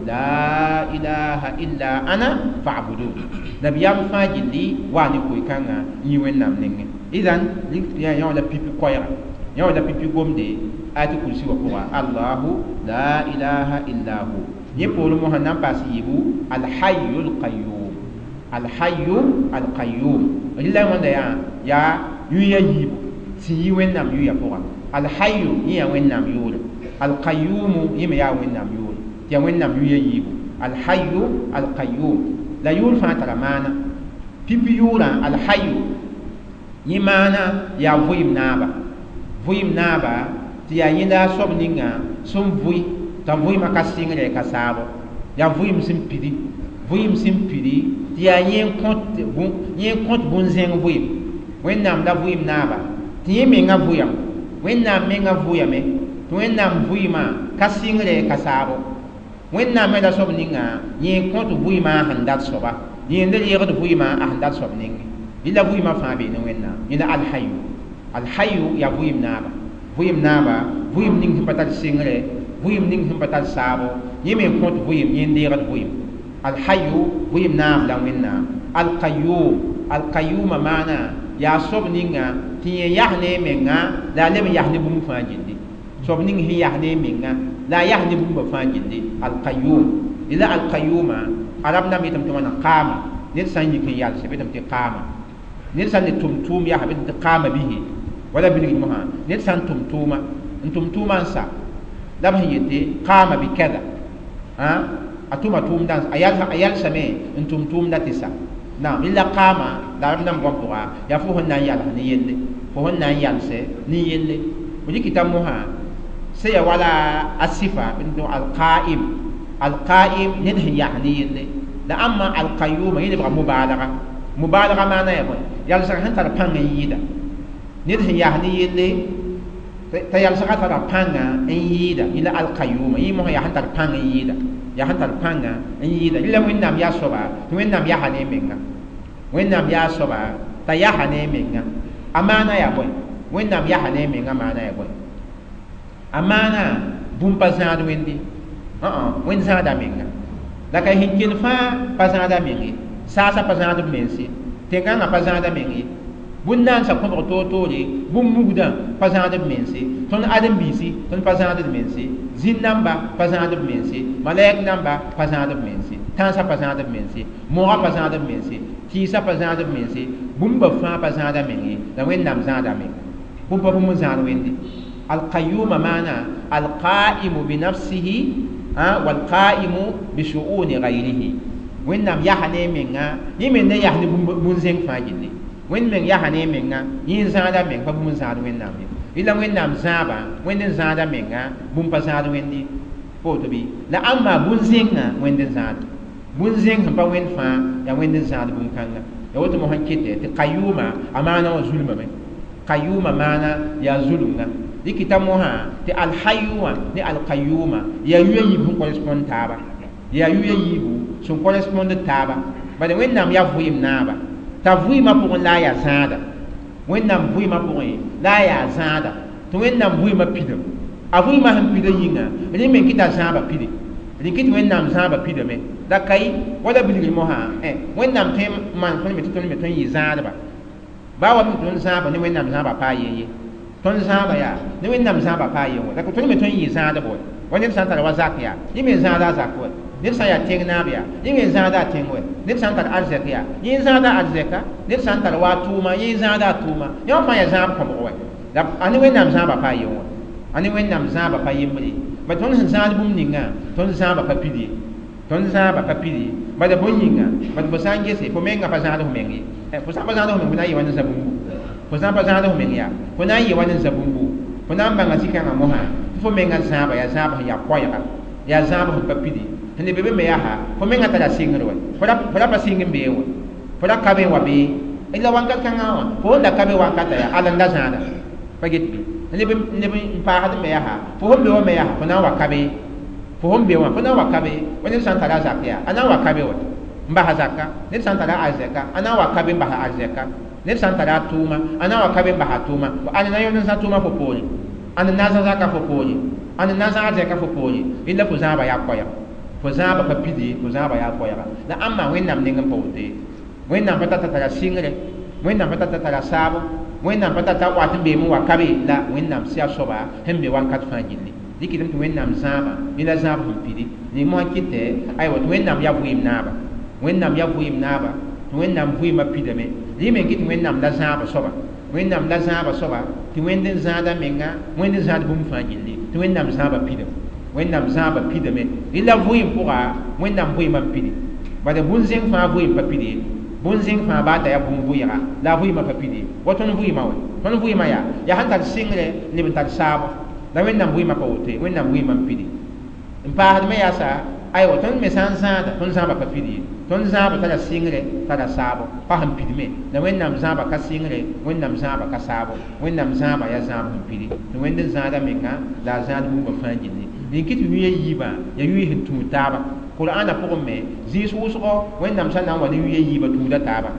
لا إله إلا أنا فاعبدون نبيام فاجلي واني كوي كانغا يوين نام نينغ إذن يا يا لا بيبي كويرا يا لا بيبي غومدي آية كرسي وقرا الله لا إله إلا هو يقول محمد باس يبو الحي القيوم الحي القيوم إلا من يا يا يا يبو tɩ yi Wẽnnaam yʋʋya pʋga alhayu yẽ yaa Wẽnnaam yʋʋre alqayumu yẽ me yaa Wẽnnaam yʋʋre tɩ yaa Wẽnnaam yʋʋya yiibu alhayu alqayum la yʋʋr fãa tara maana pipi yʋʋrã alhayu yẽ maana yaa vʋɩɩm naaba vʋɩɩm naaba tɩ yaa yẽnda a soab ninga sẽn vʋɩ t'a vʋɩɩmã ka sɩngre ka saabo yaa vʋɩɩm sẽn pidi Vɩɩm sẽn pidi tɩ yaa yẽ kõt bũn-zẽng vɩɩm. Wẽnnaam la vɩɩm naaba tɩ yẽ menga vʋyame. Wẽnnaam menga vʋyame tɩ Wẽnnaam vɩɩmã ka sɩngre ka saabo. Wẽnnaam me la soab ninga yẽ kõt vɩɩmã a sẽn dat soaba. Yẽ n reegd vɩɩmã a sẽn dat soab ninge. Yẽ la vɩɩmã fãa bee ne Wẽnnaam. Yẽ la Alhayu. Alhayu yaa vɩɩm naaba. Vɩɩm naaba, vɩɩm ning sẽn pa tar sɩngre, vɩɩm ning sẽn pa tar saabo, yẽ me n kõt vɩɩm, yẽ n deegd vɩɩm. Alhayu vɩɩm naab la Wẽnnaam. Alqayyum, Alqayyuma maana yaa soab ninga tɩ yẽ yas ne a menga la a leb n yas ne bũmb fãa gilli. Soab ning sẽn yas ne a menga la a yas ne bũmba fãa gilli. Alqayyum. La Alqayyuma arab namba yetame tɩ wãna qaama. Ned sã n yik n yalse b yetame tɩ qaama. Ned sã n ne tʋm tʋʋm yasa b yetame tɩ qaama bihi. Wala bilgd mosã ned sã n tʋm tʋʋma n tʋm tʋʋma n sa la b sẽn yete qaama bi kada. A tʋma tʋʋmdã a yalsame n tʋm tʋʋmdã tɩ sa. Naam, illa qaama la arab namba goam pʋga yaa fo sẽn na n yals ne yelle. Fo sẽn na n yalse ne yelle. Fo dɩkɩta mosã sẽn ya wala a sɩfa alqaim. Alqaim ned sẽn yas ne yelle. La ãmba alqayyuma yẽ lebga mubalga. Mubalga maana yaa bõe? Yalsg sẽn tar pãng n yɩɩda. Ned sẽn yas ne yelle t'a yalsgã tara pãnga n yɩɩda. Yẽ la alqayyuma. Yẽ mosã yaa sẽn tar pãng n yɩɩda. Yaa sẽn tar pãnga n yɩɩda. Rẽ la Wẽnnaam yaa soaba tɩ Wẽnnaam yasa ne a menga. Wẽnnaam yaa soaba t'a yasa ne a menga. A maana yaa bõe? Wẽnnaam yasa ne a menga maana yaa bõe? A maana bũmb pa zãad Wẽnde. Wẽnd zãada menga. La ka sẽn kell fãa pa zãada meng ye. Saasã pa zãad b mense. Tẽn-kãngã pa zãada meng ye. Bũn-naandsã kõbg toor-toore, bũmb mugdã pa zãad b mense. Tõnd ãdem-biisi tõnd pa zãad d mense. Zĩn-namba pa zãad b mense. Malɛk namba pa zãad b mense. Tãnsã pa zãad b mense. Mogã pa zãad b mense. Tɩɩsã pa zãad b mense. Bũmba fãa pa zãada meng ye. La Wẽnnaam zãada menga. Bũmb pa bũmb n zãad Wẽnde. Alqayyuma maana alqaimu binafsihi walqaimu bishu'uni ghayrihi. Wẽnnaam yasa ne a menga, yẽ me ne yas ne bũn-zẽng fãa gilli. Wẽnd meng yasa ne a menga, yẽ n zãada meng pa bũmb n zãad Wẽnnaam ye. Rẽ la Wẽnnaam zãaba, Wẽnd n zãada menga, bũmb pa zãad Wẽnd ye. Pa woto bɩ? La ãmba bũn-zẽngã Wẽnd n zãad. Bũn-zẽng sẽn pa Wẽnd fãa yaa Wẽnd n zãad bũn-kãnga. Ya woto mosã n kete tɩ qayyuma a maana wã zulmame. Qayyuma maana yaa zulumga. Dɩkɩta mosã tɩ alhayu wã ne alqayyuma yaa yuya yiib sẽn correspond taaba. Yaa yuya yiibu sẽn correspond taaba. Bala Wẽnnaam yaa vɩɩm naaba. T'a vɩɩmã pʋgẽ la a yaa zãada. Wẽnnaam vɩɩmã pʋgẽ la a yaa zãada. Tɩ Wẽnnaam vɩɩmã pidame. A vɩɩmã sẽn pida yĩnga, rẽ me kɩta zãabã pide. Rẽ kɩt Wẽnnaam zãabã pidame. La ka ye wala bilgr mosã, Wẽnnaam tõe n maan tõnd me tɩ tõnd me tõe n yɩ zãadba. Baa wa mi tõnd zãaba ne Wẽnnaam zãabã paa yen ye. Tõnd zãaba yaa ne Wẽnnaam zãabã paa yen wa. La tõnd me tõe n yɩ zãadb wa. Wa ned sã n tar wa zak yaa, yẽ me n zãada a zak wa. Ned sã n yaa tẽng naab yaa, yẽ me n zãada a tẽng wa. Ned sã n tar arzɛk yaa, yẽ n zãada arzɛka. Ned sã n tar wa a tʋʋma, yẽ n zãada a tʋʋma. Yẽ wã fãa yaa zãab kõbg wa. La a ne Wẽnnaam zãabã paa yen wa. A ne Wẽnnaam zãabã pa yembre. Ba tõnd sẽn zãad bũmb ninga, tõnd zãabã pa pid ye. Tõnd zãabã pa pid ye. Bala bõe yĩnga, bad fo sã n gese, fo menga pa zãad f meng ye. Fo sã n pa zãad f meng, fo na n yɩ wa ne za-bũmbu. Fo sã n pa zãad f meng yaa, fo na n yɩ wa ne za-bũmbu. Fo na n bãnga zĩ-kãngã mosã, tɩ fo menga zãaba yaa zãab sẽn yaa koɛɛga, yaa zãab sẽn pa pidi. Sẽn le be be me yaa fo menga tara sɩngr wɛ. Fo ra pa sɩng n bee wɛ. Fo ra ka be n wa bee. La wãnkat kãngã wã, fo sẽn da ka be wankata yaa ala n da zãada. Pa get bɩ? Leb n paasd me yaa, fo sẽn be wã me yaa, fo na n wa ka be. Fo sẽn be wã, fo na n wa ka be. Wa ned sã n tara a zak yaa, a na n wa ka be wɛ n bas a zaka. Ned sã n tara arzɛka, a na n wa ka be n bas a arzɛka. Ned sã n tara a tʋʋma, a na n wa ka be n bas a tʋʋma. Ãn na yõnd n zã tʋʋma fo poore. Ãn n na n zã zaka fo poore. Ãn n na n zã arzɛka fo poore. Rẽ la fo zãaba yaa koɛɛga. Fo zãaba pa pid ye, fo zãaba yaa koɛɛga. La ãmba Wẽnnaam neng n pa woto ye. Wẽnnaam pa tata tara sɩngre. Wẽnnaam pa tata tara saabo. Wẽnnaam pa tata wat n beem n wa ka be. La Wẽnnaam sɩa soaba sẽn be wakat fãa gilli. Dɩkɩdame tɩ Wẽnnaam zãaba, yẽ la zãab sẽn pidi. Ning mosã kɩtɛ, aywa tɩ Wẽnnaam yaa vɩɩm naaba. Wẽnnaam yaa vɩɩm naaba, tɩ Wẽnnaam vɩɩmã pidame. Rẽ me kɩ tɩ Wẽnnaam la zãaba soaba. Wẽnnaam la zãaba soaba, tɩ Wẽnd n zãada menga, Wẽnd n zãad bũmb fãa gilli, tɩ Wẽnnaam zãaba pidame. Wẽnnaam zãaba pidame. Rẽ la vɩɩm pʋga, Wẽnnaam vɩɩmã n pidi. Bala bũn-zẽng fãa vɩɩm pa pid ye. Bũn-zẽng fãa baa t'a yaa bũmb vɩɩga, la a vɩɩmã pa pid ye. Wa tõnd vɩɩmã wɛ. Tõnd vɩɩmã yaa, yaa sẽn tar sɩngre, leb n tar saabo. La Wẽnnaam vɩɩmã pa woto ye. Wẽnnaam vɩɩmã n pidi. N paasd me yaa sa, Aywa tõnd me sã n zãada tõnd zãaba pa pid ye tõnd zãaba tara sɩngre tara saabo pa sẽn pidme la Wẽnnaam zãaba ka sɩngre Wẽnnaam zãaba ka saabo Wẽnnaam zãaba yaa zãab sẽn pidi tɩ Wẽnd n zãada menga la a zãad bũmba fãa gilli rẽn kɩ tɩ yʋ yiibã yaa yʋ sẽn tũud taaba Qur'ana pʋgẽ me zĩis wʋsgo Wẽnnaam sã na n wa ne yʋ yiibã tũuda taaba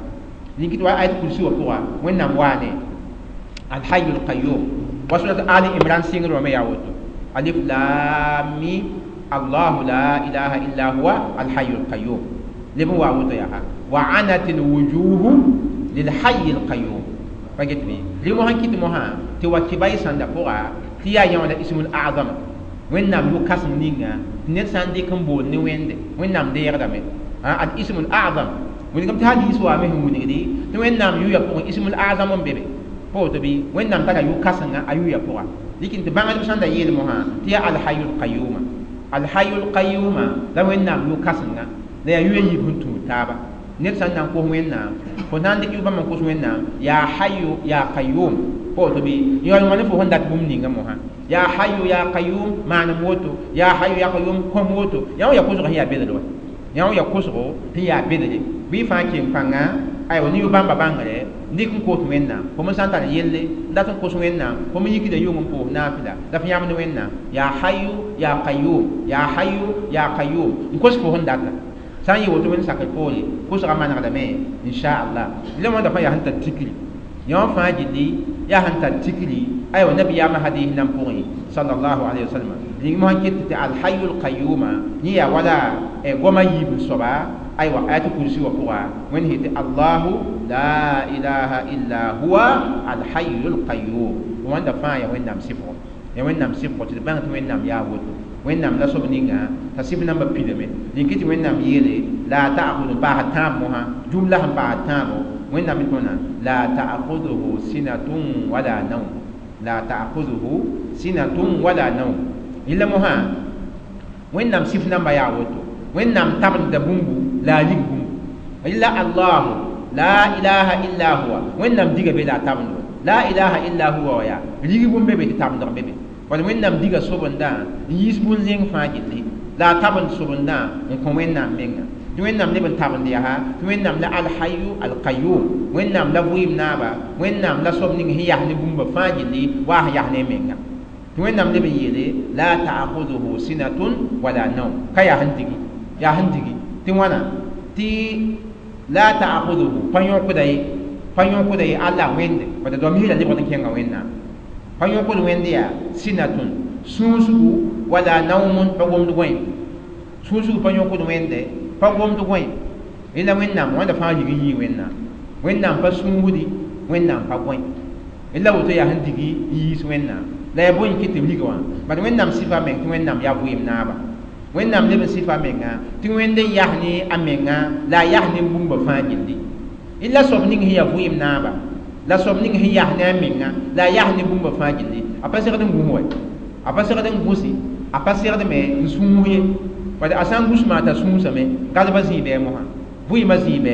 rẽn kɩ tɩ wa ayat kursi wã pʋga Wẽnnaam waa ne Al-Hayyul Qayyum wa surat Ali Imran sɩngr wã me yaa woto Alif Lam Mim Allahu la ilaha illa huwa Al-Hayyul Qayyum leb n wa woto yaa wa anatil wujuhu lil Hayyil Qayyum pa get bɩ rẽ mosã kɩt mosã tɩ wa kɩba y sãnda pʋga tɩ yaa yã wã la ismul azama Wẽnnaam yʋ-kãseng ninga tɩ ned sã n dɩk n bool ne Wẽnde Wẽnnaam deegdame al ismul azam wilgame tɩ hadiis waame sẽn wilgdi tɩ Wẽnnaam yʋya pʋgẽ ismul azam n be be pa woto bɩ Wẽnnaam tara yʋ-kãsenga a yʋya pʋga dɩk tɩ bãngdb sãn da yeel mosã tɩ yaa alhayyul qayyuma alhayyul qayyuma la Wẽnnaam yʋ-kãsenga la yaa yʋya yiib sẽn tũud taaba ned sã n na n kos Wẽnnaam fo na n dɩk yʋ-bãmb n kos Wẽnnaam yaa hayyu yaa qayyum pa woto bɩ yaool wã ne fo sẽn dat bũmb ninga mosã yaa hayyu yaa qayyum maanem woto yaa hayyu yaa qayyum kõm woto yã wã yaa kosg sẽn yaa bedre wa yã wã yaa kosgo sẽn yaa bedre bɩ fãa keng pãnga aywa ne yʋ-bãmba bãngre dɩk n kos Wẽnnaam fo me sã n tar yelle n dat n kos Wẽnnaam fo me yikda yʋng n pʋʋs naafɩla la f yãmd Wẽnnaam yaa hayyu yaa qayyum yaa hayyu yaa qayyum n kos fo sẽn data sã n yɩ woto Wẽnd sakr poore kosgã manegdame inchallah la wãnda fãa yaa sẽn tar tikri yã wã fãa gilli yaa sẽn tar tikri aywa nabiyaamã hadiis nan pʋgẽ sallallahu alayhi wa sallam rĩng mosã ket tɩ alhayyul qayyuma yẽ yaa wala goama yiib n soaba aywa ayat kursi wã pʋga Wẽnd sɩ tɩ Allahu la ilaha illa huwa alhayyul qayyum wãnda fãa yaa Wẽnnaam sɩfgo yaa Wẽnnaam sɩfgo tɩ d bãng tɩ Wẽnnaam yaa woto Wẽnnaam la soab ninga t'a sɩf nambã pidame rẽn kɩ tɩ Wẽnnaam yeele la ta'khudhu paas tãab mosã jumla sẽn paas tãabo Wẽnnaam tõna la ta'khudhuhu sinatun wala nawm la ta'khudhuhu sinatun wala nawm yella mosã Wẽnnaam sɩf namba yaa woto Wẽnnaam tabenda bũmbu la a rig bũmbu illa Allahu la ilaha illa huwa Wẽnnaam diga be la a tabendo la ilaha illa huwa wa yaa rig bũmb be be tɩ tabendg be be wala Wẽnnaam diga sobendã n yiis bũn-zẽng fãa gilli la a tabend sobendã n kõ Wẽnnaam menga tɩ Wẽnnaam leb n tabend yaa tɩ Wẽnnaam la alhayu alqayyum Wẽnnaam la vɩɩm naaba Wẽnnaam la soab ning sẽn yas ne bũmba fãa gilli waa sẽn yas ne menga tɩ Wẽnnaam leb n yeele la ta'khudhuhu sinatun wala nawm ka yaa sẽn digi yaa sẽn digi tɩ wãna tɩ la ta'khudhuhu pa yõkda ye pa yõkda ye Allah Wẽnde bala doam misra lebgd n kẽnga Wẽnnaam pa yõkd Wẽnd yaa sinatun sũusgu wala nawmun pa gomd gõe sũusgu pa yõkd Wẽnde pa gomd gõe la Wẽnnaam wãnda fãa rig n yii Wẽnnaam Wẽnnaam pa sũusdi Wẽnnaam pa gõe la woto yaa sẽn digi n yiis Wẽnnaam la yaa bõe n kɩt tɩ b rig wã bad Wẽnnaam sɩfa meng tɩ Wẽnnaam yaa vɩɩm naaba Wẽnnaam leb n sɩfa menga tɩ Wẽnd n yas ne a menga la a yas ne bũmba fãa gilli la soab ning sẽn yaa vɩɩm naaba la soab ning sẽn yas ne a menga la a yas ne bũmba fãa gilli a pa segd n gũs wa a pa segd n gũsi a pa segd me n sũus ye bad a sã n gũs maa t'a sũusame gadba zĩig bɩ mosã vɩɩmã zĩig bɩ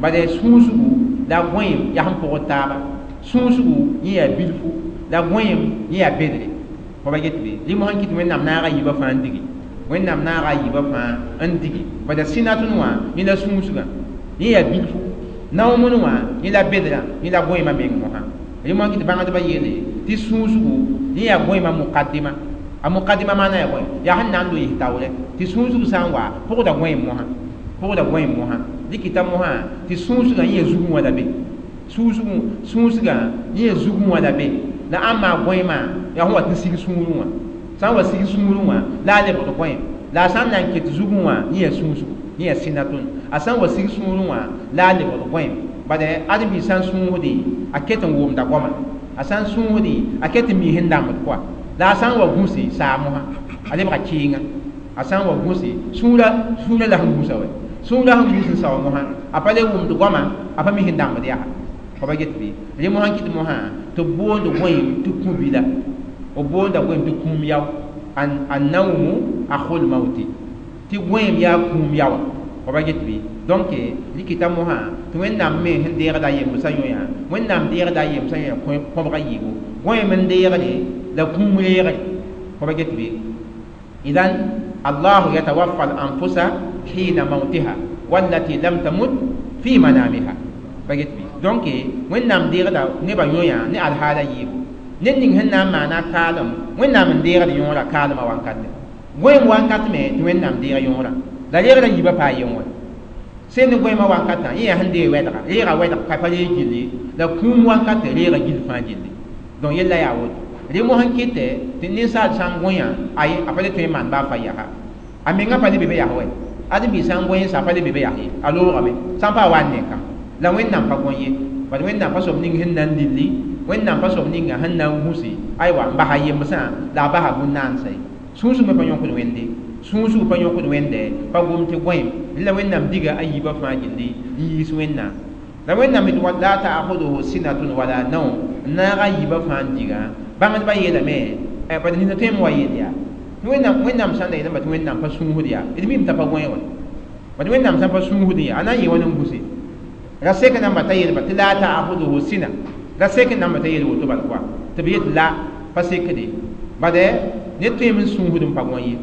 bad sũusgu la gõeem yaa sẽn pʋgd taaba sũusgu yẽ yaa bilfu la gõeem yẽ yaa bedre fo ba get bɩ rẽ mosã n kɩt Wẽnnaam naaga yiibã fãa n digi Wẽnnaam naaga yiibã fãa n digi bad sinatun wã yẽ la sũusgã yẽ yaa bilfu nawmun wã yẽ la bedrã yẽ la gõeemã meng mosã rẽ mosã kɩt bãngdbã yeele tɩ sũusgu yẽ yaa gõeemã muqaddima a muqaddima maana yaa bõe yaa sẽn na n loɩs taoorɛ tɩ sũusg sã n wa pʋgda gõeem mosã pʋgda gõeem mosã dɩkɩta mosã tɩ sũusgã yẽ yaa zugẽ wã la be sũusgã yẽ yaa zugẽ wã la be la ãmb maa gõeemã yaa sẽn wat n sig sũurẽ wã sã n wa sig sũurẽ wã la a lebgd gõeem la a sã n na n ket zugẽ wã yẽ yaa sũusgu yẽ yaa sinatun a sã n wa sig sũurẽ wã la a lebgd gõeem bad ãdem-biig sã n sũusde a ket n wʋmda goama a sã n sũusde a ket n mi sẽn dãmbd pʋga la a sã n wa gũse saa mosã a lebga kɩɩnga a sã n wa gũse sũurã la sẽn gũsa wa sũurã sẽn gũs n sao mosã a pa le wʋmd goama a pa mi sẽn dãmbd yaa fo ba get bɩ rẽ mosã n kɩt mosã tɩ b boond gõeem tɩ kũ-bila b boonda gõeem tɩ kũum yao a naumu akhul mauti tɩ gõeem yaa kũum yaoa fo ba get bɩ donc rɩkɩta mosã tɩ Wẽnnaam me sẽn deegda a yembsã yõ yaa Wẽnnaam deegda a yembsã yõ yaa kõbga yiibu gõeem n deegde la kũum reegre fo ba get bɩ idan Allahu yatawaffa al-anfusa hina mautiha wallati lam tamut fi manamiha. Pa get bɩ? Donc Wẽnnaam deegda nebã yõ-yã ne alhaala yiibu. Ned ning sẽn na n maana kaalem, Wẽnnaam n deegd yõorã kaalmã wankate. Goeem wakat me tɩ Wẽnnaam deeg yõorã. La reegda yiibã paa yen wã. Sẽn ne goeemã wankatã, yẽ yaa sẽn deeg wɛdga, reega wɛdg ka pa reeg gilli, la kũum wankate reega gill fãa gilli. Donc yella yaa woto. Rẽ mosã n kɩtɛ tɩ ninsaal sã n gõe ay a pa le tõe n maan baa fa yaa. A menga pa le be be yaa wɛ. Ãdem-biig sã n gõe n sa a pa le be be yaa ye. A loogame. Sã n pa wa n ne kã. La Wẽnnaam pa gõe ye. Bad Wẽnnaam pa soab ning sẽn na n lilli, Wẽnnaam pa soab ninga sẽn na n gũsi, aywa n basa yemsã la a basa bũn-naansã ye. Sũusg me pa yõkd Wẽnde. Sũusg pa yõkd Wẽnde, pa gom tɩ gõeem. La Wẽnnaam diga a yiibã fãa gilli n yiis Wẽnnaam. La Wẽnnaam tɩ la ta'khudhuhu sinatun wala nawm, n naag a yiibã fãa n diga. Bãngdbã yeelame, bad nina tõe n wa yeel yaa. Wẽnnaam sã n da yeelame tɩ Wẽnnaam pa sũusd yaa, d mim t'a pa gõe wã. Bad Wẽnnaam sã n pa sũusd yaa, a na n yɩ wãn n gũse. Ra sek namba t'a yeelba tɩ la ta'khudhuhu sina. Ra sek namba t'a yeel woto bal koa. Tɩ b yet la pa sekde. Bad ned tõeme n sũusd n pa gõe ye.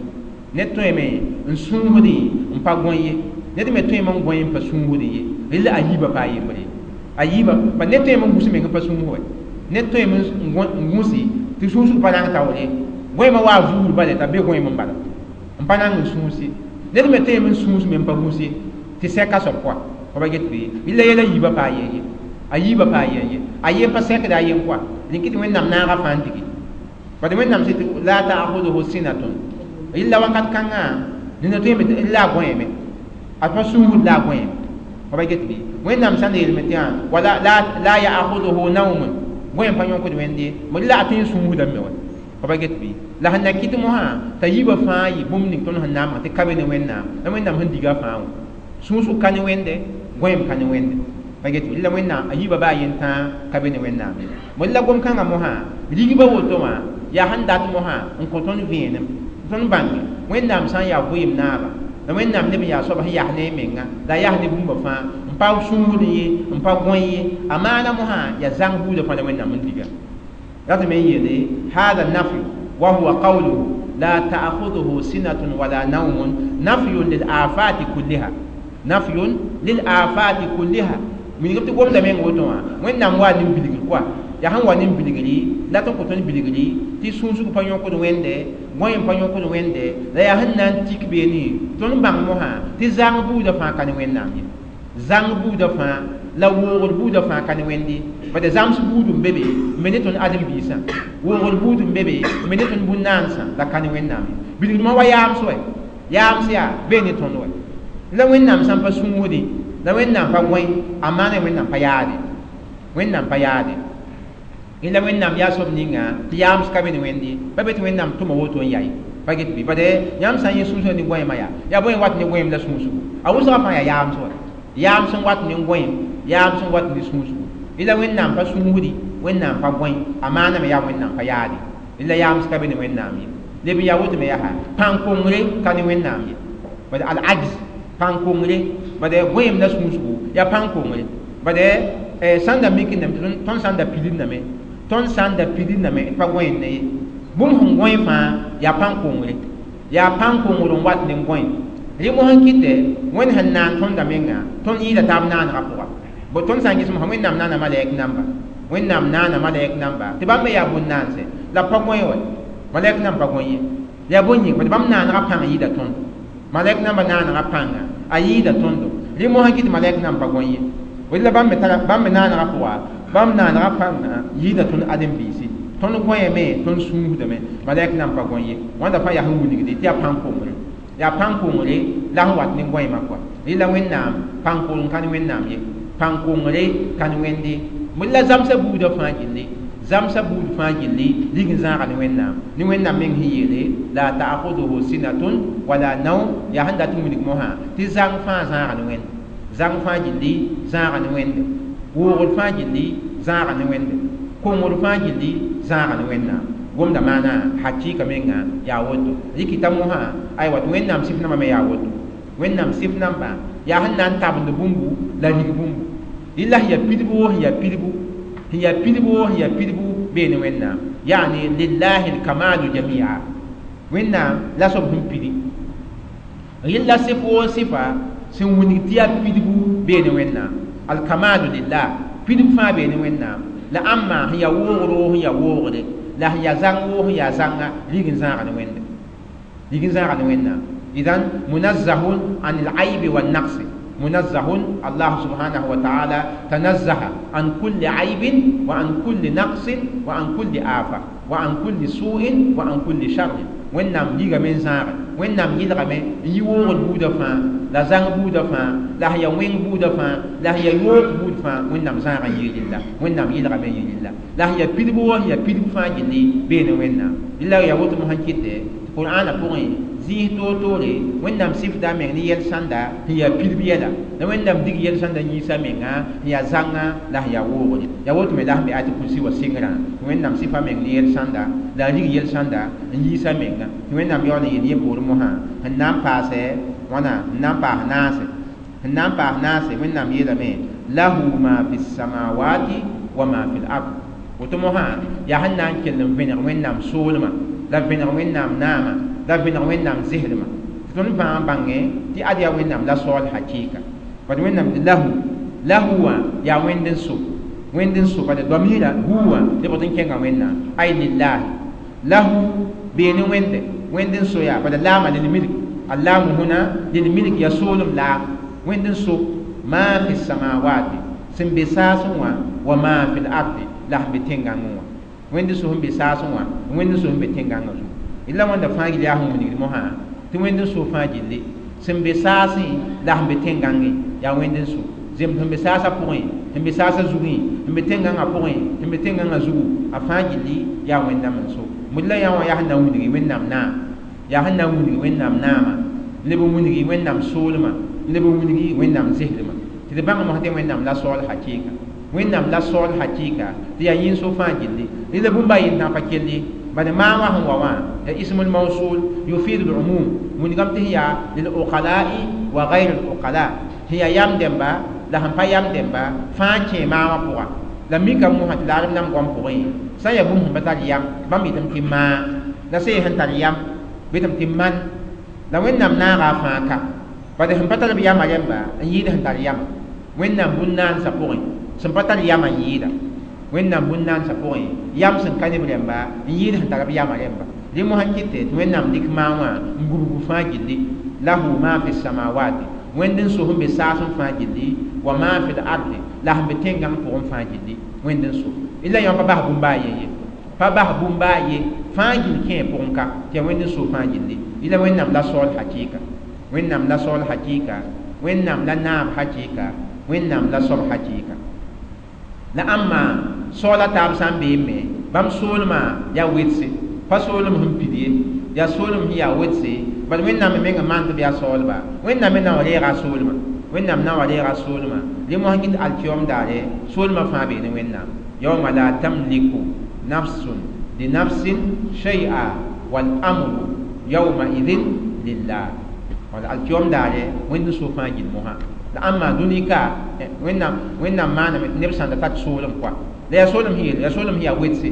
Ned tõeme n sũusd n pa gõe ye. Ned me tõeme n gõe n pa sũusd ye. Rɩla a yiibã pa yembre. A yiibã, bad ned tõeme n gũs meng n pa sũus wɛ. Ned tõeme n gũsi tɩ sũusg pa rãng taoor ye. Gõeemã wa vuur bala t'a be gõeem n bala. N pa rãng n sũusi. Ned me tõeme n sũus me n pa gũs ye. Tɩ sɛka soab koa. Fa ba get bɩ? Rɩla yɛla yiibã pa ye ye. A yiibã pa ye ye. A yen pa sɛkda a yen koa. Rẽn kɩ tɩ Wẽnnaam naaga fãa n digi. Bad Wẽnnaam sɩ tɩ la ta'khudhuhu sinatun. Rɩla wakat kãngã nina tõeme tɩ la a gõeeme. A pa sũusd la a gõeeme. Fa ba get bɩ? Wẽnnaam sã n yeelame tɩ wala la ya'khudhuhu nawmun. Gõeem pa yõkd Wẽnde. Rɩla a tõe n sũusdame wã. Fa ba get bɩ? La sẽn na kɩt mosã t'a yiibã fãa yɩ bũmb ning tõnd sẽn na n maan tɩ ka be ne Wẽnnaam. La Wẽnnaam sẽn diga fãa wã. Sũusg ka ne Wẽnde, gõeem ka ne Wẽnde. Pa get bɩ? La Wẽnnaam a yiibã baa yen tãa ka be ne Wẽnnaam ye. La gom-kãngã mosã rigba woto wã yaa sẽn dat mosã n kõ tõnd vẽenem. Tõnd bãnge Wẽnnaam sã n yaa vɩɩm naaba, la Wẽnnaam neb n yaa soab sẽn yas ne a menga, la a yas ne bũmba fãa, n pa sũusd ye, n pa gõe ye, a maana mosã yaa zãng buudã fãa la Wẽnnaam n diga. Ratame n yeele hada nafyu wa huwa qawluhu la ta'khudhuhu sinatun wala nawmun nafyun lil afati kulliha. Nafyun lil afati kulliha. Wilgm tɩ gomda meng woto wã, Wẽnnaam wa nin-bilgr koa. Yaa sẽn wa nin-bilgri, la tõnd kõ tõnd bilgri tɩ sũusg pa yõkd Wẽnde, gõeem pa yõkd Wẽnde, la yaa sẽn na n tik beene tõnd bãng mosã tɩ zãng buudã fãa ka ne Wẽnnaam ye. Zãng buudã fãa la woogr buudã fãa ka ne Wẽnde. Bad zãms buud n be be n be ne tõnd ãdem-biisã. Woogr buud n be be n be ne tõnd bũn-naansã, la ka ne Wẽnnaam ye. Bilgdmã wa yaams wɛ. Yaams yaa bee ne tõnd wɛ. La Wẽnnaam sã n pa sũusdẽ, la Wẽnnaam pa gõe, a maana Wẽnnaam pa yaade. Wẽnnaam pa yaade. La Wẽnnaam yaa soab ninga tɩ yaams ka be ne Wẽnde. Pa be tɩ Wẽnnaam tʋma woto n yaa ye. Pa get bɩ? Bad yãmb sã n yẽ sũusgã ne gõeemã yaa, yaa bõe n wat ne gõeem la sũusgo? A wʋsgã fãa yaa yaams wã. Yaams n wat ne gõeem, yaams n wat ne sũusgo. La Wẽnnaam pa sũusdi, Wẽnnaam pa gõe, a maaname yaa Wẽnnaam pa yaade. La yaams ka be ne Wẽnnaam ye. Leb n yaa woto me yaa pãn-kongre ka ne Wẽnnaam ye. Bad al-ajz pãn-kongre, bad gõeem la sũusgo yaa pãn-kongre. Bad sãn da mikindame tɩ tõnd sã n da pilindame, tõnd sã n da pilindame d pa gõeend ye. Bũmb sẽn gõe fãa yaa pãn-kongre. Yaa pãn-kongr n wat ne gõe. Rẽ mosã n kɩtɛ Wẽnd sẽn naan tõnda menga, tõnd yɩɩda taab naanegã pʋga. Bo tõnd sã n ges mosã Wẽnnaam naana malɛk namba. Wẽnnaam naana malɛk namba tɩ bãmb me yaa bũn-naanse. La pa gõe wɛ. Malɛk namba pa gõe ye. Yaa bõe yĩng? Bad bãmb naanegã pãng yɩɩda tõndo. Malɛk namba naanegã pãnga a yɩɩda tõndo. Rẽ mosã kɩ tɩ malɛk namba pa gõe ye. La bãmb me tara bãmb me naanegã pʋga, bãmb naanegã pãnga yɩɩda tõnd ãdem-biisi. Tõnd gõeeme, tõnd sũusdame, malɛk namba pa gõe ye. Wãnda fãa yaa sẽn wilgde tɩ yaa pãn-kongre. Yaa pãn-kongre la sẽn wat ne gõeemã koa. Rẽ la Wẽnnaam pãn-kongr ka ne Wẽnnaam ye. Pãn-kongre ka ne Wẽnde. La zãmsã buudã fãa gilli. Zãmsã buud fãa gilli lig n zãaga ne Wẽnnaam. Ne Wẽnnaam meng sẽn yeele la ta'khudhuhu sinatun wala nawm, yaa sẽn dat n wilg mosã tɩ zãng fãa zãaga ne Wẽnde. Zãng fãa gilli zãaga ne Wẽnde. Woogr fãa gilli zãaga ne Wẽnde. Kongr fãa gilli zãaga ne Wẽnnaam. Gomda maana hakɩɩka menga yaa woto. Rɩkɩta mosã aywa tɩ Wẽnnaam sɩf nambã me yaa woto. Wẽnnaam sɩf nambã yaa sẽn na n tabend bũmbu la rig bũmbu. Rɩla sẽn yaa pidbu wo sẽn yaa pidbu, sẽn yaa pidbu wo sẽn yaa pidbu bee ne Wẽnnaam. Yaani lillahi lkamalu jamia. Wẽnnaam la soab sẽn pidi. Rɩla sɩf woo sɩfa sẽn wilg tɩ yaa pidbu bee ne Wẽnnaam. Alkamalu lillah, pidb fãa bee ne Wẽnnaam. La ãmma sẽn yaa woogr woo sẽn yaa woogre, la sẽn yaa zãng woo sẽn yaa zãnga, rig n zãaga ne Wẽnde, rig n zãaga ne Wẽnnaam. Idan munazzahun an al-aybi wan-naqsi. Munazzahun Allah subhanahu wa ta'ala tanazzaha an kulli aybin wa an kulli naqsin wa an kulli afa wa an kulli su'in wa an kulli sharrin. Wẽnnaam ligame n zãage, Wẽnnaam yɩlgame n yi woogd buudã fãa, la zãng buudã fãa, la sẽn yaa wẽng buudã fãa, la sẽn yaa yoog buud fãa, Wẽnnaam zãaga n yɩ rɩlla, Wẽnnaam yɩlgame n yɩ rɩlla. La sẽn yaa pidb woo sẽn yaa pidb fãa gilli bee ne Wẽnnaam. Rɩla yaa woto mosã kɩtɛ tɩ Qur'aanã pʋgẽ zĩis toor-toore Wẽnnaam sɩfda a meng ne yɛl-sãnda sẽn yaa pidb yɛla, la Wẽnnaam dig yɛl-sãnda yĩsa menga sẽn yaa zãnga la sẽn yaa woogre. Yaa woto me la sẽn be ayat kursi wã sɩngrã, tɩ Wẽnnaam sɩfa meng ne yɛl-sãnda la a rig yɛl-sãnda n yiisa menga. Tɩ Wẽnnaam yaool n yeel yẽ poorẽ mosã sẽn na n paasɛ wãna, sẽn na n paas naase, sẽn na n paas naase. Wẽnnaam yeelame lahu ma fi samawati wa ma fi l-ard. Woto mosã yaa sẽn na n kell n vẽneg Wẽnnaam soolmã, la vẽneg Wẽnnaam naamã, la vẽneg Wẽnnaam zɩslmã. Tɩ tõnd fãa bãngẽ tɩ ad yaa Wẽnnaam la saool hakɩɩka. Bad Wẽnnaam tɩ lahu, lahu wã yaa Wẽnd n so, Wẽnd n so, bad doamɩɩra hu wã lebg n kẽnga Wẽnnaam. Ay lillahi lahu bee ne Wẽnde, Wẽnd n so yaa, bad laama lilmilk, allaamu huna lilmilk yaa soolem laam. Wẽnd n so ma fi samawati sẽn be saasẽ wã, wa ma fi l-ardi la sẽn be tẽn-gãngẽ wã. Wẽnd n so sẽn be saasẽ wã, Wẽnd n so sẽn be tẽn-gãngã zugu. La wẽnda fãa gil yaa sẽn wilgd mosã tɩ Wẽnd n so fãa gilli sẽn be saasẽ la sẽn be tẽn-gãngẽ yaa Wẽnd n so. Zems sẽn be saasã pʋgẽ, sẽn be saasã zugẽ, sẽn be tẽn-gãngã pʋgẽ, sẽn be tẽn-gãngã zugu, a fãa gilli yaa Wẽnnaam n so. Mud la yã wã yaa sẽn na n wilgi Wẽnnaam naam, yaa sẽn na n wilgi Wẽnnaam naamã, leb n wilgi Wẽnnaam soolmã, leb n wilgi Wẽnnaam zɩslmã. Tɩ d bãng mosã tɩ Wẽnnaam la saool hakɩɩka, Wẽnnaam la saool hakɩɩka, tɩ yaa yĩn-so fãa gilli. Rɩla bũmb a yentãg pa kell ye, bad maa wã sẽn wa wã ya ismul mawsul yufidu al-umum, wilgame tɩ sẽn yaa lil-uqala'i wa ghayr al-uqala, sẽn yaa yam dẽmba la sẽn pa yam dẽmba fãa kẽ maa wã pʋga. La mika mosã tɩ la rem-dãmb goam pʋgẽ sã n yaa bũmb sẽn pa tar yam bãmb yetame tɩ maa, la sã n yaa sẽn tar yam bɩ tɩ man. La Wẽnnaam naaga a fãa ka, bad sẽn pa tar b yamã rẽmba n yɩɩd sẽn tar yamã. Wẽnnaam bũn-naansã pʋgẽ sẽn pa tar yamã n yɩɩda, Wẽnnaam bũn-naansã pʋgẽ yam sẽn ka ne b rẽmba n yɩɩd sẽn tar b yamã rẽmba. Rẽ mosã kɩtɛ tɩ Wẽnnaam dɩk maa wã n gubg fãa gilli. Lahu ma fi samawati, Wẽnd n so sẽn be saasẽ fãa gilli, wa ma fi l-ardi la sẽn be tẽn-gãng pʋgẽ fãa gilli, Wẽnd n so. La yã pa bas bũmb a ye ye, pa bas bũmb a ye fãa gill kẽ pʋgẽ ka, tɩ yaa Wẽnd n so fãa gilli. La Wẽnnaam la saool hakɩɩka, Wẽnnaam la saool hakɩɩka, Wẽnnaam la naab hakɩɩka, Wẽnnaam la soab hakɩɩka. La ãmma saoola taab sã n beem me, bãmb soolmã yaa wedse, pa soolem sẽn pid ye, yaa soolem sẽn yaa wedse. Bad Wẽnnaam me menga maan tɩ b yaa saoolba, Wẽnnaam me na n wa reega a soolmã, Wẽnnaam na n wa reega a soolmã. Rẽ mosã kɩt alkiyom daare soolmã fãa bee ne Wẽnnaam. Yawma la tamliku nafsun li nafsin shay'a wal amru yawma idhin lillah. Wala alkiyom daare Wẽnd n so fãa gil mosã. La ãmma dũni ka Wẽnnaam maaname tɩ neb sãn da tar soolem koa, la yaa soolem sẽn yeel, yaa soolem sẽn yaa wedse,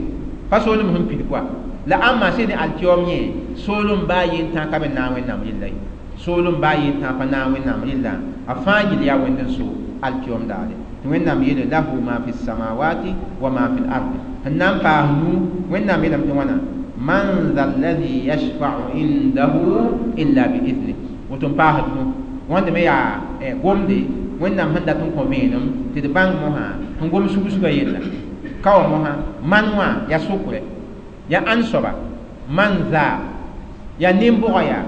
pa soolem sẽn pid koa. La ãmma sẽn ne alkiyom yẽ soolem baa yentã ka be naag Wẽnnaam rɩlla ye, soolem baa yentã pa naag Wẽnnaam rɩlla, a fãa gil yaa Wẽnd n so alkiyom daare. Tɩ Wẽnnaam yeele lahu ma fi samawati wa ma fi l-ardi. Sẽn na n paas nu Wẽnnaam yeelame tɩ wãna man dha alladhi yashfa'u indahu illa bi idhnih. Woto n paasd nu wãnde me yaa gomde Wẽnnaam sẽn dat n kõ vẽenem tɩ d bãng mosã sẽn gom sug-sugã yella. Ka wa mosã man wã yaa sʋkrɛ, yaa ãn soaba man za yaa nin-bʋga yaa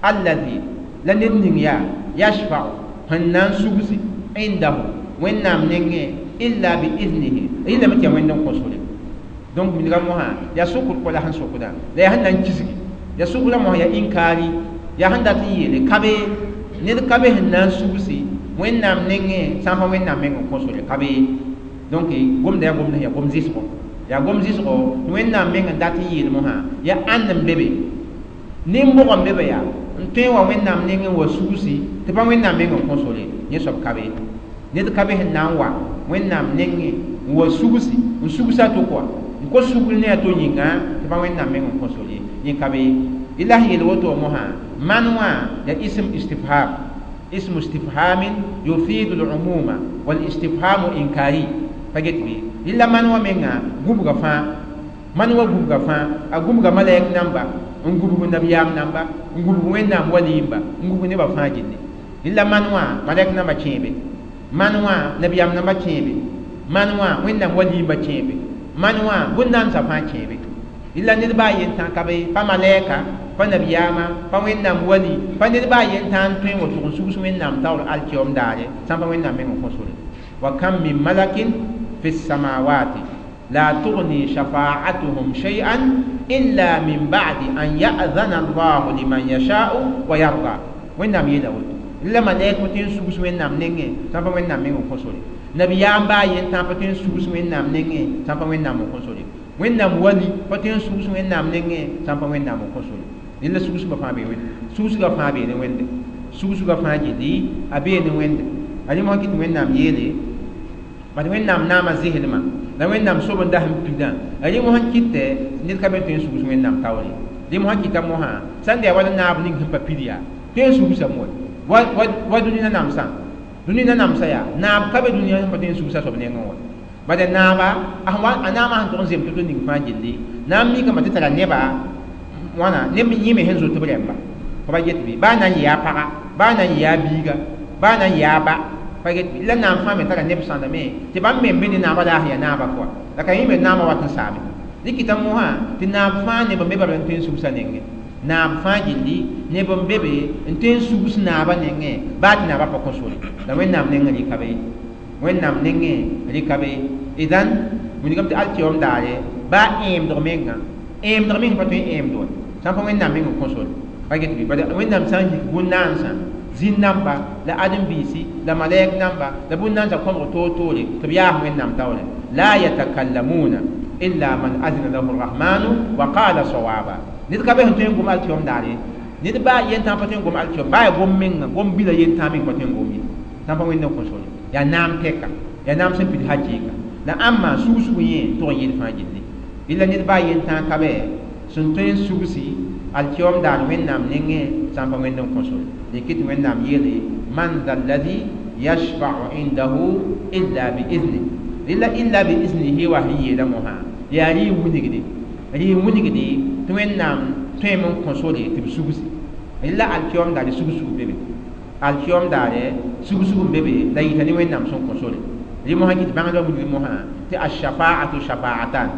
alladhi la ned ning yaa yashfa'u sẽn na n sugsi indahu Wẽnnaam nengẽ illa bi idhnihi, rɩlame tɩ yaa Wẽnd n kõ sore. Donc wilga mosã yaa sʋkr kɔ la sẽn sʋkdã, la yaa sẽn na n kisgi, yaa sʋkrã mosã yaa inkaari, yaa sẽn dat n yeele ka be ned ka be sẽn na n sugsi Wẽnnaam nengẽ sã n pa Wẽnnaam meng n kõ sore ka be. Donc gomda yaa gomd sẽn yaa gom zɩsgo, yaa gom zɩsgo tɩ Wẽnnaam meng n dat n yeel mosã yaa ãnd n be be, nin-bʋg n be be yaa n tõe n wa Wẽnnaam nengẽ wa sugsi tɩ pa Wẽnnaam meng n kõ sore, yẽ soab ka be. Ned ka be sẽn na n wa Wẽnnaam nengẽ n wa sugsi n sugsa to koa n kos sugr ne a to yĩnga tɩ pa Wẽnnaam meng n kõ sore, yẽ ka be. La sẽn yeel woto mosã Man wã ya ism istifham, ismu istifhamin yufidu al-umuma wal istifhamu inkari. Pa get bɩ? Rɩla man wã menga gũbga fãa, man wã gũbga fãa, a gũbga malɛk namba, n gũbg nabiyaam namba, n gũbg Wẽnnaam waliimba, n gũbg nebã fãa gilli. Rɩla man wã malɛk namba kẽebe, man wã nabiyaam namba kẽebe, man wã Wẽnnaam waliimba kẽebe, man wã bũn-nansã fãa kẽebe. Rɩla ned baa yen tã ka be, pa malɛka, pa nabiyaama, pa Wẽnnaam wali, pa ned baa yen tã n tõe n woto n sugs Wẽnnaam taoor alkiom daare sã n pa Wẽnnaam meng n kõ sore. Wa kam min malakin fi samawati la tughni shafa'atuhum shay'an illa min ba'di an ya'zana Allahu liman yasha'u wa yarda. Wẽnnaam yeela woto. Rɩla malɛk pa tõe n sugs Wẽnnaam nengẽ sã n pa Wẽnnaam meng n kõ sore. Nabiyaam baa yen tã pa tõe n sugs Wẽnnaam nengẽ sã n pa Wẽnnaam n kõ sore. Wẽnnaam wali pa tõe n sugs Wẽnnaam nengẽ sã n pa Wẽnnaam n kõ sore. Rẽla sugsgã fãa bee Wẽnde, sugsgã fãa bee ne Wẽnde, sugsgã fãa gilli a bee ne Wẽnde. A rẽ mosã kɩ tɩ Wẽnnaam yeele bad Wẽnnaam naama zɩslmã la Wẽnnaam sob n das n pidã. A rẽ mosã kɩtɛ ned ka be tõe n sugs Wẽnnaam taoore. Rẽ mosã kɩta mosã sã n da yaa wala naab ning sẽn pa pid yaa tõe n sugsa moe wa dũni nanamsã, dũni nanamsã yaa naab ka be dũniyã sẽn pa tõe n sugsa soab nengẽ wã. Bala naaba a naamã sẽn tʋg n zem to-to ning fãa gilli naam mikame tɩ tara neba wãna neb yẽme sẽn zoet b rẽmba. Pa ba get bɩ baa na n yɩ a paga, baa na n yɩ a biiga, baa na n yɩ a ba, pa get bɩ? La naam fãa me tara neb sãndame tɩ bãmb me n be ne naabã la a sẽn yaa naabã pʋga la ka yẽ me naamã wat n saame. Rɩkɩta mosã tɩ naab fãa neb n be bala n tõe n sugsa nengẽ, naab fãa gilli neb n be be n tõe n sugs naabã nengẽ baa tɩ naabã pa kõ sore. La Wẽnnaam nengẽ rɩka be, Wẽnnaam nengẽ rɩka be. Idan wilgame tɩ alkiom daare baa ẽemdg menga, ẽemdg meng pa tõe n ẽemd wa sã n pa Wẽnnaam meng n kõ sore. Pa get bɩ? Bala Wẽnnaam sã n yik bũn-naansã, zĩn-namba la ãdem-biisi la malɛk namba la bũn-naansã kõbg toor-toore tɩ b yaas Wẽnnaam taoore. La yatakallamuna illa man azina lahu rrahmanu wa qala sawaba. Ned ka be sẽn tõe n gom alkiom daare, ned baa yen tã pa tõe n gom alkiom, baa yaa gom menga, gom bila yen tã meng pa tõe n gom ye sã n pa Wẽnd n kõ sore. Yaa naam tɛka, yaa naam sẽn pid hakɩɩka la ãmba sugsg yẽ tʋg n yel fãa gilli. Rɩla ned baa yen tã ka bɛ sẽn tõe n sugsi alkiom daar Wẽnnaam nengẽ sã n pa Wẽnd n kõ sore. Dɩk tɩ Wẽnnaam yeele man dha alladhi yashfa'u indahu illa biizni. Rɩla illa biiznihi wa sẽn yeela mosã yaa rɩ n wilgde, rɩ n wilgde tɩ Wẽnnaam tõeme n kõ sore tɩ b sugsi. Rɩla alkiom daare sugsug be be, alkiom daare sugsug n be be la yita ne Wẽnnaam sẽn kõ sore. Rẽ mosã kɩ tɩ bãngdbã wilg mosã tɩ ashafa'atu shafa'atan.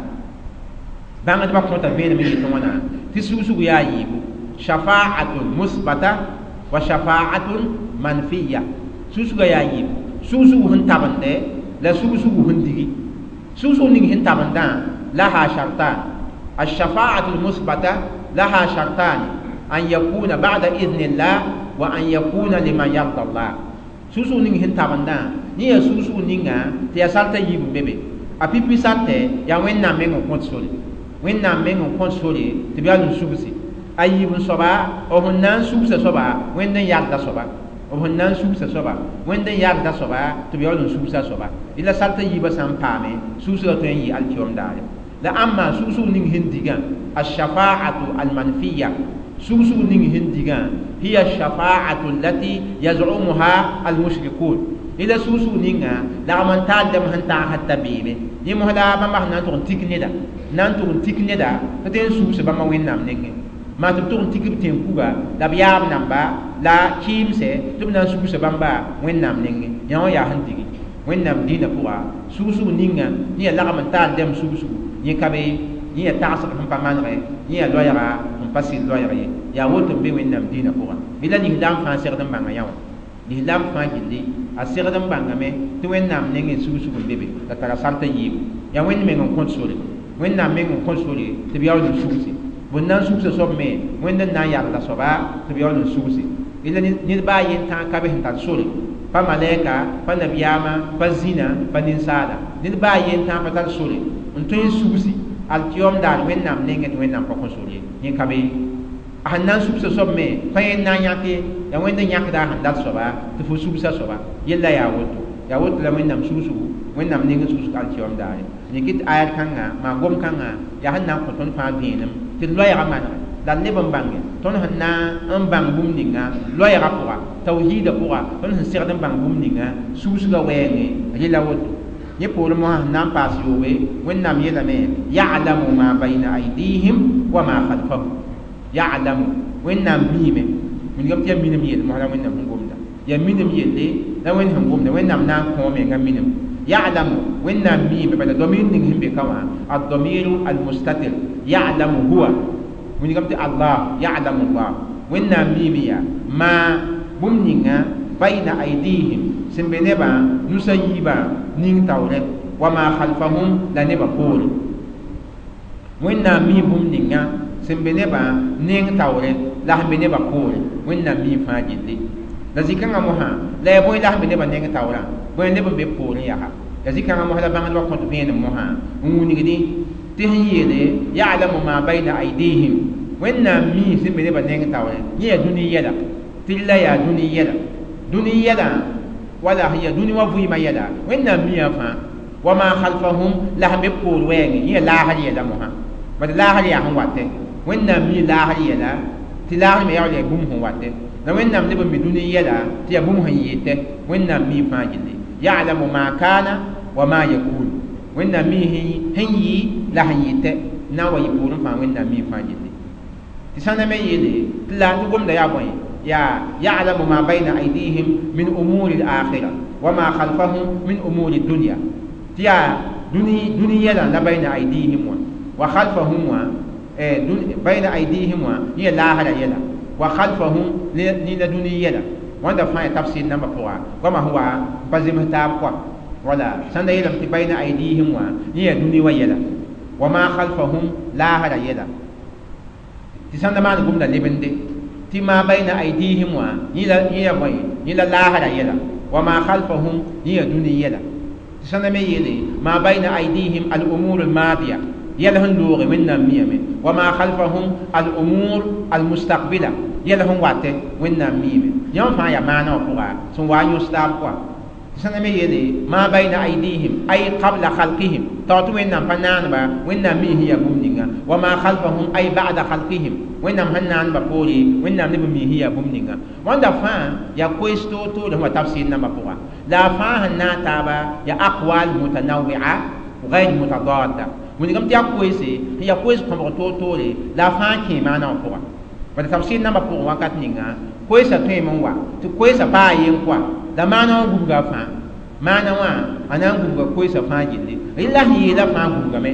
Bãngdbã kõta vẽenem n yetɩ wãna tɩ sugsug yaa yiibu, shafa'atun musbata wa shafa'atun manfiya. Sugsugã yaa yiibu, sugsug sẽn tabende la sugsug sẽn digi. Sugsug ning sẽn tabendã laha shartan. Ashafa'atu lmusbata laha shartani an yakuna ba'da idhnillah wa an yakuna liman yarda Allah. Sugsug ning sẽn tabendã yẽ yaa sugsug ninga tɩ yaa sartã yiib n be be. A pipi sartɛ yaa Wẽnnaam meng n kõt sore, Wẽnnaam meng n kõt sore tɩ b yaa n sugsi. A yiib n soaba b sẽn na n sugsa soaba Wẽnd n yalda soaba, b sẽn na n sugsa soaba Wẽnd n yalda soaba tɩ b yaool n sugsa soaba. Rɩla sartã yiibã sã n paame sugsgã tõe n yɩ alkiom daare. La ãmba sugsg ning sẽn digã ashafa'atu almanfiya, sugsg ning sẽn digã hiya shafa'atu allati yaz'umuha almushrikun. Rɩla sugsg ninga lagm n taal dãmb sẽn tagsd t'a beeme yẽ mos la bãmba sẽn na n tʋg n tik neda, na n tʋg n tik neda tɩ tõe n sugs bãmba Wẽnnaam nengẽ. Maa tɩ b tʋg n tik b tẽn-kuga la b yaab namba la kɩɩmsɛ tɩ b na n sugsa bãmba Wẽnnaam nengẽ. Yã wã yaa sẽn digi Wẽnnaam dĩinã pʋga sugsg ninga yẽ yaa lagm n taal dãmb sugsg yẽ ka be, yẽ yaa tagsg sẽn pa manegɛ, yẽ yaa loɛɛga n pa sɩd loɛɛg ye. Yaa woto n be Wẽnnaam dĩinã pʋga. Rɩla lislaam fãa segd n bãnga yã wã, lislaam fãa gilli a segd n bãngame tɩ Wẽnnaam nengẽ sugsg n be be la tara sartã yiibu. Yaa Wẽnd meng n kõt sore, Wẽnnaam meng n kõt sore tɩ b yaool n sugsi. Bõn na n sugsa soab me Wẽnd n na n yalda soaba tɩ b yaool n sugsi. Rɩla ned baa yen tã ka be sẽn tar sore, pa malɛka, pa nabiyaamã, pa zĩna, pa ninsaala, ned baa yen tã pa tar sore n tõe n sugsi alkiom daar Wẽnnaam nengẽ tɩ Wẽnnaam pa kõ sore ye. Yẽ ka be a sẽn na n sugsa soab me pa yẽnd na n yãk ye, yaa Wẽnd n yãkda a sẽn dat soaba tɩ fo sugsa soaba. Yella yaa woto, yaa woto la Wẽnnaam sugsgu, Wẽnnaam nengẽ sugsg alkiom daare. Yẽ kɩ tɩ ayat kãnga maa gom kãnga yaa sẽn na n kõ tõnd fãa vẽenem tɩ d loɛɛgã manege. La leb n bãnge tõnd sẽn na n bãng bũmb ninga loɛɛgã pʋga tawhiidã pʋga tõnd sẽn segd n bãng bũmb ninga susgã wɛɛngẽ rɩla woto yẽ poorẽ mosã sẽn na n paas yoobe Wẽnnaam yeelame ya'lamu ma bayna aydihim wa ma khalfahum ya'lamu Wẽnnaam miime wilgame tɩ yaa minim yell mosã la Wẽnnaam sẽn gomda yaa minim yelle la Wẽnd sẽn gomda Wẽnnaam na n kõ menga minim ya'lamu Wẽnnaam miime bala domir ning sẽn be ka wã ad-damiru al-mustatir ya'lamu huwa wilgame tɩ Allah ya'lamu Allah Wẽnnaam miime yaa ma bũmb ninga bayna aydihim sẽn be nebã nusa yiibã ning taoore wa ma khalfahum la nebã poore Wẽnnaam mi bũmb ninga sẽn be nebã neng taoore la sẽn be nebã poore Wẽnnaam mi fãa gilli la zĩ-kãngã mosã la yaa bõe la sẽn be nebã neng taoorã bõe neb n be poorẽ yaa la zĩ-kãngã mosã la bãngdbã kõt vẽenem mosã n wilgdi tɩ sẽn yeele ya'lamu ma bayna aydihim Wẽnnaam mi sẽn be nebã neng taoore yẽ yaa dũni yɛla tɩ la yaa dũni yɛla dũni yɛla wala sẽn yaa dũni wã vɩɩmã yɛla Wẽnnaam miã fãa wa ma khalfahum la sẽn be poor wɛɛngẽ yẽ yaa laasr yɛla mosã bad laasr yaa sẽn watɛ Wẽnnaam mi laasr yɛla tɩ laasr me yaool yaa bũmb sẽn watɛ la Wẽnnaam leb n mi dũni yɛla tɩ yaa bũmb sẽn yetɛ Wẽnnaam mi fãa gilli ya'lamu ma kana wa ma yakun Wẽnnaam mi sẽn yɩ la sẽn yetɛ na n wa yɩ poorẽ fãa Wẽnnaam mi fãa gilli tɩ sãnda me yeele tɩ la tɩ gomda yaa bõe yaa ya'lamu ma bayna aydihim min umuri al-akhirah wa ma khalfahum min umuri dunya tɩ yaa dũni yɛla la bayna aydihim wã wa khalfahum wã bayna aydihim wã yẽ laasra yɛla wa khalfahum ne la dũni yɛla wãnda fãa yaa tafsir nambã pʋga goamã sẽn wa n pa zems taab kɔa wala sãn da yeelame tɩ bayna aydihim wã yẽ yaa dũni wã yɛla wa ma khalfahum laasra yɛla tɩ sãn da maan gomda lebende tɩ ma bayna aydihim wã yẽ yaa bõe yẽ la laasra yɛla wa ma khalfahum yẽ yaa dũni yɛla tɩ sãn da me yeele ma bayna aydihim al-umur al-madiya yɛl sẽn looge Wẽnnaam miame wa ma khalfahum al-umur al-mustaqbila yɛl sẽn watɛ Wẽnnaam miime yãmb fãa yaa maana wã pʋga sẽn wa n yõs taab kɔa tɩ sãn da me yeele ma bayna aydihim ay qabla khalqihim tao tɩ Wẽnnaam pa naanba Wẽnnaam mi sẽn yaa bũmb ninga wa ma khalfahum ay ba'da khalqihim Wẽnnaam sẽn naanba poore Wẽnnaam neb n mi sẽn yaa bũmb ninga wãnda fãa yaa koees toor-toore sẽn wa tafsir nambã pʋga la a fãa sẽn naag taaba yaa aqwal mutanawia غير متضادة wilgame tɩ yaa koeese sẽn yaa koees kõbg toor-toore la a fãa kẽe maana wã pʋga bala tafsir nambã pʋgẽ wakat ninga koeesã tõeme n wa tɩ koeesã paa yen kɔa la maana wã gubga fãa maana wã a na n gubga koeesã fãa gilli rɩla sẽn yeela fãa gubgame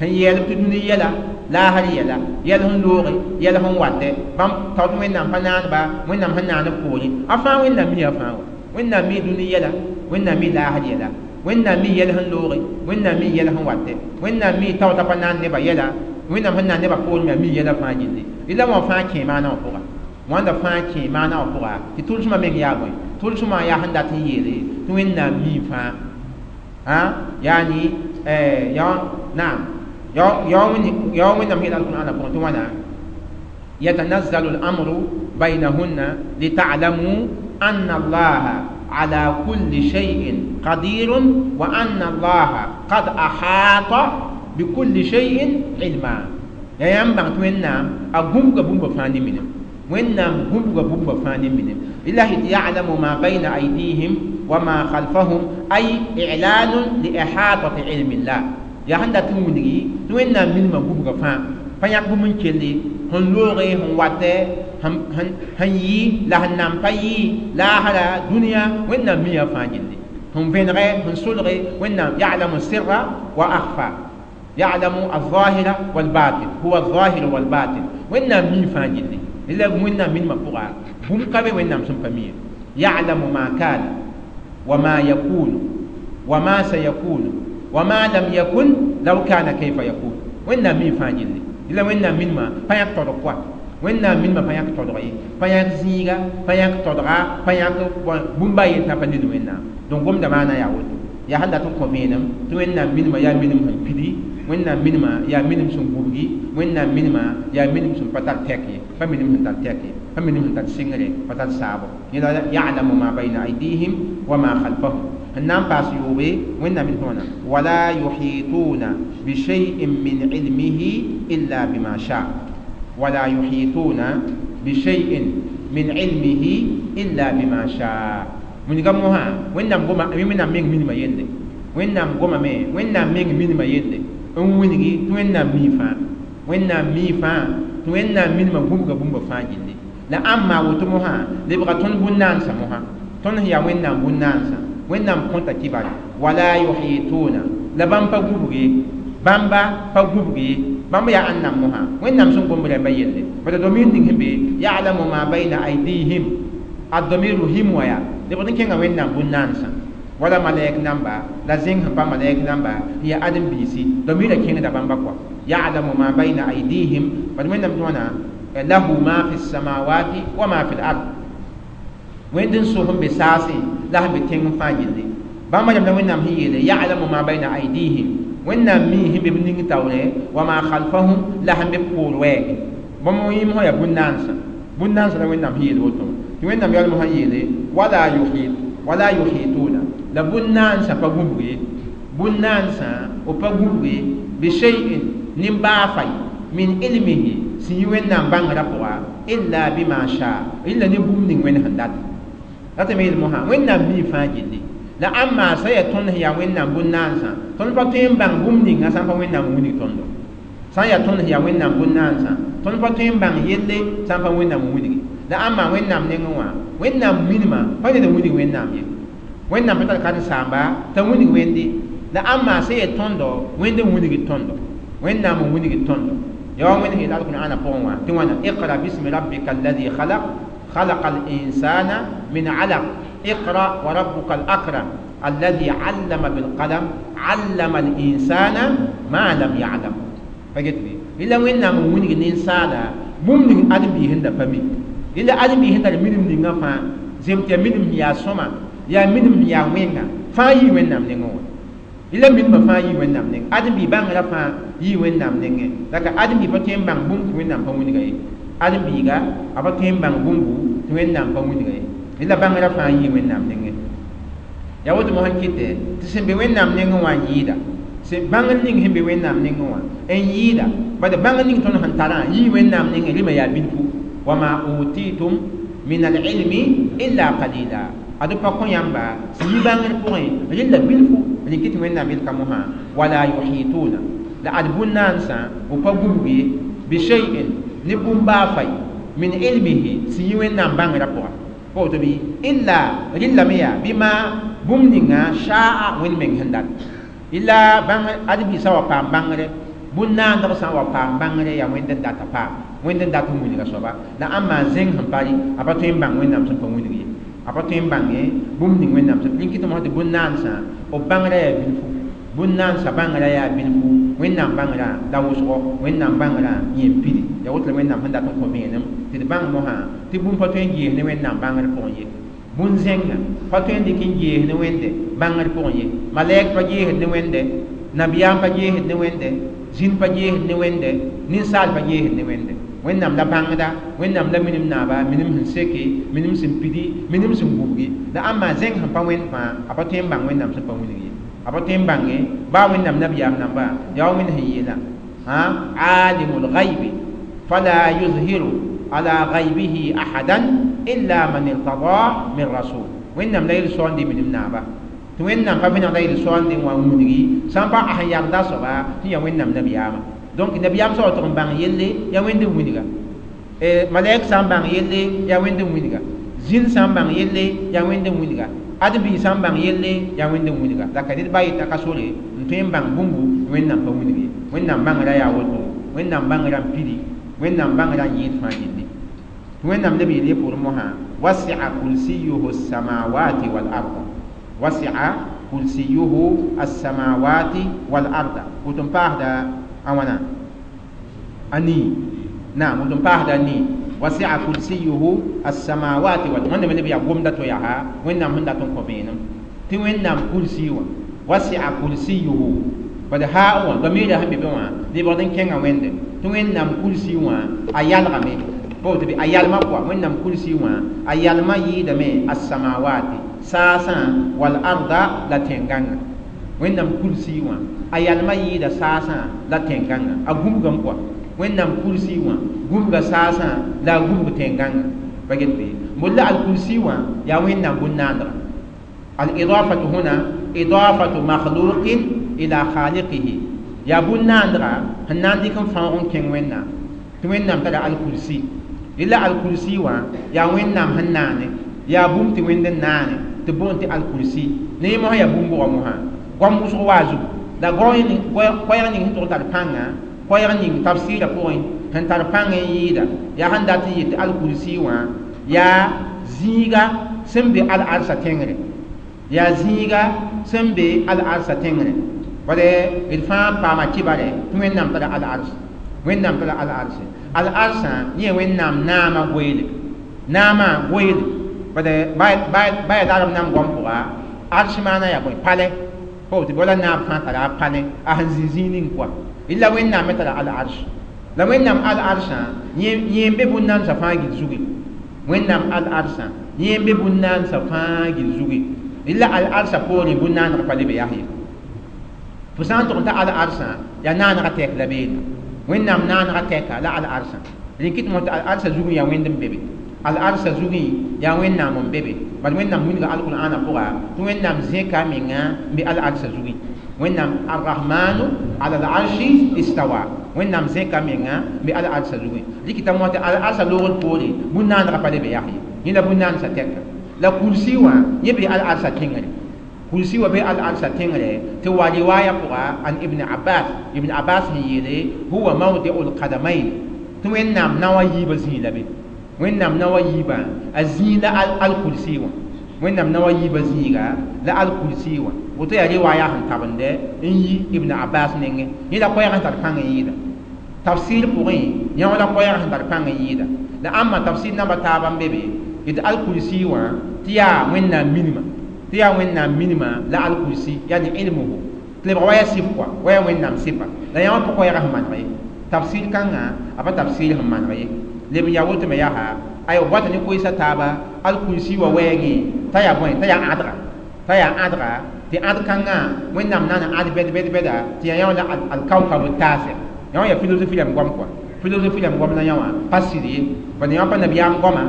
sẽn yɛɛlb tɩ dũni yɛla laasr yɛla yɛl sẽn looge yɛl sẽn watɛ bãmb tao tɩ Wẽnnaam pa naanba Wẽnnaam sẽn naan b poorẽ a fãa Wẽnnaam mi a fãa wa Wẽnnaam mi dũni yɛla Wẽnnaam mi laasr yɛla Wẽnnaam mi yɛl sẽn looge Wẽnnaam mi yɛl sẽn watɛ Wẽnnaam mi taoota pa naan nebã yɛla Wẽnnaam sẽn naan nebã poorẽ me a mi yɛla fãa gilli rɩla wã fãa kẽe maana wã pʋga wãnda fãa kẽe maana wã pʋga tɩ tʋlsmã meng yaa bõe tʋlsmã yaa sẽn dat n yeele tɩ Wẽnnaam mi fãa yaani naam ya Wẽnnaam yeela alqur'ana pʋgẽ tɩ wãna yatanazzalu al-amru baynahunna lita'lamu anna allaha ala kulli shay'in qadirun wa anna allaha qad ahata bikulli shay'in ilma ya yãmb bãng tɩ Wẽnnaam a gũbga bũmba fãa ne minim Wẽnnaam gũbga bũmba fãa ne minim lillahi ya'lamu ma bayna aydihim wa ma khalfahum ay i'lanun li ihatati ilmi llah yaa sẽn dat n wilgi tɩ Wẽnnaam minimã gũbga fãa pa yãk bũmb n kelli sẽn looge sẽn watɛ sẽn yɩ la sẽn nan pa yɩ laasra dũniyã Wẽnnaam miã fãa gilli sẽn vẽnegɛ sẽn solge Wẽnnaam ya'lamu sirra wa akhfa ya'lamu al-zahira wal-batin huwa al-zahir wal-batin Wẽnnaam mi fãa gilli la Wẽnnaam minimã pʋga bũmb ka be Wẽnnaam sẽn pa mi ya'lamu ma kana wa ma yakunu wa ma sayakunu wa ma lam yakun law kana kayfa yakun Wẽnnaam mi fãa gilli la Wẽnnaam minimã pa yãk todg kɔa Wẽnnaam minimã pa yãk todg ye pa yãk zĩiga pa yãk todga pa yãk bũmba a yen tã pa ned Wẽnnaam donc gomda maana yaa woto yaa sẽn dat n kõ vẽenem tɩ Wẽnnaam minimã yaa minim sẽn pidi Wẽnnaam minimã yaa minim sẽn gubgi Wẽnnaam minimã yaa minim sẽn pa tar tɛk ye pa minim sẽn tar tɛk ye pa minim sẽn tar sɩngre pa tar saabo yẽla ya'lamu ma bayna aydihim wa ma khalfahum sẽn na n paas yoobe Wẽnnaam min tõona wala yuhituna bishay'in min ilmihi illa bima sha. Wala yuhituna bishay'in min ilmihi illa bima shaa. Wilga mosã Wẽnnaam goma Wẽnnaam meng minimã yelle, Wẽnnaam gomame, Wẽnnaam meng minimã yelle n wilgi tɩ Wẽnnaam mii fãa, Wẽnnaam mii fãa tɩ Wẽnnaam minimã gũbga bũmba fãa gilli. La ãmba woto mosã lebga tõnd bũn-naansã mosã, tõnd sẽn yaa Wẽnnaam bũn-naansã, Wẽnnaam kõta kibare wala yuhituna, la bãmb pa gũbg ye, bãmba pa gũbg ye, bãmb yaa ãnnam mosã Wẽnnaam sẽn gomb rãmbã yelle. Bala domir ning sẽn be ya'lamu ma bayna aydihim, a domiru him wã yaa lebg n kẽnga Wẽnnaam bũn-naansã, wala malɛk namba la zẽng sẽn pa malɛk namba n yaa ãdem-biisi, domira kẽngda bãmba kɔa ya'lamu ma bayna aydihim. Bad Wẽnnaam tɩ wãna lahu ma fi samawati wa ma fi l-ard, Wẽnd n so sẽn be saasẽ la sẽn be tẽng fãa gilli. Bãmba rãmb la Wẽnnaam sẽn yeele ya'lamu ma bayna aydihim, Wẽnnaam mii sẽn be b ning taoore, wa ma khalfahum, la sẽn be b poor wɛɛge. Bãmb yĩm sã yaa bũn-naansã, bũn-naansã la Wẽnnaam sẽn yeel woto tɩ Wẽnnaam yaool mosã yeele wala yuhituna, la bũn-naansã pa gũbg ye, bũn-naansã b pa gũbg ye bishay'in nin-baa fay min ilmihi sẽn yi Wẽnnaam bãngrã pʋga illa bima shaa, rɩla ne bũmb ning Wẽnd sẽn data. Ratame yeel mosã Wẽnnaam mii fãa gilli. La ãmba sã yaa tõnd sẽn yaa Wẽnnaam bũn-naansã, tõnd pa tõe n bãng bũmb ninga sã n pa Wẽnnaam n wilg tõndo. Sã n yaa tõnd sẽn yaa Wẽnnaam bũn-naansã, tõnd pa tõe n bãng yelle sã n pa Wẽnnaam n wilgi. La ãmba Wẽnnaam nengẽ wã, Wẽnnaam minimã pa ned n wilg Wẽnnaam ye, Wẽnnaam pa tar karen-saamba t'a wilg Wẽnde. La ãmba sã yaa tõndo, Wẽnd n wilgd tõndo, Wẽnnaam n wilgd tõndo. Yaa wa Wẽnd sẽn yeel Alqur'aana pʋgẽ wã tɩ wãna iqra bismi rabbika alladhi khalaq khalaqa al-insana min alaq iqra wa rabbuka al-akram alladhi 'allama bil qalam 'allama al-insana ma lam ya'lam. Pa get bɩ rɩla Wẽnnaam n wilg ninsaala bũmb ning ãdem-biis sẽn da pa mi, rɩla ãdem-biis sẽn tar minim ninga fãa zem tɩ yaa minim sẽn yaa sõma, yaa minim sẽn yaa wẽnga fãa yii Wẽnnaam nengẽ wã. Rɩla minimã fãa yii Wẽnnaam nengẽ, ãdem-biis bãngrã fãa yii Wẽnnaam nengẽ. La ka ãdem-biis pa tõe n bãng bũmb tɩ Wẽnnaam pa wilga ye, ãdem-biiga a pa tõe n bãng bũmbu tɩ Wẽnnaam pa wilga ye, rɩla bãngrã fãa yii Wẽnnaam nengẽ. Yaa woto mosã n kɩtɛ tɩ sẽn be Wẽnnaam nengẽ wã n yɩɩda, sẽn bãngr ning sẽn be Wẽnnaam nengẽ wã n yɩɩda, bad bãngr ning tõnd sẽn tarã yii Wẽnnaam nengẽ, rɩma yaa bilfu. Wa ma utitum min al-ilmi illa qalila, ad pa kõ yãmba sẽn yi bãngr pʋgẽ rɩla bilfu. Rẽ kɩ tɩ Wẽnnaam yel ka mosã wala yuhituna, la ad bũn-naansã b pa gũbg ye bishay'in ne bũmb baa fay min ilmihi sẽn yi Wẽnnaam bãngrã pʋga. Pa woto bɩ illa rɩlame yaa bɩma bũmb ninga shaa Wẽnd meng sẽn dat. Illa bãng ãdem-biisã wa paam bãngre, bũn-naandg sã n wa paam bãngre yaa Wẽnd n data paam, Wẽnd n dat n wilga soaba. La ãmba zẽng sẽn pa rɩ a pa tõe n bãng Wẽnnaam sẽn pa wilg ye, a pa tõe n bãnge bũmb ning Wẽnnaam sẽn rẽn kɩ tɩ mosã tɩ bũn-naansã b bãngrã yaa bilfu, bũn-naansã bãngrã yaa bilfu, Wẽnnaam bãngrã la wʋsgo, Wẽnnaam bãngrã yẽ n pidi. Yaa woto la Wẽnnaam sẽn dat n kõ vẽenem tɩ d bãng mosã tɩ bũmb pa tõe n gees ne Wẽnnaam bãngr pʋgẽ ye, bũn-zẽngã pa tõe n dɩk n gees ne Wẽnde bãngr pʋgẽ ye, malɛk pa geesd ne Wẽnde, nabiyaam pa geesd ne Wẽnde, zĩn pa geesd ne Wẽnde, ninsaal pa geesd ne Wẽnde. Wẽnnaam la bãngda, Wẽnnaam la minim naaba, minim sẽn seke, minim sẽn pidi, minim sẽn gubgi. La ãmba zẽng sẽn pa Wẽnd fãa a pa tõe n bãng Wẽnnaam sẽn pa wilg ye, a pa tõe n bãnge baa Wẽnnaam nabiyaam namba. Yaa wa Wẽnd sẽn yeela alimul ghaibi fala yuzhiru ala ghaibihi ahadan illa man irtada min rasul. Wẽnnaam la yel-soande minim naaba tɩ Wẽnnaam pa vẽnegda yel-soande n wa n wilgi sã n pa a sẽn yagda soaba tɩ yaa Wẽnnaam nabiyaamã. Donc nabiyaam sã wa tʋg n bãng yelle yaa Wẽnd n wilga, malɛk sã n bãng yelle yaa Wẽnd n wilga, zĩn sã n bãng yelle yaa Wẽnd n wilga, ãdem-biis sã n bãng yelle yaa Wẽnd n wilga. La ka ned ba yeta ka sore n tõe n bãng bũmbu Wẽnnaam pa wilg ye. Wẽnnaam bãngrã yaa woto, Wẽnnaam bãngrã n pidi, Wẽnnaam bãngrã n yɩɩd fãa gilli. Tɩ Wẽnnaam leb yeel ye pʋʋr mosã wasi'a kursiyuhu as-samawati wal arda, wasi'a kursiyuhu as-samawati wal arda. Woto n paasda a wãna a nii, naam, woto n paasda a nii. Wasi'a kursiyuhu as-samawati wal, Wẽnnaam leb yaa gomda to yaa Wẽnnaam sẽn dat n kõ vẽenem tɩ Wẽnnaam kursi wã wasi'a kursiyuhu bad haa wã domiirã sẽn be be wã lebgd n kẽnga Wẽnde tɩ Wẽnnaam kursi wã a yalgame, pa woto bɩ a yalma pʋga. Wẽnnaam kursi wã a yalma yɩɩdame as-samawati saasã wal arda la tẽn-gãngã. Wẽnnaam kursi wã a yalma yɩɩda saasã la tẽn-gãngã, a gũbgame pʋga. Wẽnnaam kursi wã gũbga saasã la a gũbg tẽn-gãnga pa get bɩ bol la al-kursi wã yaa Wẽnnaam bũn-naandga. Al-idafatu huna idafatu makhluqin ila khaliqihi, yaa bũn-naandga sẽn na n dɩk n fãoog n kẽng Wẽnnaam tɩ Wẽnnaam tara al-kursi. Rela al-kursi wã yaa Wẽnnaam sẽn naane, yaa bũmb tɩ Wẽnd n naane tɩ boond tɩ al-kursi. Ne yẽ mosã yaa bũmb-bʋga mosã goam wʋsg waa zugu la koɛɛg ning sẽn tʋg n tar pãnga, koɛɛg ning tafsɩɩrã pʋgẽ sẽn tar pãng n yɩɩda yaa sẽn dat n yet tɩ al-kursi wã yaa zĩiga sẽn be al-arsa tẽngre, yaa zĩiga sẽn be al-arsa tẽngre. Bala d fãa paama kibare tɩ Wẽnnaam tara al-ars, Wẽnnaam tara al-arse. Al-arsã yẽ Wẽnnaam naamã goeele, naamã goeele. Bala ba yaa darb nam goam pʋga arsh maana yaa bõe palɛ pa woto wala naab fãa tara a palẽ a sẽn zĩ zĩig ning kɔa. La Wẽnnaam me tara al-arsh, la Wẽnnaam al-arsã yẽ n be bũn-naamsã fãa gil zugi. Wẽnnaam al-arsã yẽ n be bũn-naamsã fãa gil zugi. La al-arsã poorẽ bũn-naaneg pa le be yaa ye. Fo sã n tʋg n ta al-arsã yaa naanegã tɛk la beene, Wẽnnaam naanegã tɛka la al-arsã. Rẽ kɩt mos tɩ al-arsã zugẽ yaa Wẽnd n be be, al-arsã zugẽ yaa Wẽnnaam n be be. Bala Wẽnnaam wilga al-Qur'aanã pʋga tɩ Wẽnnaam zẽka a menga n be al-arsã zugẽ. Wẽnnaam ar-Rahmanu ala al-arshi istawa, Wẽnnaam zẽka a menga n be al-arsã zugẽ. Rɩkɩta mos tɩ al-arsã loogr poore bũn-naanegã pa le be yaa ye, yẽ la bũn-naandsã tɛka. La kursi wã yẽ be al-arsã tẽngre, kursi wa be al-arsã tẽngre tɩ wa riwaaya pʋga an Ibn Abbas, Ibn Abbas sẽn yeele huwa mawdi'u l-qadamayn, tɩ Wẽnnaam naoã yiibã zĩig la be, Wẽnnaam naoã yiibã a zĩig la al-kursi wã, Wẽnnaam naoã yiibã zĩiga la al-kursi wã. Woto yaa riwaaya sẽn tabende n yi Ibn Abbas nengẽ. Yẽ la koɛɛg sẽn tar pãng n yɩɩda tafsir pʋgẽ, yẽ la koɛɛg sẽn tar pãng n yɩɩda. La ãmba tafsir namba taaba n be be tɩ al-kursi wã tɩ yaa Wẽnnaam minima, tɩ yaa Wẽnnaam minima la al-kursi yani ilmuhu tɩ lebg wa yaa sɩf kɔa, wa yaa Wẽnnaam sɩfa. La yã wã pa koɛɛgã sẽn maneg ye, tafsir kãngã a pa tafsir sẽn maneg ye. Leb n yaa woto me yaa aywa bɔta ne koeesa taaba al-kursi wa wɛɛngẽ t'a yaa bõe, t'a yaa ãdga, t'a yaa ãdga tɩ ãd kãngã Wẽnnaam na n ãd bɛd bɛd bɛda tɩ yaa yã wã la al-kawkab taasɛ. Yã wã yaa philosophie rãmb goam kɔa, philosophie rãmb goam la yã wã pa sɩd ye, bala yã wã pa nabiyaam goama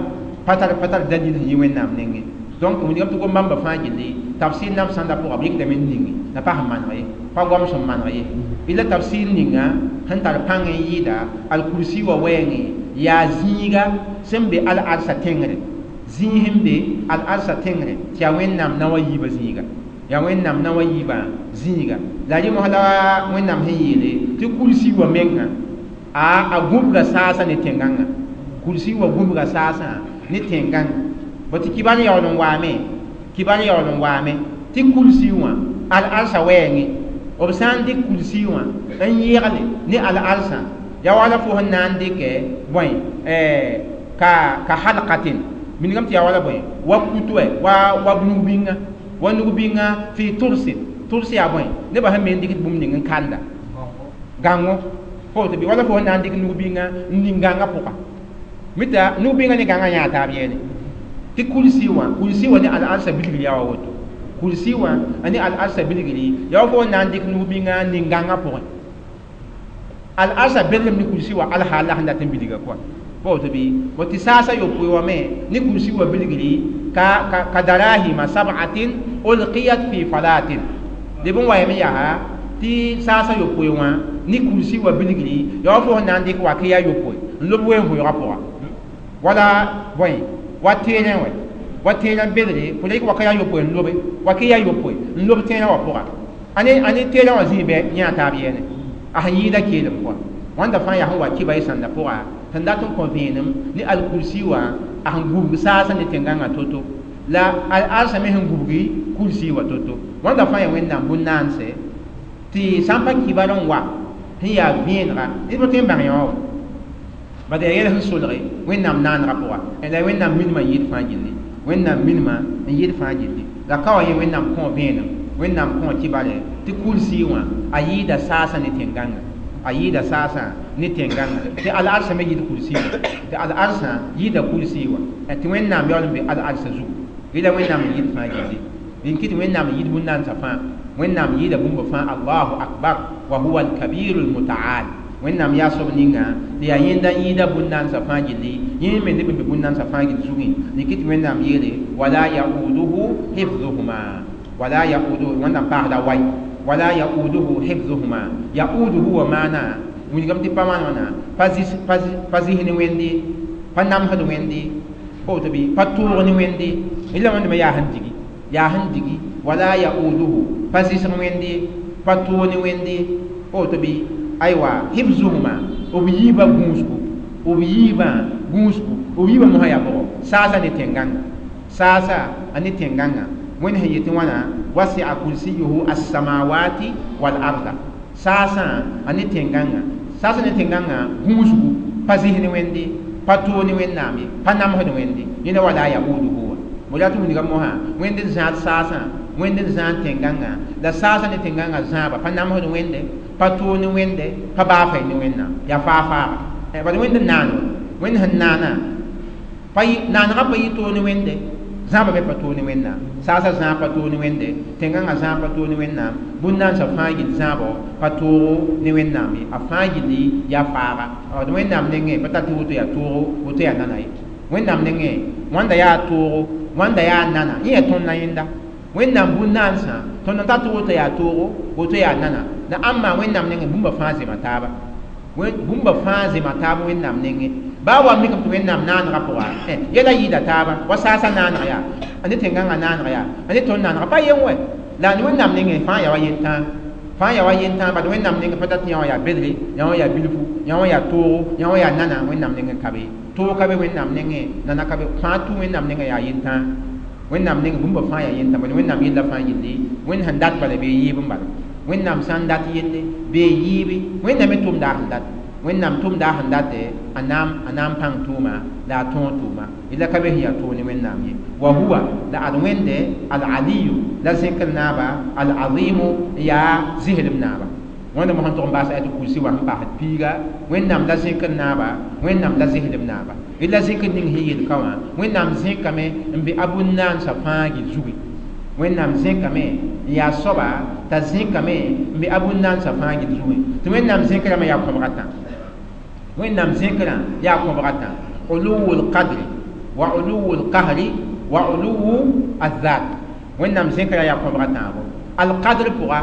pa tar dalil sẽn yi Wẽnnaam nengẽ. Donc wilgame tɩ gom-bãmbã fãa gilli tafsir nam sãnda pʋga b yikdame n ningi la pa sẽn maneg ye, pa goam sẽn maneg ye. La tafsir ninga sẽn tar pãng n yɩɩda al-kursi wa wɛɛngẽ yaa zĩiga sẽn be al-arsã tẽngre, zĩig sẽn be al-arsã tẽngre tɩ yaa Wẽnnaam naoã yiibã zĩiga, yaa Wẽnnaam naoã yiibã zĩiga. La rẽ mos la Wẽnnaam sẽn yeele tɩ kursi wa mengã a gũbga saasã ne tẽn-gãngã, kursi wa gũbga saasã ne tẽn-gãngã. Bõ tɩ kibar yaool n waame, kibar yaool n waame tɩ kursi wã al-arsã wɛɛngẽ b sã n dɩk kursi wã n yẽgle ne al-arsã yaa wala fo sẽn na n dɩkɛ bõe ka halqatin minigame tɩ yaa wala bõe wa kutu wa nug-bĩnga, wa nug-bĩnga fɩ tʋrsin. Tʋrs yaa bõe nebã sẽn me n dɩkd bũmb ning n kanda gãngo pa woto bɩ wala fo sẽn na n dɩk nug-bĩnga n ning gãngã pʋga mita nug-bĩnga ne gãngã yãa taab yɛɛne. Tɩ kursi wã, kursi wã ne al-arsã bilgr yaa wa woto, kursi wã a ne al-arsã bilgri yaa wa fo sẽn na n dɩk nug-bĩnga n ning gãngã pʋgẽ. Al-arsã belgem ne kursi wã al-haal la sẽn dat n bilga kɔa pa woto bɩ bõ tɩ saasã yopoe wã me ne kursi wã bilgri ka darahima sab'atin ulqiyat fi falatin. Leb n wa yame yaa tɩ saasã yopoe wã ne kursi wã bilgri yaa wa fo sẽn na n dɩk wakɩ yaa yopoe n lob wen-vʋʋgã pʋga wala bõe wa teerẽ wɛ, wa teerã belre fo la yik wakɩ yaa yopoe n lobe, wakɩ yaa yopoe n lob teerã wã pʋga a ne teerã wã zĩig bɩ yã taab yɛɛne a sẽn yɩɩda keelem kɔa. Wãnda fãa yaa sẽn wa kɩba y sãnda pʋga sẽn dat n kõ vẽenem ne al-kursi wã a sẽn gubg saasã ne tẽn-gãngã to-to la al-arsã me sẽn gubgi kursi wã to-to. Wãnda fãa yaa Wẽnnaam bũn-naanse tɩ sã n pa kibar n wa sẽn yaa vẽenega ned pa tõe n bãng yã wã bad yaa yɛl sẽn solge Wẽnnaam naanegã pʋga la Wẽnnaam minimã n yɩɩd fãa gilli, Wẽnnaam minimã n yɩɩd fãa gilli. La ka wa yẽ Wẽnnaam kõ vẽenem, Wẽnnaam kõ kibare tɩ kursi wã a yɩɩda saasã ne tẽn-gãngã, a yɩɩda saasã ne tẽn-gãngã tɩ al-arsã me yɩɩd kursi wã, tɩ al-arsã yɩɩda kursi wã tɩ Wẽnnaam yaool n be al-arsã zugu. Rela Wẽnnaam n yɩɩd fãa gilli. Rẽn kɩ tɩ Wẽnnaam n yɩɩd bũn-naandsã fãa, Wẽnnaam yɩɩda bũmba fãa. Allahu akbar wa huwa al-kabiru al-mutaal. Wẽnnaam yaa soab ninga tɩ yaa yẽnda n yɩɩda bũn-naandsã fãa gilli, yẽ me neb n be bũn-naandsã fãa gill zugẽ. Rɩk tɩ Wẽnnaam yeele wala yauduhu hifzuhuma, wala yauduhu, Wẽnnaam paasda way, wala yauduhu hifzuhuma. Yauduhu wa maana wilgame tɩ pa wãn wãna, pa zis ne Wẽnde, pa namsd Wẽnde, pa woto bɩ pa toog ne Wẽnde. La wẽndame yaa sẽn digi, yaa sẽn digi. Wala yauduhu, pa zɩsg Wẽnde, pa toog ne Wẽnde, pa woto bɩ aywa hifzuhuma, b yiibã gũusgu, b yiibã gũusgu, b yiibã mosã yaa bʋgɔ saasa ne tẽn-gãnga, saasa a ne tẽn-gãnga. Wẽnd sẽn yetɩ wãna wasia kursiyuhu as-samawati wal arda, saasã a ne tẽn-gãnga, saasa ne tẽn-gãngã gũusgu, pa zɩs ne Wẽnde, pa toog ne Wẽnnaam ye, pa namsd Wẽnde. Yẽnda wala yauduhu wã mo yaa tɩ wilga mosã Wẽnd n zãad saasã, Wẽnd n zãad tẽn-gãngã, la saasã ne tẽn-gãngã zãaba pa namsd Wẽnde, pa toog ne Wẽnde, pa baafay ne Wẽnnaam, yaa faa-faaga. Bad Wẽnd n naano, Wẽnd sẽn naana pa naanegã pa yɩ toog ne Wẽnde, zãaba me pa toog ne Wẽnnaam, saasã zãab pa toog ne Wẽnde, tẽn-gãngã zãab pa toog ne Wẽnnaam, bũn-naandsã fãa gill zãabo pa toogo ne Wẽnnaam ye, a fãa gilli yaa faaga. D Wẽnnaam nengẽ pa tar tɩ woto yaa toogo, woto yaa nana ye. Wẽnnaam nengẽ wãnda yaa toogo, wãnda yaa nana, yẽ yaa tõnd na yẽnda. Wẽnnaam bũn-naandsã tõnd n tar tɩ woto yaa toogo, woto yaa nana, la ãmba Wẽnnaam nengẽ bũmba fãa zema taaba, bũmba fãa zema taab Wẽnnaam nengẽ. Baa wa mikame tɩ Wẽnnaam naanegã pʋga yɛla yɩɩda taaba, wa saasã naaneg yaa, a ne tẽn-gãngã naaneg yaa, a ne tõnd naanega pa yen wɛ, la Wẽnnaam nengẽ fãa yaa wa yentãag, fãa yaa wa yentãag. Bad Wẽnnaam nengẽ pa tar tɩ yã wã yaa bedre, yã wã yaa bilfu, yã wã yaa toogo, yã wã yaa nana, Wẽnnaam nengẽ ka be. Toog ka be Wẽnnaam nengẽ, nana ka be, fãa tũ Wẽnnaam nengẽ yaa yentãag. Wẽnnaam nengẽ bũmba fãa yaa yentãag, bad Wẽnnaam yella fãa gilli Wẽnd sẽn dat bala bee yɩɩb n bala. Wẽnnaam sã n dat yelle bee yɩɩbe, Wẽnnaam me tʋmda a sẽn dat, Wẽnnaam tʋmda a sẽn date, a naam pãng tʋʋma la a tõog tʋʋma, yella ka be sẽn yaa toog ne Wẽnnaam ye. Wa huwa la ad Wẽnde al-aliyu la zẽkr naaba, al-azimu yaa zɩslem naaba. Wẽnda mosã tʋg n baas ayat kursi wã sẽn paasd piiga, Wẽnnaam la zẽkr naaba, Wẽnnaam la zɩslem naaba. La zẽkr ning sẽn yel ka wã, Wẽnnaam zẽkame n be a bũn-naandsã fãa gil zugi. Wẽnnaam zẽkame n yaa soaba t'a zẽkame n be a bũn-naandsã fãa gil zugẽ. Tɩ Wẽnnaam zẽkrame yaa kõbg a tã, Wẽnnaam zẽkrã yaa kõbg a tã, uluwu lqadri wa uluwu lqahri wa uluwu azat. Wẽnnaam zẽkrã yaa kõbg a tãabo. Alqadr pʋga,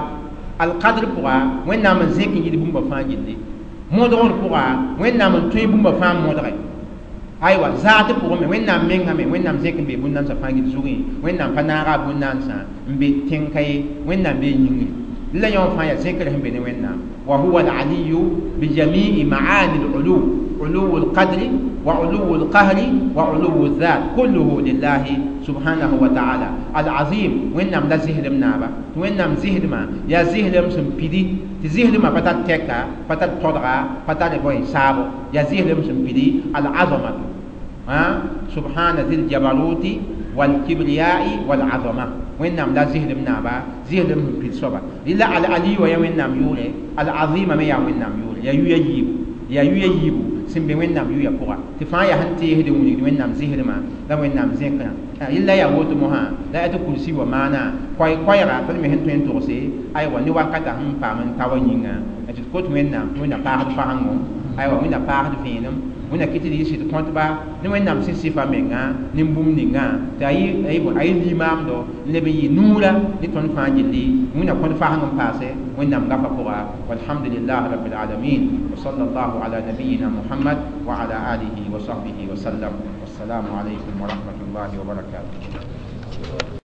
alqadr pʋga Wẽnnaam n zẽk n yid bũmba fãa gilli. Modgr pʋga Wẽnnaam n tõe bũmba fãa modge. Aywa zaat pʋgẽ me Wẽnnaam mengã me Wẽnnaam zẽk n be bũn-naandsã fãa gil zugẽ. Wẽnnaam pa naaga a bũn-naandsã n be tẽn-ka ye, Wẽnnaam bee yĩngri. La yõ fãa yaa zẽkr sẽn be ne Wẽnnaam. Wa huwa al-aliyu bi jami'i ma'ani al-ulu, uluwu al-qadri wa uluwu al-qahri wa uluwu al-dhat, kulluhu lillahi subhanahu wa ta'ala. Al-azim Wẽnnaam la zɩslem naaba, tɩ Wẽnnaam zɩslmã yaa zɩslem sẽn pidi, tɩ zɩslmã pa tar tɛka, pa tar todga, pa tar bõe saabo, yaa zɩslem sẽn pidi. Al-azamatu subhana zil jabaruti wal kibriyai wal azama. Wẽnnaam la zɩslem naaba, zɩslem sẽn pid soaba. La al-ali wa yaa Wẽnnaam yʋʋre, al-azima me yaa Wẽnnaam yʋʋre, yaa yuya yiibu, yaa yuya yiibu sẽn be Wẽnnaam yʋya pʋga. Tɩ fãa yaa sẽn teesd n wilgd Wẽnnaam zɩslmã la Wẽnnaam zẽkrã. Yella yaa woto mosã la yaa tɩ kursi wa maana koɛɛga tõnd me sẽn tõe n togse aywa ne wakata sẽn paam n ta wa yĩnga tɩ d kot Wẽnnaam tɩ Wẽnnaam paasd fasengo, aywa Wẽnnaam paasd vẽenem, Wẽnnaam kɩ tɩ d yɩ sɩd kõtba ne Wẽnnaam sẽn sɩfa menga ne bũmb ninga tɩ a yɩ limaamdo n leb n yɩ nuurã ne tõnd fãa gilli. Wẽnnaam kõt faseng n paase Wẽnnaam gafa pʋga. Walhamdulillah rabbil alamin wa sallallahu ala nabiyina Muhammad wa ala alihi wa sahbihi wa sallam. Wassalamu alaykum wa rahmatullahi wa barakatuh.